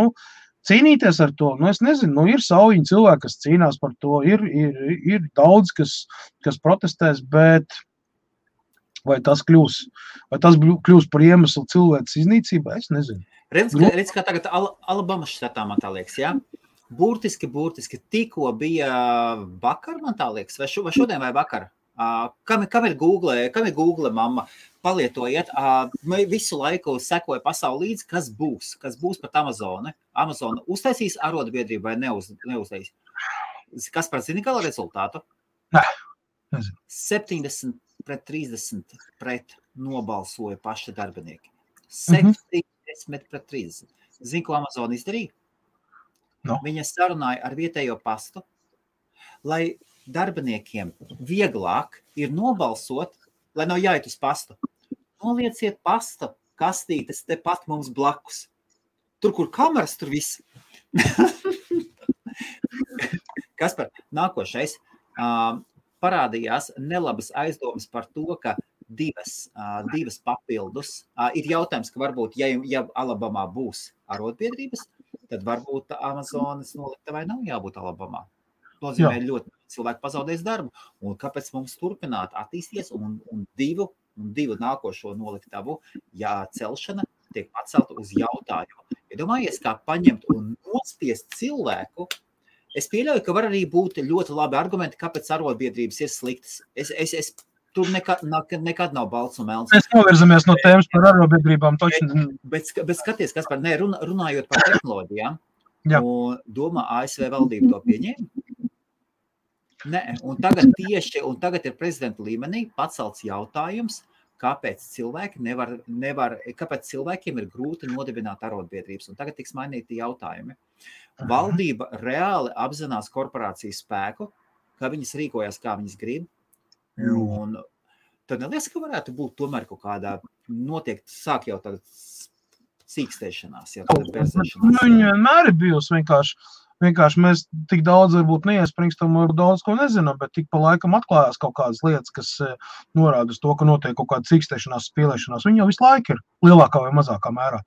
cīnīties ar to, es nezinu, ir saujiņi cilvēki, kas cīnās par to, ir daudz, kas protestēs, bet vai tas kļūs par iemeslu cilvēces iznīcībā, es nezinu.
Redz, kā tagad Alabamas štatā, man tā liekas, jā? Burtiski, tikko bija vakar, man tā liekas, vai šodien vai vakar? Kam ir Google mamma? Palietojiet, visu laiku sekoja pasauli līdzi, kas būs pat Amazona. Amazona uztaisīs arotbiedrību vai neuztaisīs? Kas par zini gala rezultātu?
Nē,
70-30 pret nobalsoja paši darbinieki. 70-30. Zini, ko Amazona izdarīja?
No.
Viņa sarunāja ar vietējo pastu, lai darbiniekiem vieglāk ir nobalsot, lai nav jāiet uz pastu. Nolieciet pasta kastītes tepat mums blakus. Tur, kur kameras, tur viss. Kaspar, nākošais parādījās nelabas aizdomas par to, ka divas papildus. Ir jautājums, ka varbūt, ja Alabamā būs arotbiedrības, tad varbūt Amazonas noliktavai nav jābūt Alabamā. Nozīmē ļoti cilvēki pazaudēs darbu. Un kāpēc mums turpināt attīsties un divu nākošo noliktavu celšana tiek pacelta uz jautājumu. Iedomājies, kā paņemt un nospiest cilvēku. Es pieļauju, ka var arī būt ļoti labi argumenti, kāpēc arotbiedrības ir sliktas. Es tur nekad nav balts un melns.
Mēs novirzamies no tēmas par arotbiedrībām.
Bet skaties, kas par runājot par tehnoloģijām, un domā ASV valdība to pieņēma? Nē, un tagad ir prezidenta līmenī pacelts jautājums, kāpēc cilvēkiem ir grūti nodibināt arotbiedrības. Un tagad tiks mainīti jautājumi. Valdība reāli apzinās korporācijas spēku, kā viņas rīkojas, kā viņas grib. Un tad neliekas, ka varētu būt tomēr kaut kādā notiek, sāk jau tagad sīkstēšanās.
Viņa vienmēr ir bijusi vienkārši mēs tik daudz varbūt neiespringstam, varbūt daudz ko nezinām, bet tik pa laikam atklājās kaut kādas lietas, kas norāda uz to, ka notiek kaut kāda cīkstēšanās, spīlēšanās. Viņa jau visu laiku ir lielākā vai mazākā mērā.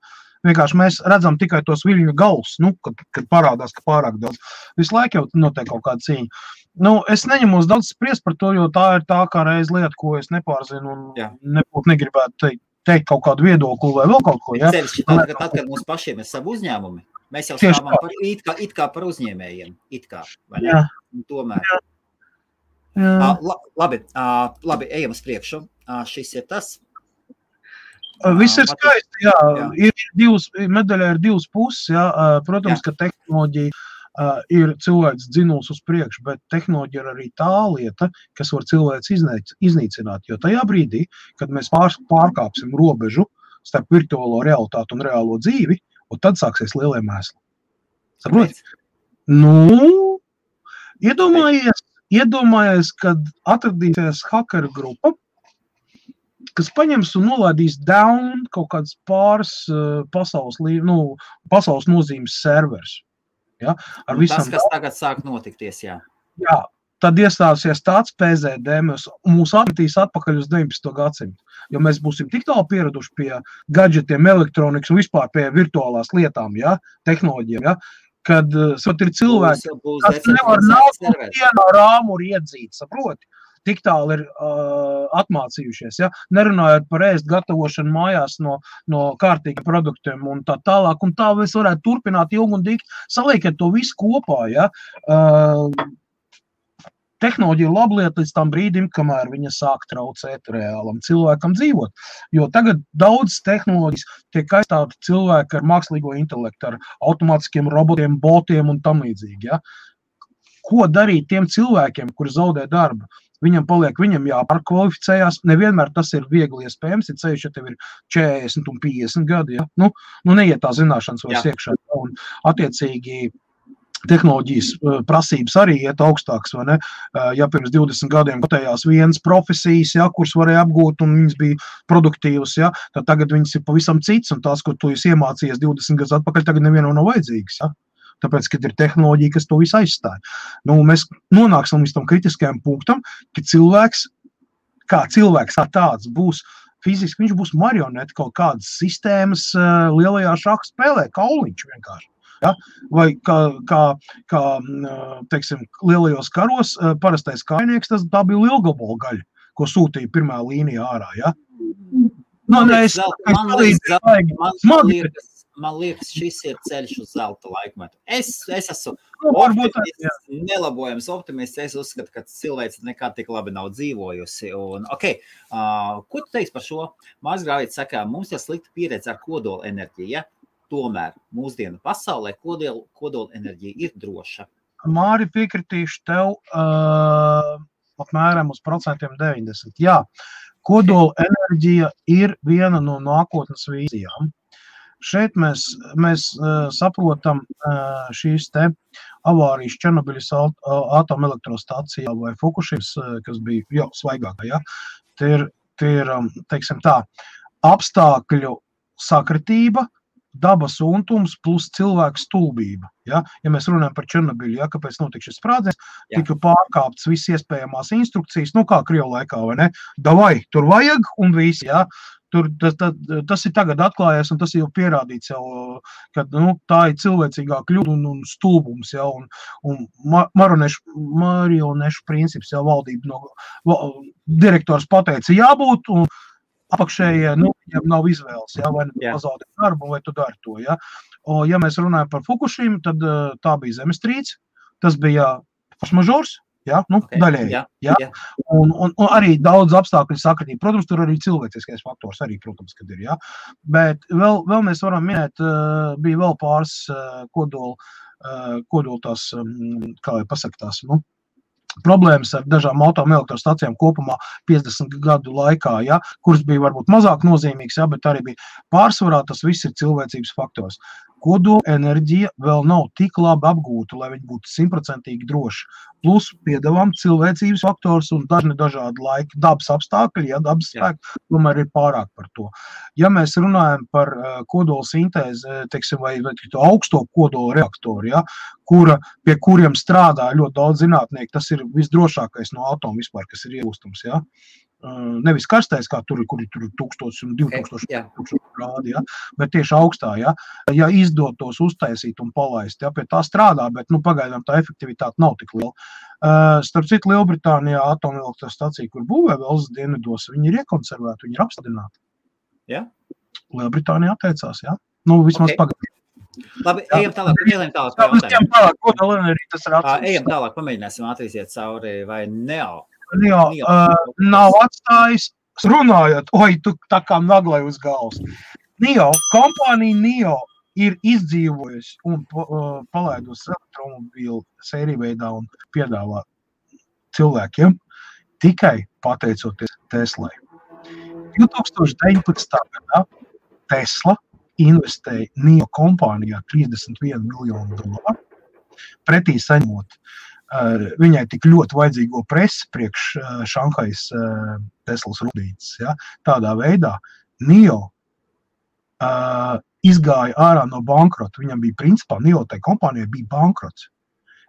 Vienkārši mēs redzam tikai tos viļņu galus, kad parādās, ka pārāk daudz. Visu laiku jau notiek kaut kāda cīņa. Es neņemos daudz spriest par to, jo tā ir tā kā reiz lieta, ko es nepārzinu un nebūtu negribētu teikt kaut kādu viedokli vai vēl kaut ko. Ja?
Tad, kad mums pašiem ir savu uzņēmumi, mēs jau stāvam it kā par uzņēmējiem. Vai ne? Tomēr. Labi, ejam uz priekšu. Šis ir tas.
Viss ir skaisti, medaļā ir divas puses. Protams, ka tehnoloģija ir cilvēks dzinuls uz priekšu, bet tehnoloģija ir arī tā lieta, kas var cilvēks iznīcināt. Jo tajā brīdī, kad mēs pārkāpsim robežu starp virtuālo realitāti un reālo dzīvi, un tad sāksies lielie mēsli. Saproti? Iedomājies, kad atradīsies hakeru grupa, kas paņems un nolaidīs down kaut kāds pāris pasaules nozīmes servers. Ja?
Tas, kas tagad sāk notikties, jā.
Jā, tad iestāsies tāds PZD, mūs atmetīs atpakaļ uz 19. gadsimtu. Jo mēs būsim tik tālu pieraduši pie gadžetiem, elektronikas un vispār pie virtuālās lietām, tehnoloģiem, kad ir cilvēki, kas nevar nav vienā rāmu iedzīt, saproti? Tik tālu ir atmācījušies, nerunājot par ēst gatavošanu mājās no kārtīgiem produktiem un tā tālāk, un tā mēs varētu turpināt ilgi un dikti, saliekiet to visu kopā, Tehnoloģija ir laba lieta līdz tam brīdim, kamēr viņa sāk traucēt reālam cilvēkam dzīvot. Jo tagad daudz tehnoloģijas tiek aizstāti cilvēki ar mākslīgo intelektu, ar automātiskiem robotiem, botiem un tam līdzīgi. Ko darīt tiem cilvēkiem, kuri zaudē darbu? Viņam jāpārkvalificējās, nevienmēr tas ir viegli iespējams, ja ceļš, ja tev ir 40 un 50 gadi, neiet tā zināšanas vairs iekšā. Un attiecīgi tehnoloģijas prasības arī iet augstāks, vai ne? Ja pirms 20 gadiem kotējās vienas profesijas, ja, kuras varēja apgūt un viņas bija produktīvas, ja, tad tagad viņas ir pavisam cits, un tās, ko tu esi iemācījies 20 gadus atpakaļ, tagad nevienam nav vajadzīgas, ja? Tāpēc, kad ir tehnoloģija, kas to visu aizstāja. Nu, mēs nonāksim līdz tam kritiskajam punktam, ka cilvēks kā tāds būs fiziski, viņš būs marioneti kaut kādas sistēmas lielajā šaha spēlē, kauliņš vienkārši. Ja? Vai kā teiksim, lielajos karos parastais kainieks, tā bija lielgabalu gaļa, ko sūtīja pirmā līnija ārā. Ja?
Man liekas, šis ir ceļš uz zelta laikmetu. Es esmu optimists, nelabojams optimists. Es uzskatu, ka cilvēks nekā tik labi nav dzīvojusi. Un, ko tu teiksi par šo? Mārs Grāvīts saka, mums ir slikta pieredze ar kodola enerģiju. Ja? Tomēr mūsdienu pasaulē kodola enerģija ir droša.
Māri, piekritīšu tev apmēram uz 90%. Jā, kodola enerģija ir viena no nākotnes vīzijām. Šeit mēs saprotam šīs te avārijas Černobiļas atomelektrostacijā vai Fukushimas, kas bija jau svaigākā. Ja? Tie ir, teiksim tā, apstākļu sakritība, dabas untums plus cilvēku stulbība. Ja mēs runājam par Černobiļu, ja, kāpēc notika šis sprādziens, tika pārkāptas visas iespējamās instrukcijas, kā Krievu laikā, vai ne? Davai, tur vajag un visi, ja. Tas ir tagad atklājies, un tas jau pierādīts jau, ka tā ir cilvēcīgā kļūda un stulbums, ja, un marionešu princips, ja, valdība direktors pateica jābūt, un apakšējie, viņam nav izvēles, ja, vai pazaudēt darbu, vai tu dari to, ja. Ja mēs runājam par Fukušimu, tad tā bija zemestrīce, tas bija foršmažors, ja, daļēji, ja. Un arī daudz apstākļu sakritība. Protams, tur arī cilvēciskais faktors arī, protams, kad ir, ja. Bet vēl mēs varam minēt, bija vēl pāris kodola tās, kā jau pasaka tās, problēmas ar dažām atomelektrostacijām kopumā 50 gadu laikā, ja, kuras bija varbūt mazāk nozīmīgas, ja, bet arī bija pārsvarā, tas viss ir cilvēcības faktors. Kodola enerģija vēl nav tik labi apgūta, lai viņi būtu 100% droši. Plus piedāvām cilvēcības faktors un dažādi laiki, dabas apstākļi, ja dabas spēki, tomēr ir pārāk par to. Ja mēs runājam par kodola sintēzi, teiksim, vai augsto kodola reaktoru, ja, pie kuriem strādā ļoti daudz zinātnieku, tas ir visdrošākais no atomu vispār, kas ir iegūstams, ja. Nevis karstais, kā tur, kur ir 1000 un 2000 grādi, ja, bet tieši augstā, ja izdotos uztaisīt un palaist, ja, pie tā strādā, bet, pagaidām tā efektivitāte nav tik liela. Starp citu, Lielbritānijā atomelektrostacija, kur būvē Velsas dienvidos, viņi ir iekonservēti, viņi ir apstādināti.
Ja?
Lielbritānija atteicās, ja? Vismaz pagaidām.
Labi, ejam tālāk. Ejam tālāk, pamēģināsim atrīsiet cauri vai Neo.
Nav atstājis, runājot, tu tā kā naglai uz galvas. Kompānija Neo ir izdzīvojusi un palaidusi elektromobīlu sēriju veidā un piedāvā cilvēkiem tikai pateicoties Teslai. 2019. gadā Tesla investēja Neo kompānijā $31 miljonu, pretī saņemot viņai tik ļoti vajadzīgo presi priekš Šanhais Teslas rūpnīcas. Ja? Tādā veidā Neo izgāja ārā no bankrota. Viņam bija principā, Neo tai kompānijai bija bankrots.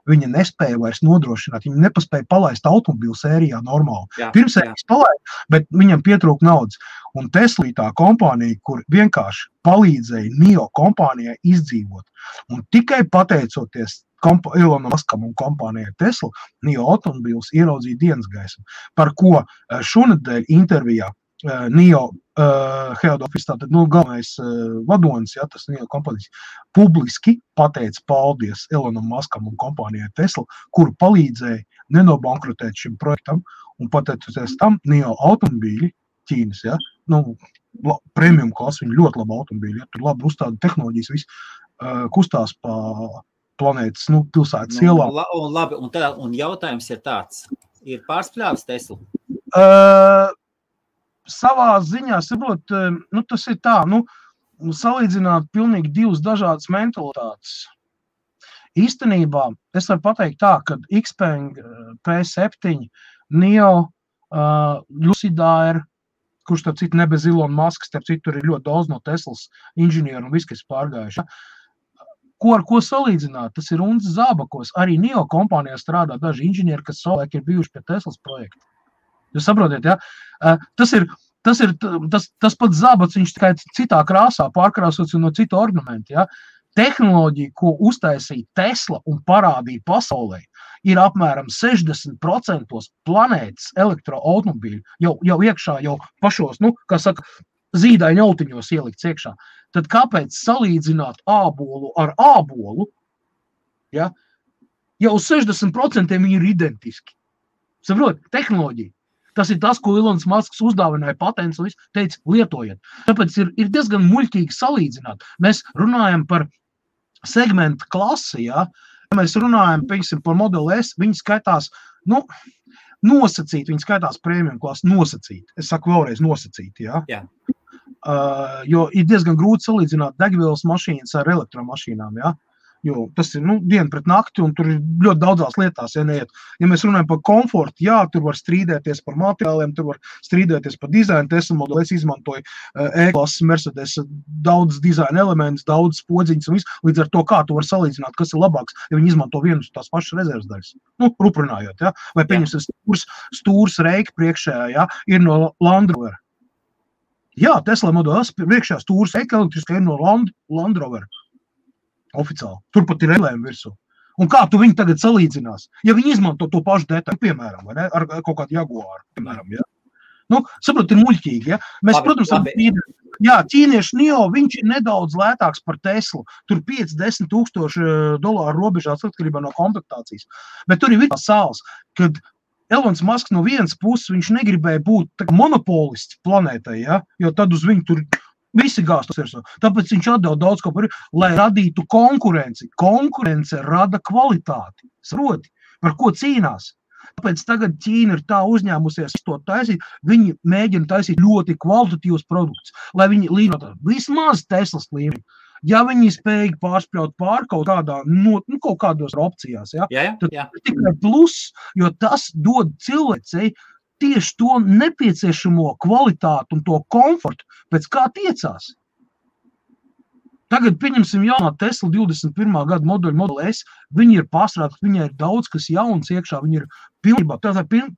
Viņa nespēja vairs nodrošināt, viņa nepaspēja palaist automobīlu sērijā normāli. Pirmsērijas palaida, bet viņam pietrūka naudas. Un Tesla tā kompānija, kur vienkārši palīdzēja Neo kompānijai izdzīvot. Un tikai pateicoties Elonam Muskam un kompānijai Tesla, Neo automobīls ieraudzīja dienas gaismu, par ko šonedēļ intervijā Neo head office, tātad galvenais vadonis, ja, tas Neo kompānijas, publiski pateica paldies Elonam Muskam un kompānijai Tesla, kuru palīdzēja nenobankrotēt šim projektam, un pateicoties tam Neo automobīļi Ķīnas, ja, premium klasa, viņi ļoti labi automobīļi, ja, tur labi uzstāda tehnoloģijas, viss kustās pa planētas, pilsētas ielā.
Labi, un jautājums ir tāds, ir pārspļāvis Tesla?
Savā ziņā, saprot, tas ir tā, salīdzināt pilnīgi divas dažādas mentalitātes. īstenībā es varu pateikt tā, ka Xpeng P7, Neo, Lucid Air, kurš starp citu ne bez Elon Musk, starp citu tur ir ļoti daudz no Teslas inženieru un viss, kas pārgājuši. Ar ko salīdzināt? Tas ir un zābakos. Arī Neo kompānijā strādā daži inženieri, kas savulaik ir bijuši pie Teslas projekta. Jūs saprotiet, ja? Tas pats zābats, viņš tikai citā krāsā pārkrāsots un no cita ornamenta, ja? Tehnoloģija, ko uztaisīja Tesla un parādīja pasaulē, ir apmēram 60% planētas elektroautomobīļu jau iekšā, jau pašos, kā saka, zīdaiņu autiņos ielikts iekšā. Tad kāpēc salīdzināt ābolu ar ābolu, ja? Jau 60% viņi ir identiski. Saprot, tehnoloģija. Tas ir tas, ko Elons Musks uzdāvināja patents un viss, teica, lietojiet. Tāpēc ir diezgan muļķīgi salīdzināt. Mēs runājam par segmentu klasi, ja? Ja mēs runājam, piemēram, par Model S, viņi skaitās, nosacīt, viņi skaitās premium klasi, nosacīt. Es saku vēlreiz nosacīt, ja?
Jā.
Jo ir diezgan grūti salīdzināt degvielas mašīnas ar elektromašīnām, ja? Jo tas ir, diena pret nakti, un tur ir ļoti daudzās lietās, ja neiet. Ja mēs runājam par komfortu, jā, tur var strīdēties par materiāliem, tur var strīdēties par dizainu. Tesla Model S izmantoja E-klases Mercedes daudz dizaina elementus, daudz podziņas un viss. Līdz ar to, kā tu var salīdzināt, kas ir labāks, ja viņi izmanto vienus tās pašas rezerves daļas. Ruprunājot, ja? Vai pieņemsim stūrs reika priekšējā, ja? Ir no Land Rover. Jā, Tesla Model S priekšējā stūrs reika elektriskā ir no Land Rover. Oficiāli. Turpat ir relējumi virsū. Un kā tu viņu tagad salīdzinās? Ja viņi izmanto to pašu detaļu, piemēram, vai ne? Ar kaut kādu Jaguāru, piemēram, ja? Saprot, ir muļķīgi, ja? Mēs, protams, ķīniešu Neo, viņš ir nedaudz lētāks par Teslu. Tur 5-10 tūkstoši dolāru robežās atkarībā no komplektācijas. Bet tur ir tās sāls, kad Elons Musk no vienas puses viņš negribēja būt monopolists planētai, ja? Jo tad uz viņu tur visi gāstos ir. Tāpēc viņš atdeva daudz ko par, lai radītu konkurenci. Konkurence rada kvalitāti. Saproti, par ko cīnās. Tāpēc tagad Ķīna ir tā uzņēmusies to taisīt, viņi mēģina taisīt ļoti kvalitatīvus produktus, lai viņi līdzināt vismaz Teslas līmeni. Ja viņi spējīgi pārspļaut pār kaut kādā, kaut kādos opcijās, ja? Tad tikai plus, jo tas dod cilvēcei tieši to nepieciešamo kvalitātu un to komfortu, pēc kā tiecās. Tagad, pieņemsim, jaunā Tesla 21. gada modeļa Model S, viņi ir pārstrādāti, viņai ir daudz, kas jauns iekšā, viņi ir pilnībā,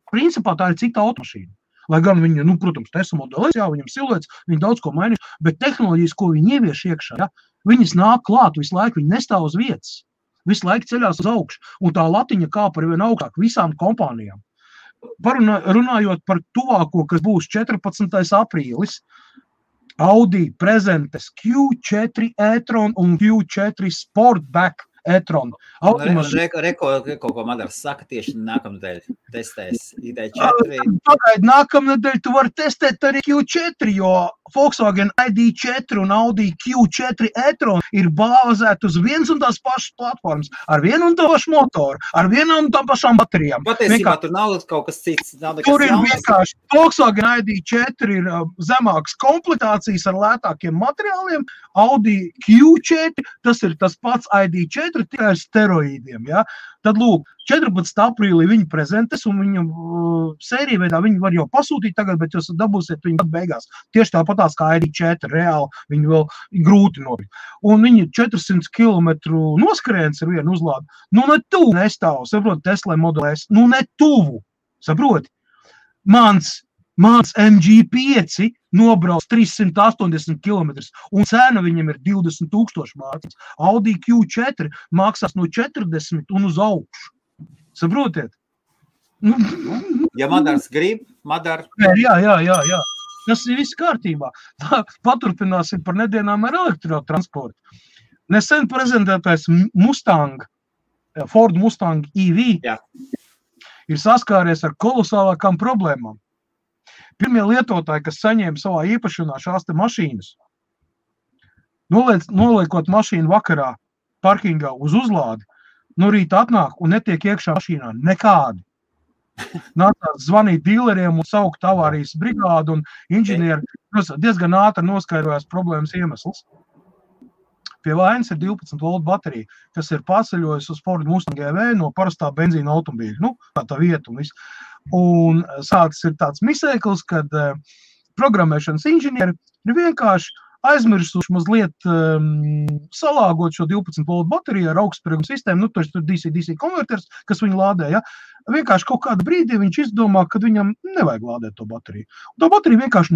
principā tā ir cita automašīna. Lai gan viņi, protams, Tesla Model S, jā, viņam siluets, viņi daudz ko mainīs, bet tehnoloģijas, ko viņi ievieš iekšā, ja, viņas nāk klāt visu laiku, viņi nestāv uz vietas, visu laiku ceļās uz augšu, un tā latiņa kāpa ir vien augstāk visām kompānijām. Runājot par tuvāko, kas būs 14. aprīlis, Audi prezentēs Q4 e-tron un Q4 Sportback e-tron.
Kaut ko Madars saka, tieši nākamnedēļ testēs ID4.
Pagaid, nākamnedēļ tu vari testēt arī Q4, jo Volkswagen ID4 un Audi Q4 e-tron ir bāzēti uz viens un tās pašas platformas, ar vienu un to pašu motoru, ar vienu un tām pašām baterijām.
Patiesībā tur nav kaut kas cits.
Tur ir vienkārši Volkswagen ID4 ir zemākas komplektācijas ar lētākiem materiāliem, Audi Q4, tas ir tas pats ID4, tikai ar steroīdiem, ja? Tad lūk, 14. aprīlī viņi prezentēs un viņu sēriju veidā viņi var jau pasūtīt tagad, bet jūs dabūsiet viņu beigās. Tieši tāpatās kā ID4, reāli viņi vēl grūti nopirkt. Un viņi 400 km noskrējiens ar vienu uzlādi. Ne tuvu nestāv, saproti, Tesla Model S. Ne tuvu, saproti. Mans MG5 nobrauc 380 km un cena viņam ir 20 000 mārciņas. Audi Q4 maksās no 40 un uz augšu. Saprotiet?
Ja Madars grib, Madar.
Jā. Tas ir viss kārtībā. Paturpināsim par nedēļām ar elektrotransportu. Nesen prezentētais Ford Mustang EV ir saskāries ar kolosālākām problēmām. Pirmie lietotāji, kas saņēma savā īpašanā šās te mašīnas, noliekot mašīnu vakarā parkingā uz uzlādi, no rīta atnāk un netiek iekšā mašīnā nekādi. Nācās zvanīt dīleriem un saukt avārijas brigādu un inženieri diezgan ātri noskaidrojās problēmas iemesls. Pie vainas ir 12 volt baterija, kas ir pārceļojusi uz Ford Mustang EV no parastā benzīna automobīļa. Nu, tā vieta un viss. Un sāks ir tāds misēklis, kad programmēšanas inženieri ir vienkārši aizmirsuši mazliet salāgot šo 12 volt bateriju ar augstspējumu sistēmu, nu, tur DC konverters, kas viņu lādē, ja? Vienkārši kaut kādu brīdī viņš izdomā, ka viņam nevajag lādēt to bateriju. Un tā baterija vienkārši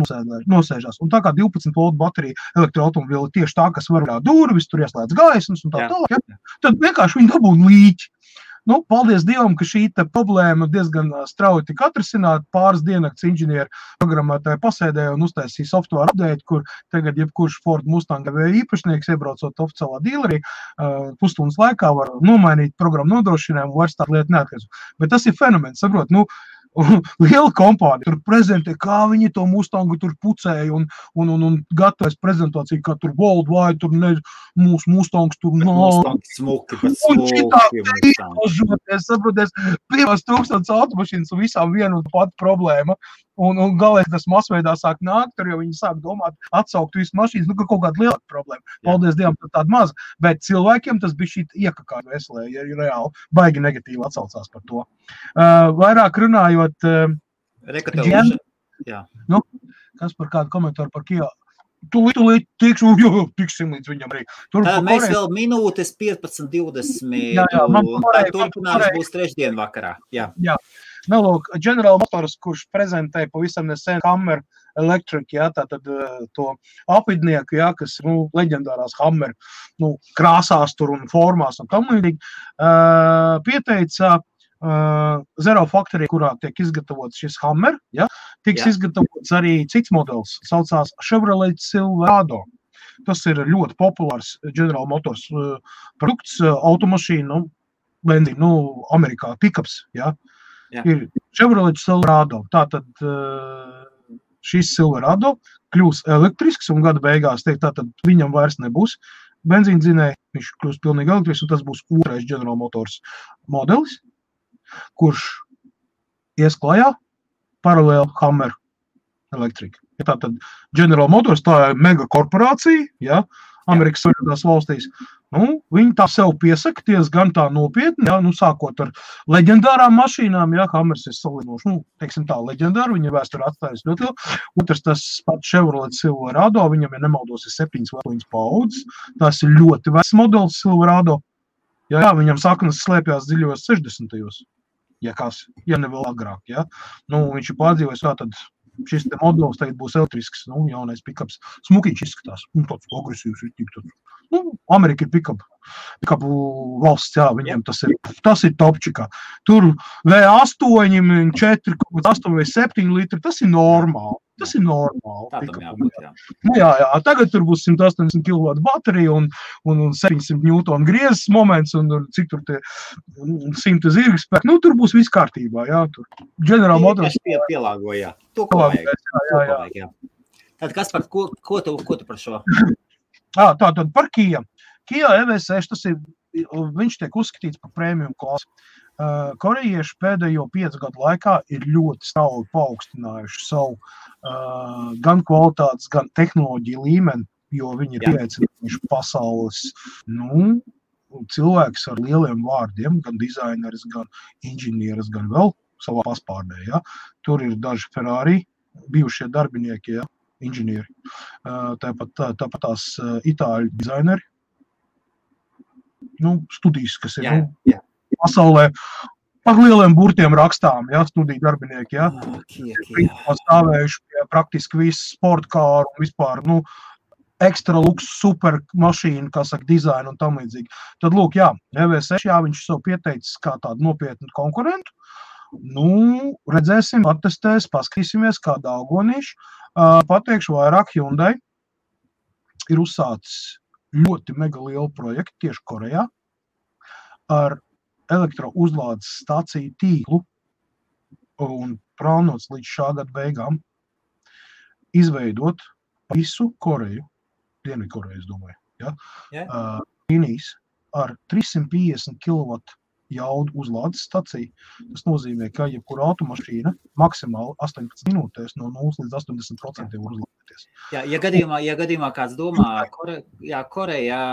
nosēžās. Un tā kā 12 volt baterija elektroautomobīla tieši tā, kas var durvis, tur ieslēdz gaismas un tā tālāk, ja? Tad vienkārši viņi dabūna līķi. Nu, paldies Dievam, ka šī problēma diezgan strauji tika atrisināta. Pāris diennakts inženieri programmētāji pasēdēja un uztaisīja software update, kur tagad jebkurš Ford Mustang īpašnieks, iebraucot oficiālā dīlerī, pusstundas laikā var nomainīt programmu nodrošinājumu, vairs tādu lietu neatkarīgs. Bet tas ir fenomens, saprot, nu, liela kompānija tur prezentē, kā viņi to Mustangu tur pucēja un gatavojas prezentāciju, kā tur worldwide, tur mūsu Mustangs tur
Mustangs smuki, bet
smuki. Saproties, 5000 automašīnas un visām vienu un pati problēma. Un galīgi tas masveidā sāk nākt, tur jau viņi sāk domāt, atsaukt visu mašīnas, nu, ka kaut kāda lielāka problēma. Paldies Dievam, tāda maza. Bet cilvēkiem tas bija šī iekakā veselē, ja reāli baigi negatīvi atsaucās par to. Vairāk runājot, nu, kas par kādu komentāru par Kia? Tūlīt tiksim līdz viņam arī.
Mēs vēl minūtes 15-20. Turpinājums būs trešdien vakarā. Jā.
Nu, lūk, General Motors, kurš prezentēja pavisam nesen Hammer Electric, jā, tātad to apvidnieku, jā, kas, nu, leģendārās Hammer, nu, krāsās tur un formās un tam līdzīgi, pieteica Zero Factory, kurā tiek izgatavots šis Hammer, ja, tiks izgatavots arī cits modelis, saucās Chevrolet Silverado. Tas ir ļoti populārs General Motors produkts, automašīna, nu, benzīna, nu, Amerikā, pickups, ja. Ir Chevrolet Silverado. Tātad šis Silverado kļūs elektrisks un gada beigās teikt, tātad viņam vairs nebūs benzīndzinēji, viņš kļūs pilnīgi elektrisks un tas būs otrais General Motors modelis, kurš ies klajā paralēli Hammer Electric. Tātad General Motors tā ir mega korporācija, ja, Amerikas Savienotās valstīs. Nu, viņi tā sev piesakties gan tā nopietni, ja, nu, sākot ar leģendārām mašīnām, ja, Hammers ir salinoši, nu, teiksim tā, leģendāri, viņa vēsturi atstājas ļoti lielu. Otrs, tas pats Chevrolet Silverado, viņam, ja nemaldos, ir 7 vai 8 paudzes, tas ir ļoti vecs modelis Silverado. Ja, viņam saknes slēpjās dziļos 60. Ja ne vēl agrāk, ja. Nu, viņš ir pārdzīvojis, tā tad šis te modelis tagad būs elektrisks, nu, jaunais pickups. Smukiņš izskatās, nu, tāds agresīvs, nu, Amerika ir pickupu valsts, jā, viņiem tas ir topčikā. Tur V8, 4, 8 vai 7 litri, tas ir normāli. Tas ir normāli. Nu, jā, tagad tur būs 180 kW baterija un 700 Newton griezes moments un cik tur tie 100 zirgspēki. Nu, tur būs viss kārtībā, jā. Tur General Motors
pielāgo, jā. To, ko vajag. Tad kas par, ko tu par šo?
Tātad par Kia. Kia EV6, tas ir, viņš tiek uzskatīts par premium klasi. Korejieši pēdējo 5 gadu laikā ir ļoti strauji paaugstinājuši savu gan kvalitātes, gan tehnoloģiju līmeni, jo viņi ir pieaicinājuši pasaules, nu, cilvēks ar lieliem vārdiem, gan dizaineris, gan inženieris, gan vēl savā paspārdē, ja. Tur ir daži Ferrari, bijušie darbinieki, ja, inženieri, tāpat tās itāļu dizaineri, nu, studijas, kas ir, nu, pasaulē par lieliem burtiem rakstām, ja, studiju darbinieki, ja, stāvējuši pie praktiski visu sportkāru un vispār, nu, ekstra luks, super mašīnu, kā saka, dizainu un tam līdzīgi. Tad, lūk, jā, EV6, jā, viņš sev pieteicis kā tādu nopietnu konkurentu. Nu, redzēsim, attestēs, paskatīsimies, kā daugonīši. Pateikšu vairāk, Hyundai ir uzsācis ļoti mega lielu projektu tieši Korejā ar elektrouzlādes stāciju tīklu un plānots līdz šā gada beigām izveidot visu Koreju, Dienvidkoreju, es domāju, ja, līnijas ar 350 kW jaudu uzlādes staciju. Tas nozīmē, ka jebkura automašīna maksimāli 18 minūtēs no 0 līdz 80% var uzlādēties.
Ja gadījumā kāds domā, Korejā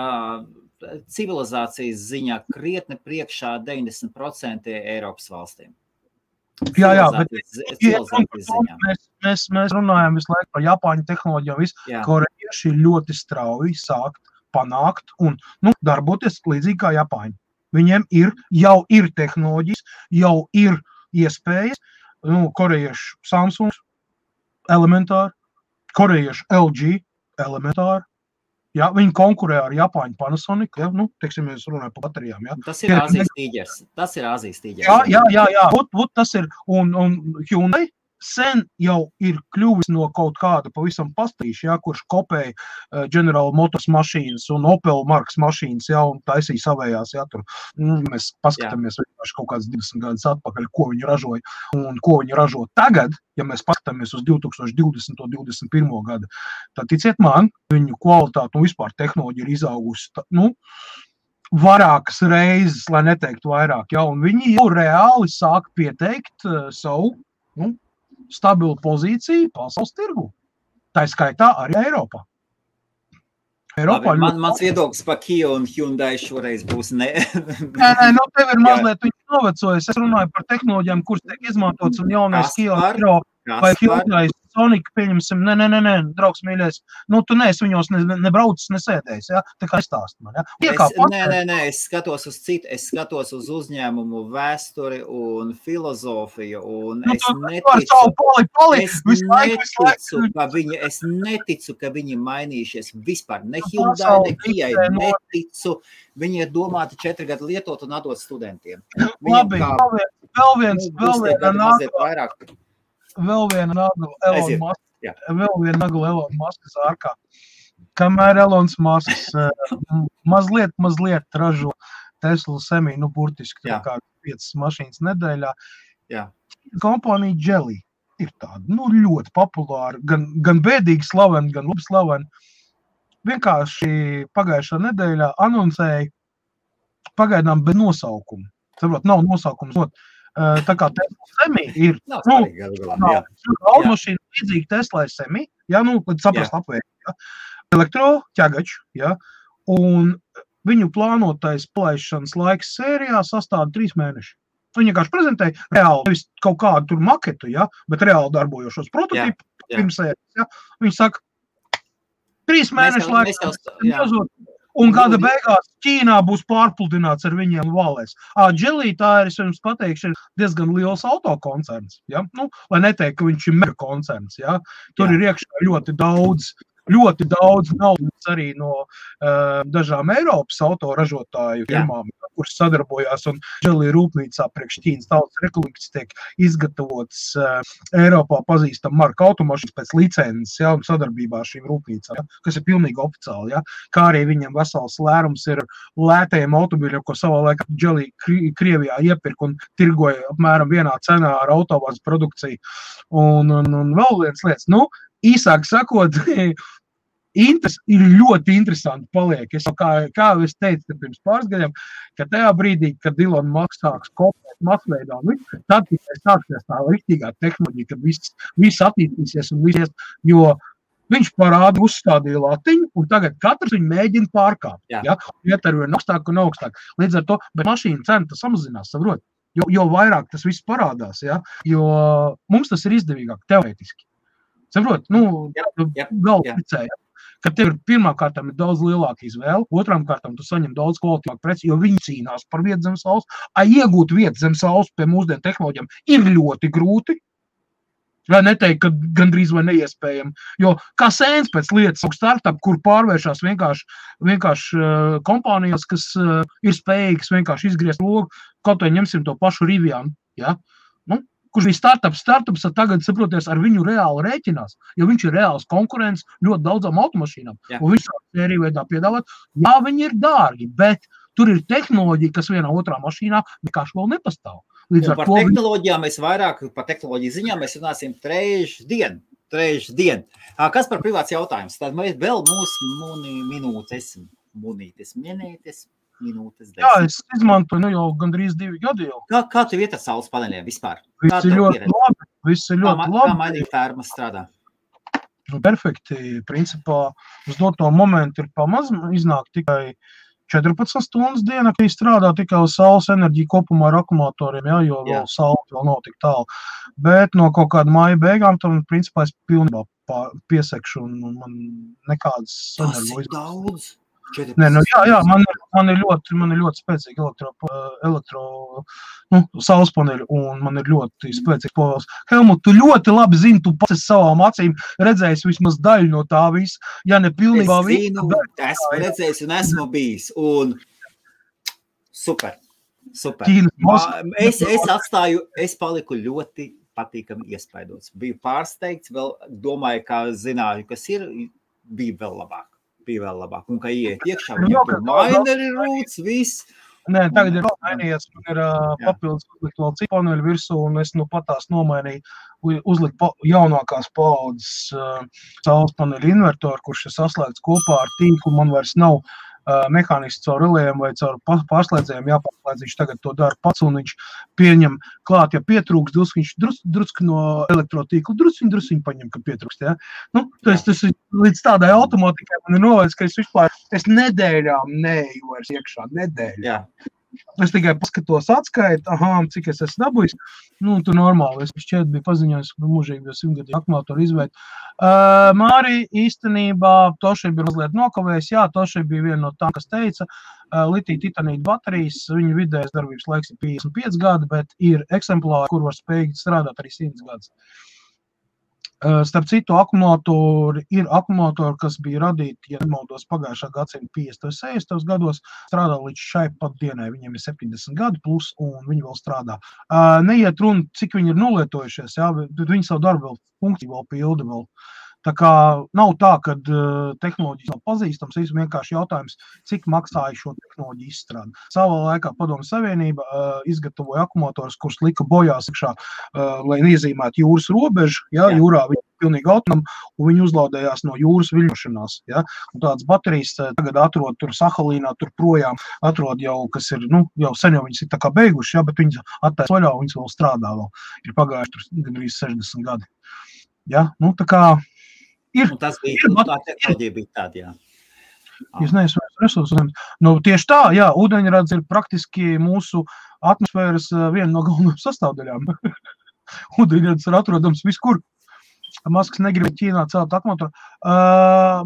civilizācijas ziņā krietni priekšā 90% Eiropas valstīm.
Jā, bet mēs runājam visu laiku par Japāņu tehnoloģiju, korejieši ļoti strauji sākt panākt un darboties līdzīgi kā Japāņi. Viņiem jau ir tehnoloģijas, jau ir iespējas, korejieši Samsung elementāri, korejieši LG elementāri. Jā, viņi konkurē ar Japāņu Panasonic, teiksim, mēs runājam par baterijām. Jā.
Tas ir Āzijas tīģers.
Jā. Tas ir, un Hyundai sen jau ir kļuvis no kaut kāda pavisam pastīša, kurš kopēja General Motors mašīnas un Opel markas mašīnas, un taisīja savējās, tur. Mēs paskatāmies vienkārši kaut kāds 20 gadus atpakaļ, ko viņi ražoja un ko viņi ražo tagad, ja mēs paskatāmies uz 2020. un 2021. gadu. Tad ticiet man, viņu kvalitāte un vispār tehnoloģija ir izaugusi, vairākas reizes, lai neteiktu vairāk, un viņi jau reāli sāk pieteikt savu, stabilu pozīciju pasaules tirgu. Tā skaitā arī Eiropā.
Mans viedoklis par Kia un Hyundai šoreiz būs ne.
Tev ir mazliet viņš novecojis. Es runāju par tehnoloģijām, kuras tiek izmantotas un jaunais Kia vai Hyundai Sonic, pieņemsim, nē, draugs mīļais, tu neesi viņos nebraucis, nesēdējis, tā kā stāst man,
Es skatos uz citu, es skatos uz uzņēmumu vēsturi un filozofiju, un es neticu, ka viņi mainījušies vispār, ne Hyundai, ne Kijai, neticu, viņi ir domāti 4 gadu lietot un atdot studentiem.
Labi, vēl viena nagla Elon Muskas ārkā. Kamēr Elons Musks mazliet ražo Tesla Semi, burtiski kā 5 mašīnas nedēļā. Kompānija Geely ir tāda, ļoti populāra, gan bēdīgi slavena, gan labi slavena. Vienkārši pagājušā nedēļā anoncēja pagaidām bez nosaukuma. Saprot, nav nosaukums. Tā kā Tesla Semi ir automašīna līdzīgi Tesla Semi, līdz saprast apvērst, elektroķegačs, un viņu plānotais palaišanas laiks sērijā sastāda 3 mēneši. Viņi vienkārši prezentēja reāli, nevis kaut kādu tur maketu, bet reāli darbojošos prototipu pirms sērijas. Viņi saka, 3 mēneši laiks, un gada beigās Ķīnā būs pārpludināts ar viņiem valēs. Geely, tā ir, es jums pateikšu, ir diezgan liels autokoncerns. Lai neteikt, ka viņš ir mega koncerns. Tur ir iekšā ļoti daudz naudas arī no dažām Eiropas autoražotāju firmām, kuras sadarbojās, un Geely rūpnīcā priekš Ķīnas Tautas Republikas tiek izgatavots Eiropā pazīstam marka automašīnas pēc licences, un sadarbībā ar šīm rūpnīcām, kas ir pilnīgi oficiāli, kā arī viņam vesels lērums ir lētajiem automobiļiem, ko savā laikā Geely Krievijā iepirka un tirgoja apmēram vienā cenā ar autovāzes produkciju. Un vēl viens lietas, īsāk sakot, ir ļoti interesanti paliek. Kā es teicu pirms pāris gadiem, ka tajā brīdī, kad Elon Musk sāks kopēt masveidā, tad tikai sāksies tā riktīgā tehnoloģija, kad viss attīstīsies un visies, jo viņš parāda uzstādīja latiņu, un tagad katrs viņu mēģina pārkāpt. Iet ar vien augstāk un augstāk. Līdz ar to, bet mašīna cena samazinās, saprot, jo vairāk tas viss parādās, jo mums tas ir izdevīgāk teorētiski. Saprot, galvu picēja. Kad tev pirmā kārtām ir daudz lielāka izvēle, otrām kārtām tu saņem daudz kvalitātīvāku preci, jo viņi cīnās par vietu zem saules. Iegūt vietu zem saules pie mūsdienu tehnoloģijām ir ļoti grūti. Vai neteikt, ka gandrīz vai neiespējami. Jo kā sēns pēc lietas startup, kur pārvēršās vienkārši kompānijas, kas ir spējīgas vienkārši izgriezt logu, kaut vai ņemsim to pašu Rivian, kurš bija startups, tagad, saproties, ar viņu reāli rēķinās, jo viņš ir reāls konkurents ļoti daudzām automašīnām. Un viņš sēriju veidā piedāvāt, viņi ir dārgi, bet tur ir tehnoloģija, kas vienā otrā mašīnā vienkārši vēl nepastāv.
Par tehnoloģijām mēs vairāk, par tehnoloģiju ziņām mēs runāsim trešdien. Kas par privāts jautājums? Tad mēs vēl mūsu minūtes. minūtes, 10.
Jā, es izmantoju jau gandrīz 2 gadi jau.
Kā tev iet ar saules paneļiem vispār?
Viss ir ļoti labi.
Kā mainīt fermas strādā?
Perfekti. Principā uz doto momentu ir pamaz iznāk tikai 14 stundas dienā, kad strādā tikai uz saules enerģiju kopumā ar akumulatoriem, jā, jo vēl saule vēl nav tik tālu. Bet no kaut kāda māja beigām, tam principā es pilnībā piesekšu un man nekādas
energo izmaksas. Tas ir daudz.
Nē, nu jā, man ir ļoti spēcīgi saules paneļi un man ir ļoti spēcīgs povēls. Helmut, tu ļoti labi zini, tu pats savām acīm redzējis vismaz daļu no tā visu, ja ne pilnībā
visu. Esmu redzējis un esmu bijis un super. Es paliku ļoti patīkami iespaidots. Biju pārsteigts, vēl domāju, kā zināju, kas ir, bija vēl labāk. Un kā iet iekšā, viņam maineri rūts, viss.
Nē, tagad ir mainījies, man ir papildus uzlikt vēl citu paneļu virsū, un es patās nomainīju, uzlikt jaunākās paaudzes saules paneļu invertoru, kurš ir saslēgts kopā ar tīklu, man vairs nav mehāniski caur relējiem vai caur pārslēdzējiem jāpārslēdz, viņš tagad to dara pats, un viņš pieņem klāt, ja pietrūks, viņš drusku no elektrotīklu, drusciņu paņem, ka pietrūkst, ja? Nu, tas līdz tādai automātikai man ir novērts, ka es nedēļām neeju vairs iekšā, nedēļā.
Jā.
Es tikai paskatos atskaitu, cik es esmu dabūjis. Nu, tu normāli, es šķiet biju paziņojis, ka mūžīgi bija 100-gadīgi akumulātoru izveidi. Māri īstenībā Toši bija mazliet nokavējis. Jā, Toši bija viena no tām, kas teica, litija titanīta baterijas, viņa vidējais darbības laiks ir 55 gadi, bet ir eksemplāri, kur var spējīgi strādāt arī 100 gadus. Starp citu, ir akumulatori, kas bija radīti, ja nemaldos, pagājušā gadsimta 50. 60. gados, strādā līdz šai pat dienai. Viņiem ir 70 gadi plus, un viņi vēl strādā. Neiet runa, cik viņi ir nolietojušies, jā, bet viņi savu darbu vēl funkciju vēl pilda vēl. Tā kā nav tā, ka tehnoloģijas nav pazīstams, ir vienkārši jautājums, cik maksāja šo tehnoloģiju izstrādi. Savā laikā Padomju Savienība izgatavoja akumulatorus, kurus lika bojās iekšā, lai iezīmētu jūras robežu, ja, jūrā viņi pilnīgi autonomi, un viņi uzlaudējās no jūras viļņošanās. Ja. Un tādas baterijas tagad atrod tur Sahalīnā, tur projām atrod jau, kas ir, jau sen jau viņas ir tā kā beiguši, ja, bet viņas attaisa vaļā, un viņas vēl strādā vēl. Ir pagājuši tur gandrīz 60 gadi. Ja, tā kā
tas bija, tā tehnoloģija bija tāda, jā.
Jūs neesat resursus. Tieši tā, jā, ūdeņrads ir praktiski mūsu atmosfēras viena no galvenajām sastāvdaļām. Ūdeņrads ir atrodams viskur. Masks negrib Ķīnā celt akumulatoru.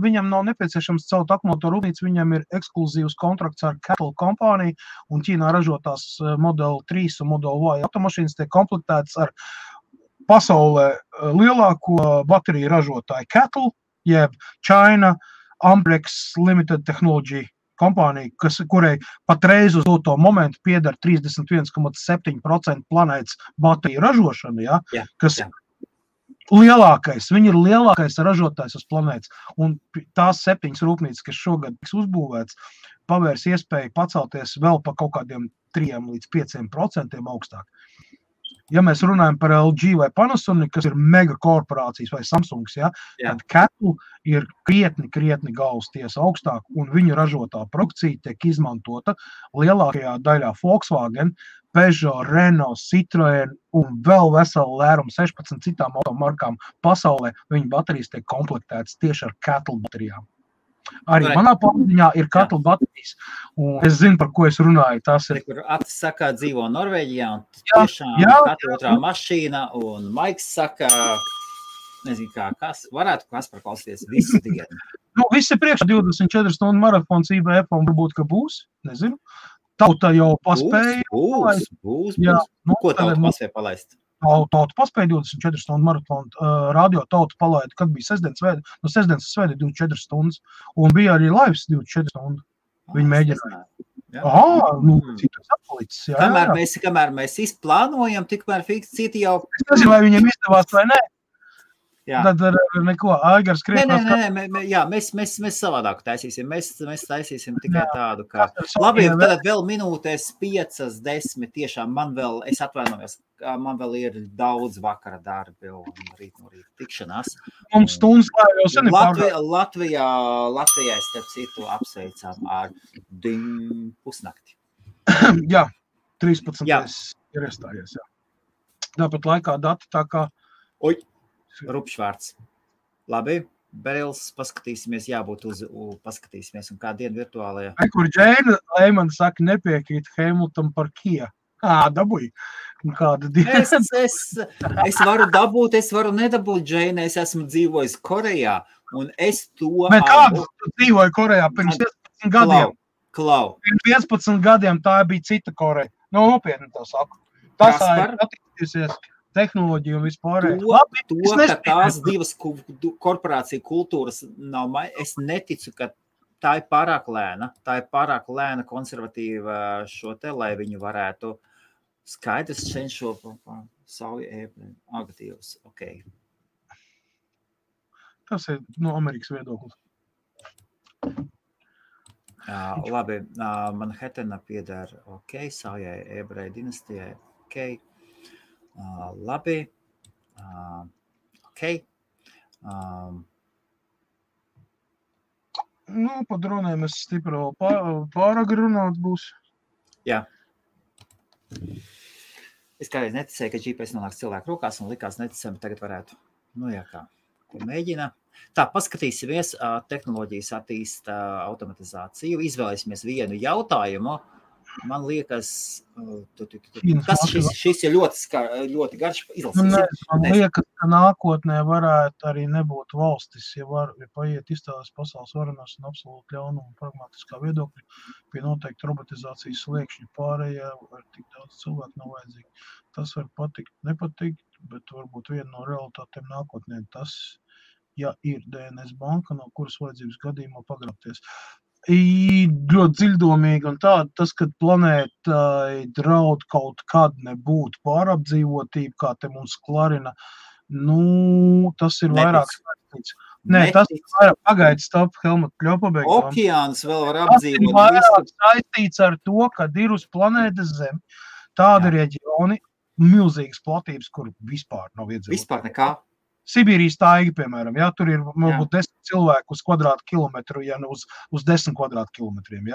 Viņam nav nepieciešams celt akumulatoru rūpnīcu, viņam ir ekskluzīvs kontrakts ar Cattle kompāniju, un Ķīnā ražotās Model 3 un Model Y automašīnas tiek komplektētas ar pasaulē lielāko bateriju ražotāju Cattle, jeb China Amprex Limited Technology kompānija, kurai patreiz uz to momentu pieder 31,7% planētas bateriju ražošana, ja, kas lielākais, viņi ir lielākais ražotājs uz planētas, un tās 7 rūpnīcas, kas šogad tiks uzbūvēts, pavērs iespēju pacelties vēl pa kaut kādiem 3 līdz 5% augstāk. Ja mēs runājam par LG vai Panasonic, kas ir mega korporācijas vai Samsungs, tad Cattle ir krietni galvas tiesa augstāk, un viņu ražotā produkcija tiek izmantota lielākajā daļā Volkswagen, Peugeot, Renault, Citroen un vēl veselu lērumu 16 citām automarkām pasaulē. Viņu baterijas tiek komplektētas tieši ar Cattle baterijām. Arī manā pārziņā ir Cattle baterijas, un es zinu, par ko es runāju. Tas ir,
kur Atis saka, dzīvo Norvēģijā, un tiešām katra otrā mašīna, un Maiks saka, nezinu kā, kas varētu Kaspar klausīties visu dienu.
Viss ir priekšā 24 stundu maratons IBF, un varbūt, ka būs, nezinu. Tauta jau paspēja.
Būs. Ko tauta paspēja palaist?
Tauta paspēja 24 stundu maratonu, radio Tauta palaida, kad bija sestdienas svētdi, no sestdienas svētdi 24 stundas, un bija arī lives 24 stundu. Viņi mēģināja. Citas atpalicis.
Kamēr mēs izplānojam, tikmēr citi jau...
Es nezinu, vai viņiem izdevās vai nē. Tad neko, Aigars krietnās.
Mēs savādāk taisīsim. Mēs taisīsim tikai tādu, kā... Labi, tad vēl minūtēs 5-10 tiešām es atvainojos, man vēl ir daudz vakara darbi un rīt no rīta tikšanās.
Mums stundas jau sen ir
Latvijā starp citu apsveicām ar pusnakti.
Jā, 13. ir iestājies, jā. Tāpat laikā dati tā kā...
Oi! Rupšvārds. Labi, Berils, paskatīsimies, paskatīsimies, un kā dienu virtuālajā.
Kur Džēna Leiman saka, nepiekrīt Hamilton par Kia. Dabūj. Kāda diena?
Es varu dabūt, es varu nedabūt, Džēna, es esmu dzīvojis Korejā, un es to...
Bet kādu tu dzīvoji Korejā pirms 15 gadiem?
Klau.
Pirms 15 gadiem tā bija cita Koreja. Nopietni to saku. Tas ir attīstīsies. Tehnoloģija un vispārējo.
Ka tās divas korporācija kultūras nav, es neticu, ka tā ir pārāk lēna konservatīva šo te, lai viņu varētu skaidrs cenšo sauju ēbri agatīvs. Okay.
Tas ir no Amerikas viedoklis.
Labi, Manhattana pieder, saujai ēbrai dinastijai, labi,
Pa dronēm es stipri pārāk runāt būs.
Jā. Es kādreiz neticēju, ka GPS nonāks cilvēku rokās un likās neticami, tagad varētu. Ko mēģina. Tā, paskatīsimies, tehnoloģijas attīsta automatizāciju, izvēlēsimies vienu jautājumu. Man liekas, šis ir ļoti garš izlasīs.
Man liekas, ka nākotnē varētu arī nebūt valstis, ja paiet izstādes pasaules varenās un absolūti ļaunuma un pragmatiskā viedokļa pie noteikti robotizācijas sliekšņa pārējā ar tik daudz cilvēku nav vajadzīgi. Tas var patikt, nepatikt, bet varbūt viena no realitātēm nākotnē tas, ja ir DNS banka, no kuras vajadzības gadījumā pagrabties. Ļoti dziļdomīgi un tāda, tas, kad planētai draud kaut kad nebūt pārapdzīvotība, kā te mums klarina, tas ir vairāk saistīts. Nē, tas ir vairāk pagaidis, stop, Helmut, kļopabeigt.
Okeāns vēl var apdzīvot.
Tas ir vairāk saistīts ar to, kad ir uz planētas Zem tādi reģioni, milzīgas platības, kur vispār nav iedzīvot.
Vispār nekā?
Sibīrijas taiga, piemēram, tur ir varbūt 10 cilvēku uz kvadrātkilometru, ja uz 10 kvadrātkilometriem,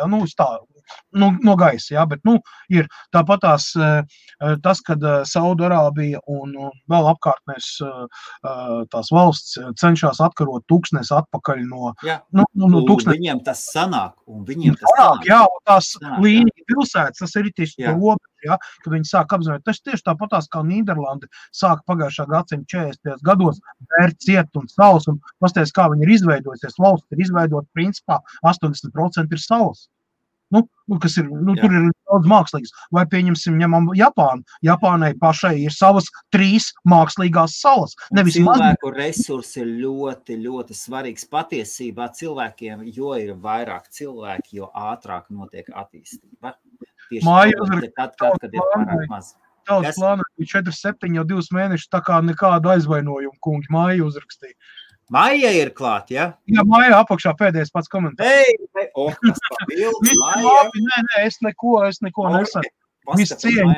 no gaisa, bet, ir tāpat tas, kad Saudarābija un vēl apkārtnēs tās valsts cenšas atkarot tūkstnes atpakaļ no tūkstnes.
Viņiem tas sanāk,
Jā, tās līnija pilsētas, tas ir tieši robeža, kad viņi sāk apzināt. Tas tieši tāpatās kā Nīderlanda sāk pagājušā gadsimta 40. gados vērt ciet un salas, un pasties, kā viņi ir izveidojusies. Valsts ir izveidota, principā, 80% ir salas. Kas ir, tur ir daudz mākslīgas. Vai ņemam Japānu. Japānai pašai ir savas 3 mākslīgās salas.
Cilvēku resursi ir ļoti, ļoti svarīgs patiesībā cilvēkiem, jo ir vairāk cilvēki, jo ātrāk notiek attīstība.
Māja uzrakst,
kad ir pārāk maz.
Tautas plānā 4-7 jau 2 mēnešus, tā kā nekādu aizvainojumu, kungi, Māja uzrakstīja.
Māja ir klāt, ja?
Jā, Māja apakšā pēdējais pats komentārs.
Tas papildu, Māja.
Nē, es neko nesaku. Viss cieņu.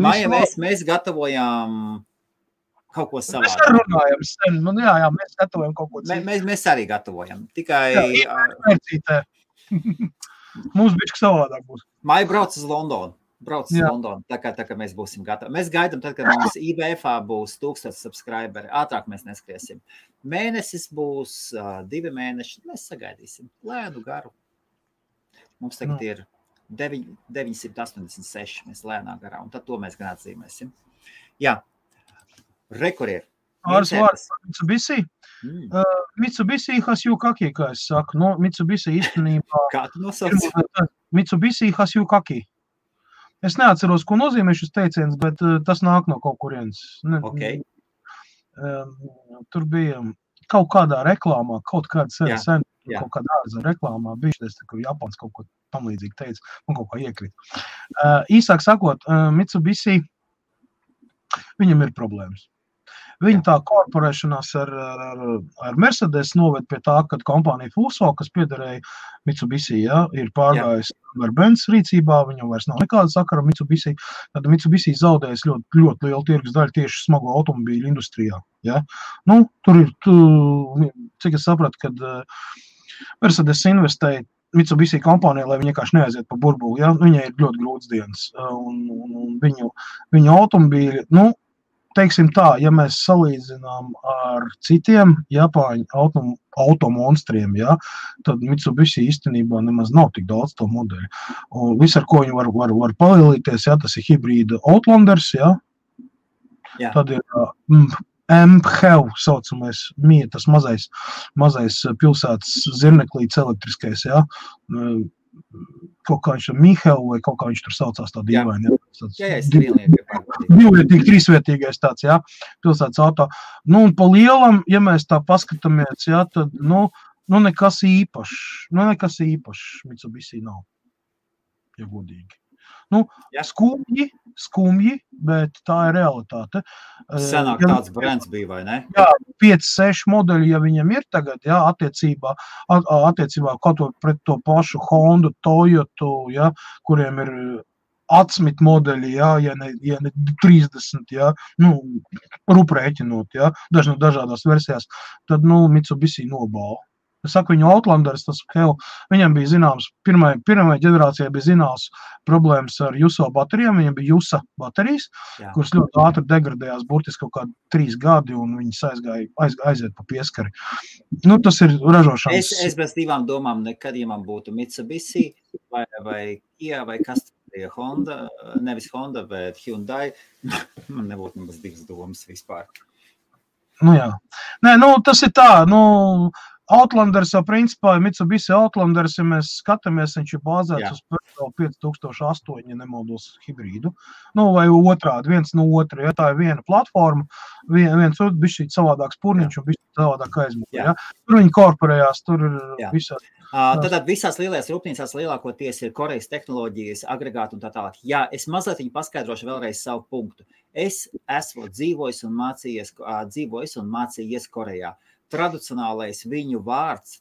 Māja, mēs gatavojām kaut ko savādāk.
Mēs arī runājam sen. Mēs gatavojam kaut ko citu.
Mēs arī gatavojam. Tikai...
Mums bišķi savādāk būs.
Māja brauc uz Londonu. Tā kā mēs būsim gatavi. Mēs gaidām tad, kad mums IBF-ā būs 1000 subscriberi. Ātrāk mēs neskriesim. Mēnesis būs 2 mēneši. Mēs sagaidīsim. Lēnu garu. Mums tagad ir 986. Mēs lēnā garā. Un tad to mēs gan atzīmēsim. Jā. Rekur ir.
Pāris vārds par Mitsubishi. Mitsubishi Hasyukaki, kā es saku. Mitsubishi īstenībā...
Kā tu nosauc?
Mitsubishi Hasyukaki. Es neatceros, ko nozīmē šis teiciens, bet tas nāk no kaut kurienes. Tur bija kaut kādā reklāmā, kaut kāda sen, kaut kādā ārzem reklāmā, bijušies, ka Japāns kaut ko tam līdzīgi teica, un kaut kā iekrīt. Īsāk sakot, Mitsubishi, viņam ir problēmas. Viņa tā korporēšanās ar Mercedes noved pie tā, ka kompānija Fuso, kas piederēja Mitsubishi, ir pārgājis ar Benz rīcībā, viņam vairs nav nekāda sakara Mitsubishi, tad Mitsubishi zaudējis ļoti, ļoti lielu tirgus daļu tieši smago automobīļu industrijā. Ja? Nu, tur ir, cik es sapratu, kad Mercedes investēja Mitsubishi kompānijā, lai viņi vienkārši neaiziet pa burbuli. Ja? Viņai ir ļoti grūts dienas. Un viņu automobīļi, teiksim tā, ja mēs salīdzinām ar citiem Japāņu automonstriem, tad Mitsubishi īstenībā nemaz nav tik daudz to modeļu. Un viss, ar ko viņi var palielīties, tas ir hibrīda Outlanders, tad ir MHEV saucamais, tas mazais pilsētas zirneklīts elektriskais, kaut kā viņš tur Mihev vai kaut kā viņš tur saucās tā dīvaini. Divvietīgi, trīsvietīgais tāds, pilsētas auto. Un pa lielam, ja mēs tā paskatāmies, tad, nekas īpašs Mitsubishi nav, ja godīgi. Skumji, bet tā ir realitāte.
Senāk tāds brands bija, vai ne?
Jā, 5-6 modeļi, ja viņam ir tagad, attiecībā kaut pret to pašu Hondu, Toyotu, kuriem ir atsmit modeļi, ja ne 30, ruprēķinot, dažādās versijās, tad, Mitsubishi nobāla. Es saku, viņu Outlanders, viņam bija zināms, pirmajai ģenerācijai bija zināms problēmas ar Juso baterijām, viņam bija Jusa baterijas, kuras ļoti ātri degradējās, burtiski kaut kādi 3 gadi, un viņas aiziet pa pieskari. Tas ir ražošanas.
Es bez divām domām nekad, ja man būtu Mitsubishi vai Kia vai kas bija Honda, nevis Honda, bet Hyundai, man nebūtu nemaz divas domas vispār.
Jā. Nē, tas ir tā, Outlanders jau principā, Mitsubishi Outlanders, ja mēs skatāmies, viņš ir bāzēts uz Peugeot 5008, ja nemaldos hibrīdu, vai otrādi, viens no otra, tā ir viena platforma, viens otrs bišķīt savādāks purniņš un bišķīt savādāk aizmūja, Tur viņi korporējās, tur ir visādi.
Tātad visās lielajās rūpnīcās lielākoties ir Korejas tehnoloģijas, agregāti un tā tālāk. Jā, es mazliet viņu paskaidrošu vēlreiz savu punktu. Es esmu dzīvojis un mācījies Korejā. Tradicionālais viņu vārds,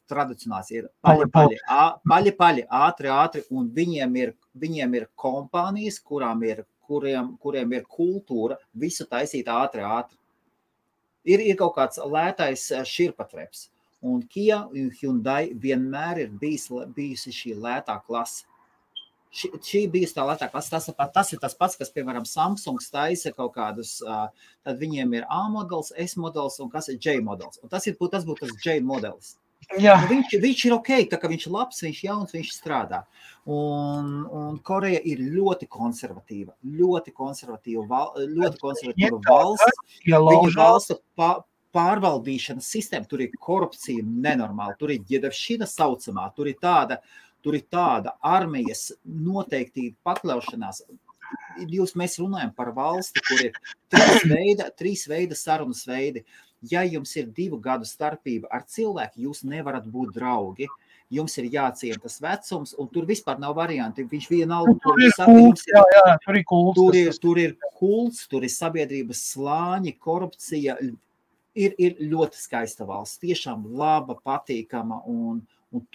ir paļi, ātri, un viņiem ir kompānijas, kuriem ir kultūra visu taisīt ātri. Ir kaut kāds lētais širpatreps, un Kia un Hyundai vienmēr ir bijusi šī lētā klase. Šī bija tā lētā klase, tas ir tas pats, kas, piemēram, Samsungs taisa kaut kādus, tad viņiem ir A modelis, S modelis un kas ir J modelis. Un tas būtu tas J modelis. Viņš ir ok, tā kā viņš ir labs, viņš ir jauns, viņš strādā. Un Koreja ir ļoti konservatīva valsts. Viņa valsts pārvaldīšanas sistēma, tur ir korupcija nenormāla, tur ir ģedavšina saucamā, tur ir tāda armijas noteikti pakļaušanās. Mēs runājam par valsti, kur ir 3 veida sarunas veidi. Ja jums ir 2 gadu starpība ar cilvēku, jūs nevarat būt draugi. Jums ir jāciena tas vecums, un tur vispār nav varianti. Viņš vienalga,
tur ir
kults, tur ir sabiedrības slāņi, korupcija. Ir ļoti skaista valsts, tiešām laba, patīkama, un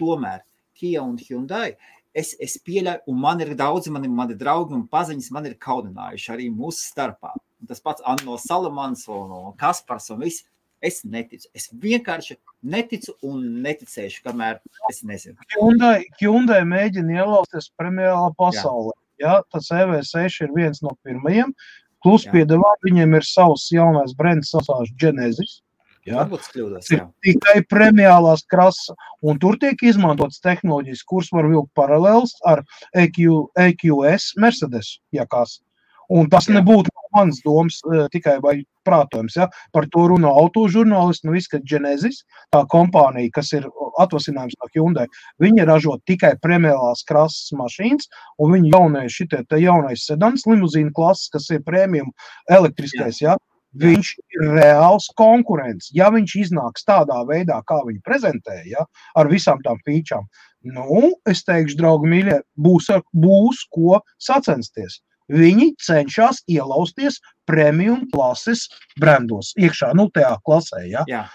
tomēr Kia un Hyundai, es pieļauju, un man ir daudzi, mani draugi un paziņas man ir kaudinājuši arī mūsu starpā. Tas pats no Salamans un Kaspars un viss, es neticu. Es vienkārši neticu un neticēšu, kamēr es nezinu.
Hyundai mēģina ielausties premiālā pasaulē. Tas EV6 ir viens no pirmajiem, plus piedevā viņiem ir savs jaunais brands, saucās Genesis.
Varbūt kļūdos,
Tikai premiālās krasa, un tur tiek izmantotas tehnoloģijas, kuras var vilkt paralēls ar EQS Mercedes, kas. Un tas nebūtu mans domas tikai vai prātojums, Par to runā autožurnālisti, viss, ka Genesis, tā kompānija, kas ir atvasinājums no Hyundai, viņi ražo tikai premiālās krasas mašīnas, un viņi jaunais sedans, limuzīna klases, kas ir premium elektriskais, Viņš ir reāls konkurents. Ja viņš iznāks tādā veidā, kā viņi prezentē, ar visām tām featurām, es teikšu, draugi mīļie, būs ko sacensties. viņi cenšas ielausties premium klases brandos iekšā, tajā klasē, ja?
Jā.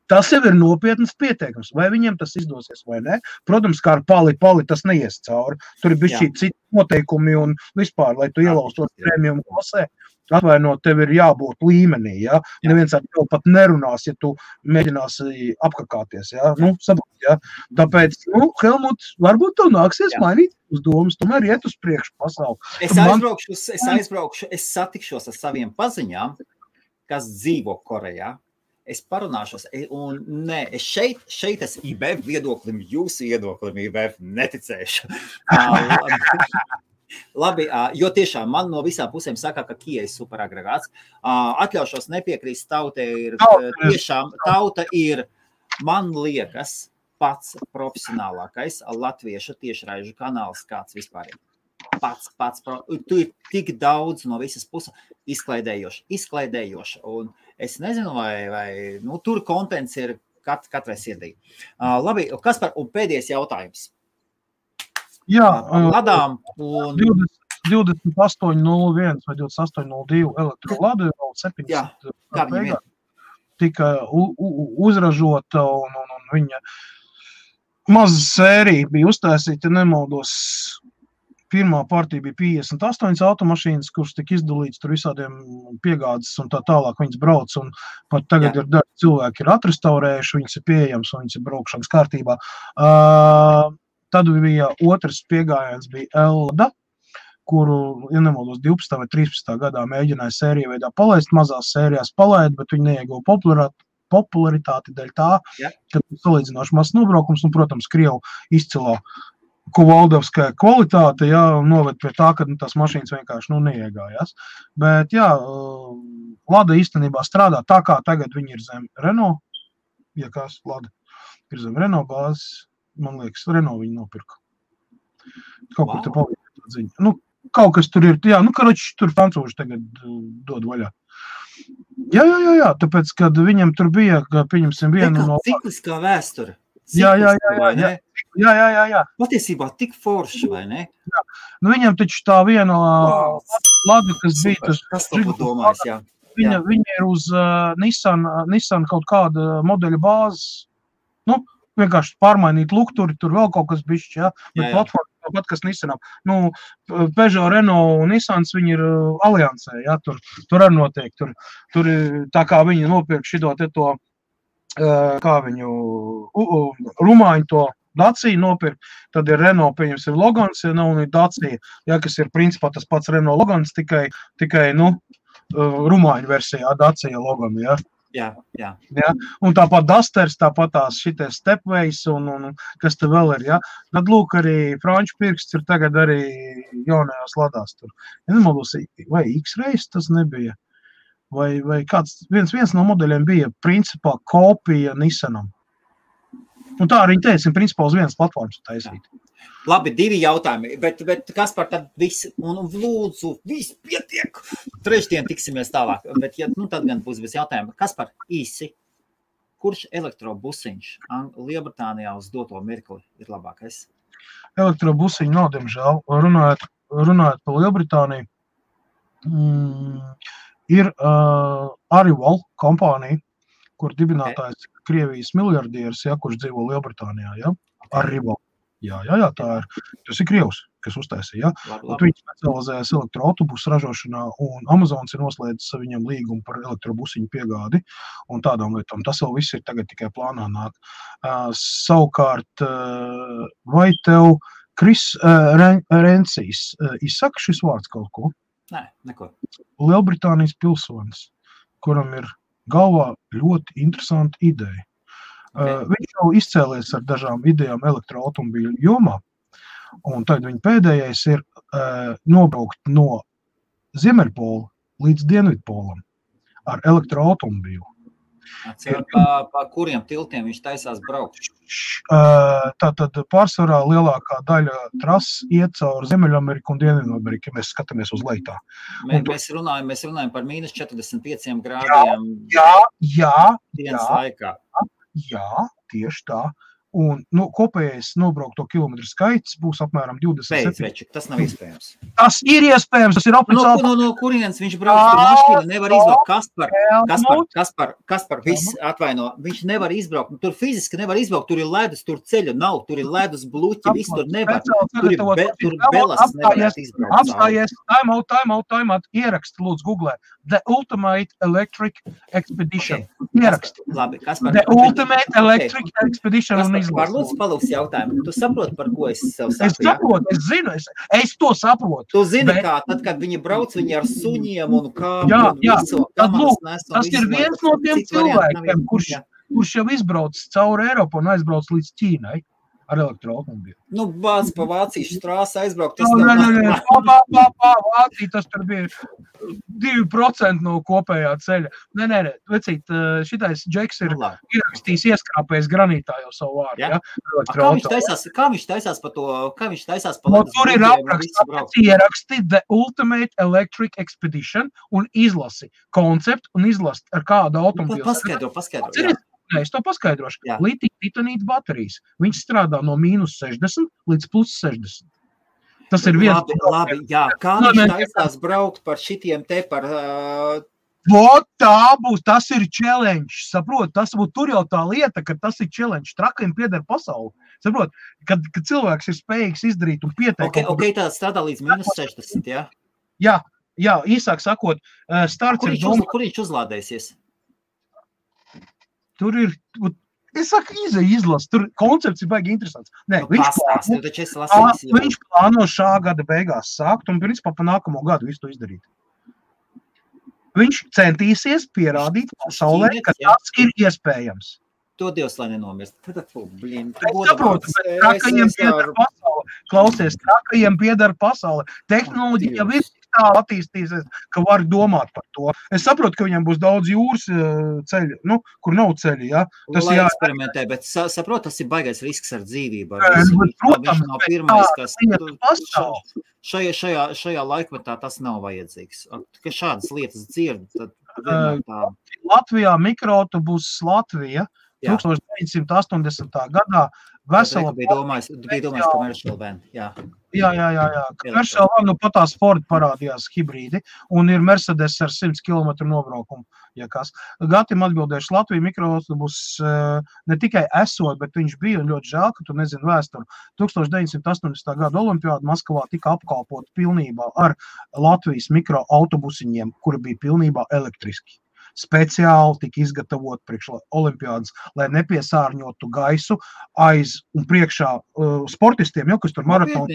Tas jau ir nopietnas pieteikums. Vai viņiem tas izdosies vai ne? Protams, kā ar pali tas neies cauri. Tur ir bišķi citi noteikumi un vispār, lai tu ielaustos premium klasē, atvainot, tev ir jābūt līmenī, ja? Neviens ar tev pat nerunās, ja tu mēģināsi apkakāties, ja? Saprot, ja? Tāpēc, Helmut, varbūt tev nāksies mainīt uz domas, tomēr iet uz priekšu pasauli.
Es aizbraukšu, es satikšos ar saviem paziņām, kas dzīvo Korejā. Es parunāšos, un nē, es šeit es IBF viedoklim, jūsu viedoklim IBF neticēšu. Labi, jo tiešām man no visām pusēm saka, ka Kia ir superagregāts. Atļaušos nepiekrīst, tauta ir, man liekas, pats profesionālākais latviešu tiešraižu kanāls, kāds vispār ir. Pats. Tu ir tik daudz no visas puses izklaidējoši. Un es nezinu, vai tur kontents ir katrai sirdī. Labi, Kaspar, un pēdējais jautājums.
Jā,
Ladām un...
28.01 vai 28.02 elektroladu jau 700 tika uzražota un viņa maza sērija bija uztaisīta, nemaldos. Pirmā partija bija 58 automašīnas, kuras tika izdalīts tur visādiem piegādes un tā tālāk viņas brauc, un pat tagad ir daži cilvēki ir atrestaurējuši, viņas ir pieejams un viņas ir braukšanas kārtībā. Tad bija otrs piegājiens bija Elda, kuru, ja nemaldos, 12. vai 13. gadā mēģināja sēriju veidā palaist, mazās sērijās palaid, bet viņi neieguva popularitāti dēļ tā, ka salīdzinoši mazs nobraukums un, protams, Krievu izcilā Kovaldovskая kvalitāte, noved pie tā, ka tās mašīnas vienkārši neiegājās. Bet, Lada īstenībā strādā tā, kā tagad viņi ir zem Renault. Ja kas, Lada ir zem Renault bāzes, man liekas, Renault viņi nopirka. Kaut kur te palīdz tā ziņa. Kaut kas tur ir, karoči, tur francūži tagad dod vaļā. Jā, tāpēc, kad viņam tur bija, pieņemsim vienu no...
Cikliskā vēsture.
Jā.
Patiesībā tik forši, vai ne?
Jā. Viņam taču tā viena Lada, kas bija tas...
Kas to domājis, jā.
Viņa ir uz Nissan kaut kāda modeļa bāzes. Vienkārši pārmainīt lukturi, tur vēl kaut kas bišķi, bet platforma tāpat, kas Nissanam. Peugeot, Renault un Nissans, viņi ir aliansē, tur arī notiek. Tur tā kā viņi nopirk šito te to, kā viņu rumāņu to Dacia nopirkt, tad ir Renault, pieņemsim, Logans, un ir Dacia, kas ir principā tas pats Renault Logans, tikai rumāņu versijā Dacia Logan,
Jā.
Un tāpat Dusters, tāpat tās šities Stepways un kas te vēl ir, Tad lūk arī franču pirksts ir tagad arī jaunajās Ladās tur. Ja nemaldos, vai X-Race tas nebija? Vai kāds, viens no modeļiem bija principā kopija Nissanam. Un tā arī teica, principā uz vienas platformas taisīt.
Labi, 2 jautājumi, bet Kaspar, tad viss, un lūdzu, viss pietiek. Trešdien tiksimies tālāk, bet tad gan būs viss jautājumi. Kaspar, īsi, kurš elektrobusiņš Lielbritānijā uz doto mirkli ir labākais?
Elektrobusiņu nav, diemžēl. Runājot par Lielbritāniju, ir Arrival kompānija, kur dibinātājs Krievijas miljardieris, kurš dzīvo Lielbritānijā, Arrival. Jā, tā ir. Tas ir Krievs, kas uztaisīja, Viņi specializējas elektroautobusu ražošanā, un Amazons ir noslēdzis viņam līgumu par elektrobusiņu piegādi un tādām lietām. Tas vēl viss ir tagad tikai plānā nāk. Savukārt, vai tev Kris Rencijs izsaka šis vārds kaut ko?
Nē, neko.
Lielbritānijas pilsonis, kuram ir galvā ļoti interesanta ideja. Viņš jau izcēlies ar dažām idejām elektroautomobīļu jomā, un tad viņa pēdējais ir nobraukt no Ziemeļpola līdz Dienvidpolam ar elektroautomobīlu.
Pa kuriem tiltiem viņš taisās braukt?
Tātad pārsvarā lielākā daļa trases iet caur Ziemeļameriku un Dienvidameriku, ja mēs skatāmies uz leitā.
Mēs runājam par mīnus 45 grādiem
jā,
dienas laikā.
Jā, tieši tā. Un kopējais nobraukto kilometru skaits būs apmēram 27.
Beidz, tas nav iespējams.
Tas ir iespējams, tas ir oficiāli.
No kurienes viņš brauc, tur mašīna nevar izbraukt. Kaspar, viss atvaino, viņš nevar izbraukt. Tur fiziski nevar izbraukt, tur ir ledus, tur ceļa nav, tur ir ledus bluķi, viss tur nevar. Tur belas nevarētu izbraukt.
Apstājies, time out, ieraksti, lūdzu, googlē. The Ultimate Electric Expedition. Ieraksti.
Labi, Kaspar.
The Ultimate Electric Expedition un izlasi.
Kaspar, lūdzu, palūks jautājumu. Tu saproti, par ko es sev saku?
Es saprotu, es zinu, es to saprotu.
Tu zini, kā tad, kad viņi brauc, viņi ar suņiem un kāpju.
Jā, tad lūk, tas ir viens no tiem cilvēkiem, kurš jau izbrauc cauri Eiropu un aizbrauc līdz Ķīnai ar elektroautomobīlu.
Bāc pa Vācijas trāsu aizbraukt.
Vācija, tas tur bija 2% no kopējā ceļa. Nē, vecīt, šitais Džeks ir ierakstījis ieskrāpējis granītā jau savu vārdu, ja?
Kā viņš taisās pa to,
tur ir apraksts, ieraksti The Ultimate Electric Expedition un izlasi konceptu un izlasi ar kādu automobīlu.
Paskaidro.
Nē, es to paskaidrošu. Litija-titanīta baterijas. Viņš strādā no -60 līdz +60. Tas ir viens.
Labi, jā. Kā viņš taisās braukt par šitiem te par...
Tā būs, tas ir challenge, saprot, tur jau tā lieta, ka tas ir challenge, trakajiem pieder pasauli, saprot, kad cilvēks ir spējīgs izdarīt un pieteikt.
Ok, tā strādā līdz -60, jā?
Jā, īsāk sakot, starts ir domā...
Kur viņš uzlādēsies?
Tur ir, es saku, izlas, tur koncepts ir baigi interesants. Nē, viņš plāno šā gada beigās sākt un principā pa nākamo gadu visu to izdarīt. Viņš centīsies pierādīt pasaulē, ka tas ir iespējams.
To Dievs, lai nenomirst.
Es saprotu, bet trakajiem pieder pasaule. Klausies, trakajiem pieder pasaule. Tehnoloģija jau ir tā attīstīsies, ka var domāt par to. Es saprotu, ka viņam būs daudz jūras ceļi, kur nav ceļi, ja?
Tas eksperimentē, bet saprot, tas ir baigais risks ar dzīvību.
Protams,
šajā laikmetā tas nav vajadzīgs. Ka šādas lietas dzird, tad
Latvijā mikroautobus Latvija 1980. gadā vesela...
Tu bija domājis commercial van, jā.
Jā. Commercial van, patās Ford parādījās hibrīdi un ir Mercedes ar 100 km nobraukumu, ja kas. Gatim atbildēšu, Latvija mikroautobus ne tikai esot, bet viņš bija ļoti žēl, ka tu nezini vēsturi. 1980. gada olimpiāda Maskavā tika apkalpota pilnībā ar Latvijas mikroautobusiņiem, kuri bija pilnībā elektriski. Speciāli tika izgatavot priekš olimpiādas, lai nepiesārņotu gaisu aiz un priekšā sportistiem, kas tur maratonu.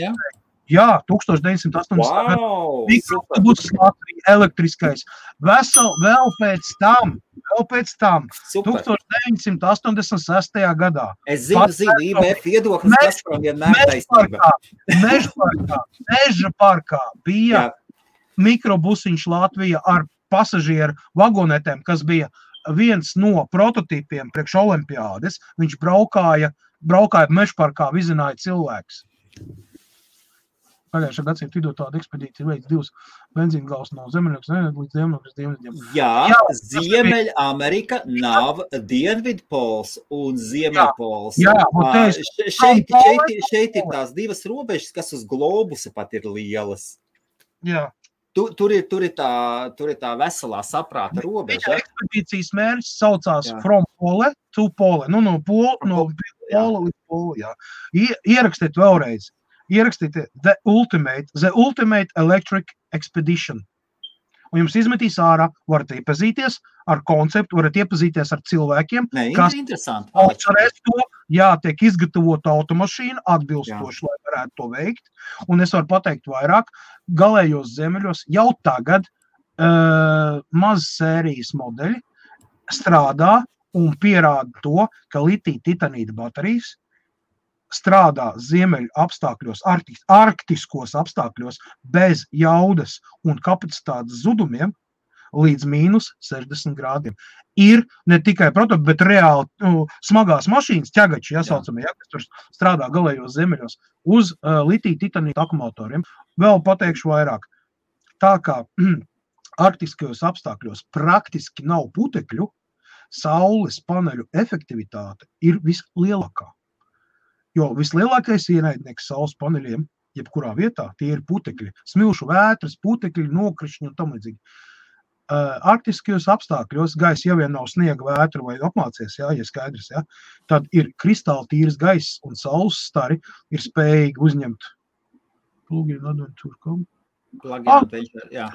Jā, 1980. gada mikroautobus Latvija elektriskais. Vēl pēc tam, 1986. gadā.
Es zinu, IBF viedoklis, kas par vienmēr taisnība.
Meža parkā bija mikrobusiņš Latvija ar pasažieru vagonetēm, kas bija viens no prototipiem priekš olimpiādes. Viņš braukāja mežparkā, vizināja cilvēks. Pagājušā gadsimta vidū tāda ekspedīcija veids 2 benzīngals no Zemeļokas līdz Dienvidiem.
Jā, Ziemeļamerika nav Dienvidpols un Ziemeļpols. Šeit ir tās divas robežas, kas uz globusa pat ir lielas.
Jā.
Tur ir tā veselā saprāta robeža.
Ekspedīcijas mērķis saucās From Pole to Pole. No Pola līdz Pole, jā. Ierakstiet vēlreiz. Ierakstiet The Ultimate Electric Expedition. Un jums izmetīs ārā, varat iepazīties ar konceptu, varat iepazīties ar cilvēkiem, kas atcerēs to, tiek izgatavota automašīna atbilstoši, lai varētu to veikt. Un es varu pateikt vairāk, galējos zemeļos jau tagad maz sērijas modeļi strādā un pierāda to, ka litija-titanīta baterijas strādā ziemeļu apstākļos, arktiskos apstākļos bez jaudas un kapacitātes zudumiem līdz -60 grādiem. Ir ne tikai prototipi, bet reāli smagās mašīnas, ķegači, jāsaucamie, kas tur strādā galējos zemeļos uz litija-titanīta akumulatoriem. Vēl pateikšu vairāk. Tā kā arktiskajos apstākļos praktiski nav putekļu, saules paneļu efektivitāte ir vislielākā. Jo vislielākais ienaidnieks saules paneļiem, jebkurā vietā, tie ir putekļi, smilšu vētras, putekļi, nokrišņi un tam līdzīgi. Arktiskajos apstākļos gaisa jau vien nav sniega vētra vai apmācies, ja skaidrs, ja, tad ir kristāli tīrs gaiss un saules stari ir spējīgi uzņemt plugin adventure.com.
Jā.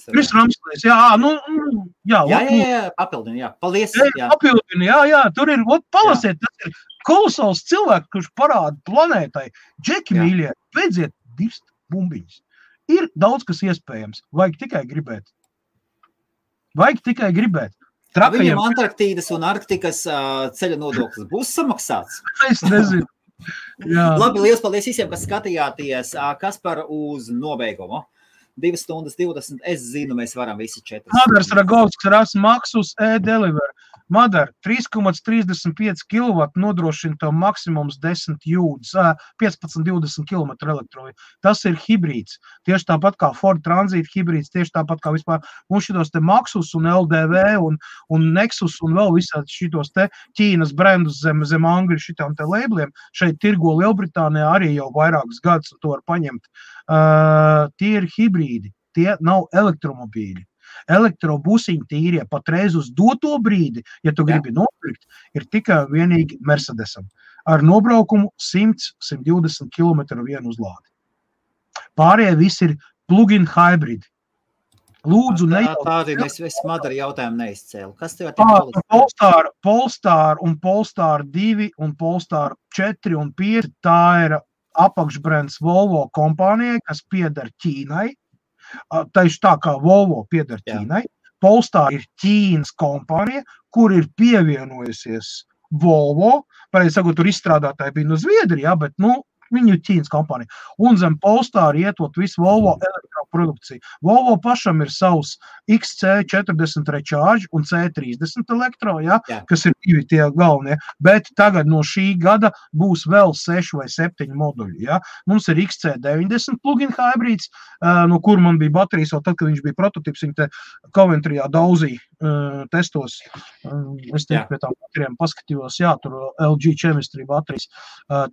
Kris Ramslēs,
papildini, paldies.
Papildini, tur ir, palasiet, tas ir kolosāls cilvēks, kurš parāda planētai, džeki mīļie, beidziet dirst bumbiņas. Ir daudz, kas iespējams, vajag tikai gribēt.
Viņam Antarktīdas un Arktikas ceļa nodoklis būs samaksāts?
Es nezinu.
Labi, liels paldies visiem, kas skatījāties. Kaspar uz nobeigumu. 2 stundas 20, es zinu, mēs varam visi 4.
Madars Ragovskis ras Maxus e-Deliver. Madar 3,35 kW nodrošina to maksimums 10 jūdzes, 15-20 km elektroju. Tas ir hibrīds. Tieši tāpat kā Ford Transit hibrīds, tieši tāpat kā vispār mums šitos te Maxus un LDV un Nexus un vēl visādi šitos te Ķīnas brendus zem Angļu šitām te labeliem. Šeit tirgo Lielbritānijā arī jau vairākus gadus un to var paņemt. Tie ir hibrīdi, tie nav elektromobīļi. Elektrobusiņi tīrie patreiz uz doto brīdi, ja tu gribi nopirkt, ir tikai vienīgi Mercedesam. Ar nobraukumu 100-120 km vienu uzlādi. Pārējie visi ir plug-in hybrid. Lūdzu,
Tādi es Madara jautājumu neizcēlu. Kas tev ir
Polestar un Polestar 2 un Polestar 4 un 5, tā ir apakšbrands Volvo kompānijai, kas pieder Ķīnai. Tieši tā kā Volvo pieder Ķīnai. Polestar ir Ķīnas kompānija, kur ir pievienojusies Volvo. Pareizi sakot, tur izstrādātāji bija no Zviedrijā, bet, viņi ir Ķīnas kompānija. Un zem Polestar ietot visu Volvo elektroprodukciju. Volvo pašam ir savs XC40 Recharge un C30 elektro, kas ir 2 tie galvenie. Bet tagad no šī gada būs vēl 6 vai 7 moduļi. Mums ir XC90 plug-in hybrids, no kur man bija baterijas, vēl tad, kad viņš bija prototips, viņi te Coventryjā dauzīja testos. Es te pie tām baterijām paskatījos, tur LG Chemistry baterijas.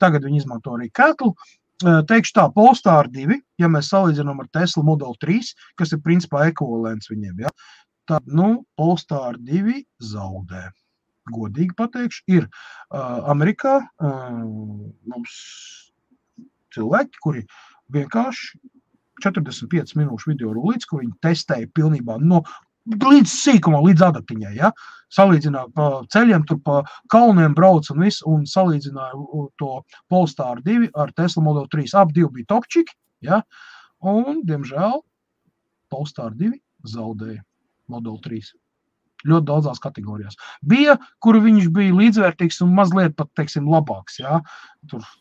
Tagad viņi izmanto arī Kettle. Teikšu tā, Polestar 2, ja mēs salīdzinām ar Tesla Model 3, kas ir principā ekvivalents viņiem, tad, Polestar 2 zaudē. Godīgi pateikšu, ir Amerikā mums cilvēki, kuri vienkārši 45 minūšu video rulīts, kur viņi testēja pilnībā līdz sīkumā, līdz adatiņai, salīdzināja pa ceļiem, tur pa kalniem brauc un viss, un salīdzināja to Polestar 2 ar Tesla Model 3. Ap 2 bija topčiki, un, diemžēl, Polestar 2 zaudēja Model 3. Ļoti daudzās kategorijās. Bija, kur viņš bija līdzvērtīgs un mazliet pat, teiksim, labāks,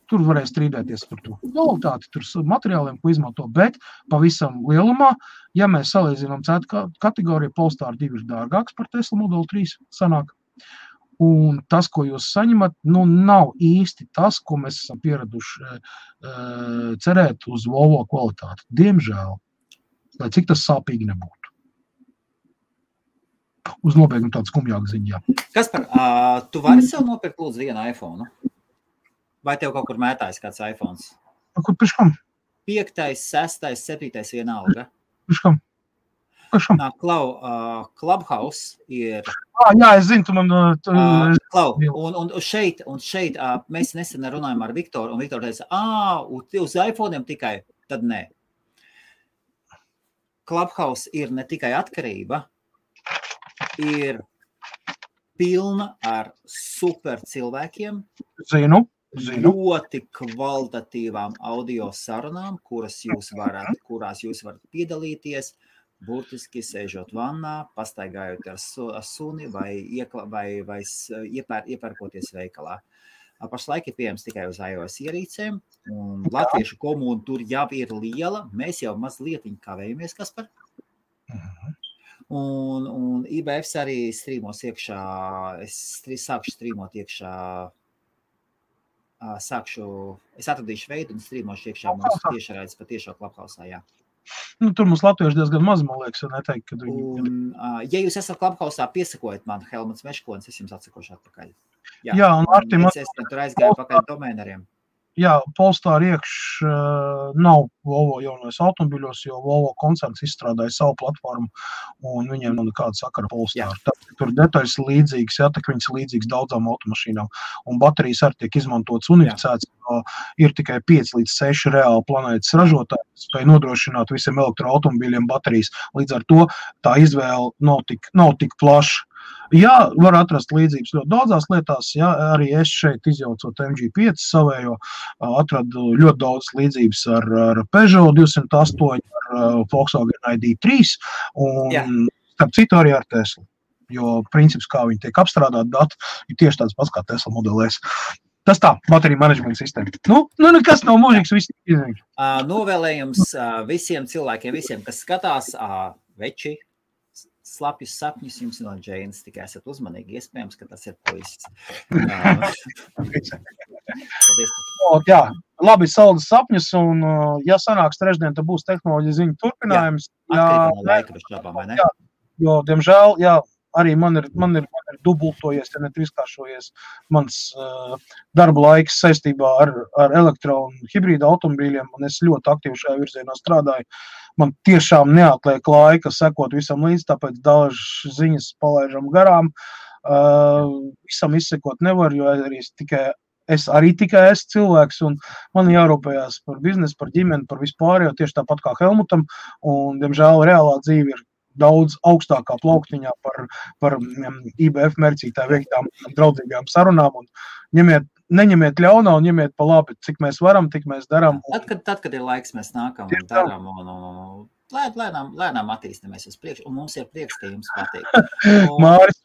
Tur varēja strīdēties par to kvalitāti, tur materiāliem, ko izmanto, bet pavisam lielumā, ja mēs salīdzinām cetu kategoriju, Polestar 2 ir dārgāks par Tesla Model 3 sanāk. Un tas, ko jūs saņemat, nav īsti tas, ko mēs esam pieraduši cerēt uz Volvo kvalitāti. Diemžēl, lai cik tas sāpīgi nebūtu. Uz nobeigumu tādu skumjāku ziņu,
Kaspar, tu vari sev nopirkt lūdzu vienu iPhone? Vai tev kaut kur mētājas kāds iPhones?
Kur piškam?
5., 6., 7. vienalga.
Piškam?
Clubhouse ir...
Jā, es zinu, tu man...
Un šeit mēs nesen runājam ar Viktoru, un Viktor teica, uz iPhone'iem tikai, tad nē. Clubhouse ir ne tikai atkarība, ir pilna ar super cilvēkiem.
Zinu.
Ļoti kvalitatīvām audio sarunām, kurās jūs varat piedalīties, burtiski sēžot vannā, pastaigājot ar suni vai iepērkoties veikalā. Pašlaik ir pieejams tikai uz iOS ierīcēm, un latviešu komūna tur jau ir liela. Mēs jau mazliet kavējamies, Kaspar. Un IBFs arī strīmos iekšā, es sākšu strīmot iekšā, es atradīšu veidu un strīmošu iekšā mūsu tiešraidzi pa tiešo Clubhouse'ā,
Tur mums latvieši diezgan maz, man liekas, neteikt, kad viņi...
Ja jūs esat Clubhouse'ā, piesakojiet man Helmuts Meškonis, es jums atsakošu atpakaļ.
Jā, un Artim...
Es tur aizgāju pakaļ domēneriem.
Jā, Polestar iekš nav Volvo jaunais automobiļos, jo Volvo koncerns izstrādāja savu platformu, un viņiem nav nekāda sakara Polestar. Tur detaļas līdzīgas, tā ka viņas līdzīgas daudzām automašīnām, un baterijas arī tiek izmantotas unificētas, jo ir tikai 5 līdz 6 reāli planētas ražotāji, spēj nodrošināt visiem elektroautomobīļiem baterijas. Līdz ar to tā izvēle nav tik plaša. Jā, var atrast līdzības ļoti daudzās lietās, jā, arī es šeit izjaucot MG5 savējo, atradu ļoti daudz līdzības ar Peugeot 208, ar Volkswagen ID3 un starp citu arī ar Tesla, jo princips, kā viņi tiek apstrādāt dati, ir tieši tāds pats kā Tesla Model S. Tas tā, baterija management sistēma. Nekas nav mūžīgs, viss izņemts.
Novēlējums visiem cilvēkiem, visiem, kas skatās, veči, slapjus sapņus jums no Džeinas, tikai esat uzmanīgi, iespējams, ka tas ir puisis.
Jā, labi saldas sapņus, un ja sanāks trešdien, tad būs tehnoloģija ziņu turpinājums.
Atkarībā no laika, bez šābām, vai ne?
Jā, jo, diemžēl, jā, arī man ir dubultojies, ja netrīskāršojies mans darba laiks saistībā ar elektro un hibrīda automobīļiem, un es ļoti aktīvi šajā virzienā strādāju. Man tiešām neatliek laika sekot visam līdz, tāpēc dažas ziņas palaižam garām. Visam izsekot nevar, jo es arī tikai esmu cilvēks, un man jārūpējās par biznesu, par ģimeni, par vispārējo, tieši tāpat kā Helmutam, un, diemžēl, reālā dzīve ir daudz augstākā plauktiņā par IBF mērcītāju veiktām draudzīgām sarunām, un neņemiet ļaunā un ņemiet pa labi, cik mēs varam, tik mēs darām.
Tad, kad ir laiks, mēs nākam un darām, un lēnām attīstamies uz priekšu, un mums ir prieks, ka jums patīk.
Māris,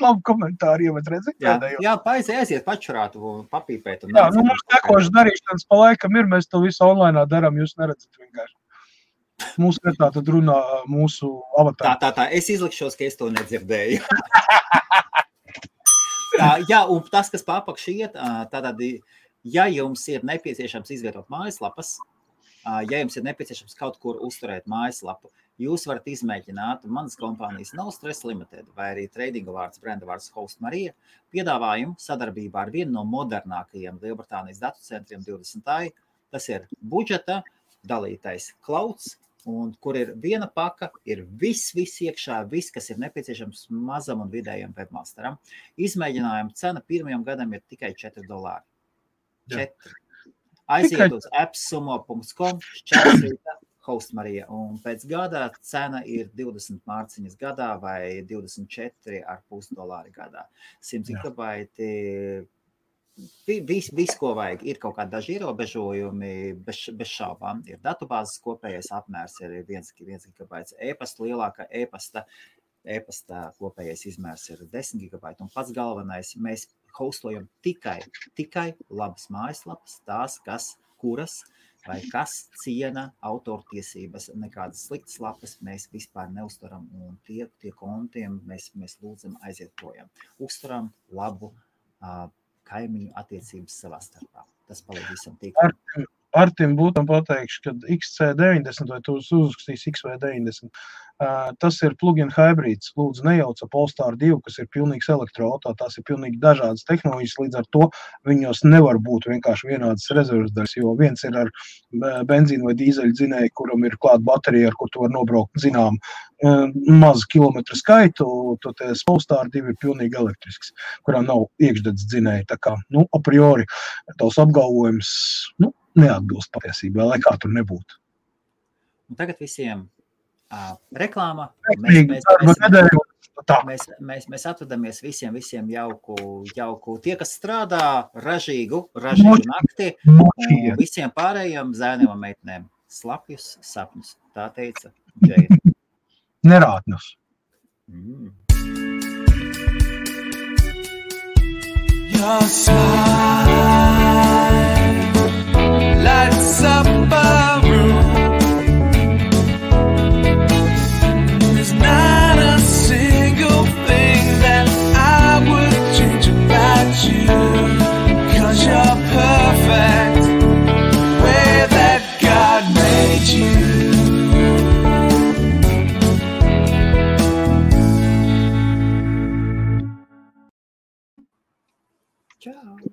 labi komentāri, ja mēs redzam.
Jā, aiziet pačurāt un papīpēt.
Jā, mums tekošas darīšanas pa laikam ir, mēs to visu online darām, jūs neredzat vienkārši. Mūsu vietā tad runā mūsu avatāri.
Tā, es izlikšos, ka es to nedzirdēju. Jā, un tas, kas papakš iet, tātad, ja jums ir nepieciešams izvietot mājaslapas, ja jums ir nepieciešams kaut kur uzturēt mājaslapu, jūs varat izmēģināt manas kompānijas No Stress Limited vai arī tradinga vārds, brenda vārds Host Marija piedāvājumu sadarbībā ar vienu no modernākajiem Lielbritānijas datu centriem 20. Tas ir budžeta dalītais clouds, un kur ir viena paka, ir viss iekšā, viss, kas ir nepieciešams mazam un vidējam webmasteram. Izmēģinājuma cena pirmajam gadam ir tikai $4. 4. Aiziet uz appsumo.com, šķērsrīta, Host Marija, un pēc gada cena ir 20 mārciņas gadā vai $24,5 gadā. 100 gigabaiti, viss, ko vajag, ir kaut kādi daži ierobežojumi, bez šaubām. Ir datubāzes kopējais apmērs, ir 1 gigabaits e-pasta, lielāka e-pasta kopējais izmērs ir 10 gigabaiti, un pats galvenais, mēs hostojam tikai labas mājaslapas, tās, kuras vai kas ciena autortiesības, nekādas sliktas lapas mēs vispār neuztaram, un tie kontiem mēs lūdzam aiziet projām. Uztaram labu kaimiņu attiecības savā starpā. Tas palīdz visam tīklam.
Artim būtam pateikšu, ka XC90 vai tu uzrakstīs XV90, tas ir plug-in hybrids. Lūdzu, nejauca Polestar 2, kas ir pilnīgs elektroauto, tās ir pilnīgi dažādas tehnoloģijas, līdz ar to viņos nevar būt vienkārši vienādas rezerves daļas, jo viens ir ar benzīnu vai dīzeļu dzinēju, kuram ir klāt baterija, ar kur tu var nobraukt, zinām, mazu kilometru skaitu, toties Polestar 2 ir pilnīgi elektrisks, kurām nav iekšdedz dzinēji. Tā kā, a priori, tavs apgalvojums, neatbilst patiesībā, lai kā tur nebūtu.
Un tagad visiem reklāma. Mēs atvadamies visiem jauku. Tie, kas strādā ražīgu nakti, un visiem pārējiem zēniem un meitnēm slapjus sapņus. Tā teica Džeina.
Nerātnus.
Your smile lights up a room. There's not a single thing that I would change about you, 'cause you're perfect the way that God made you.
Čau!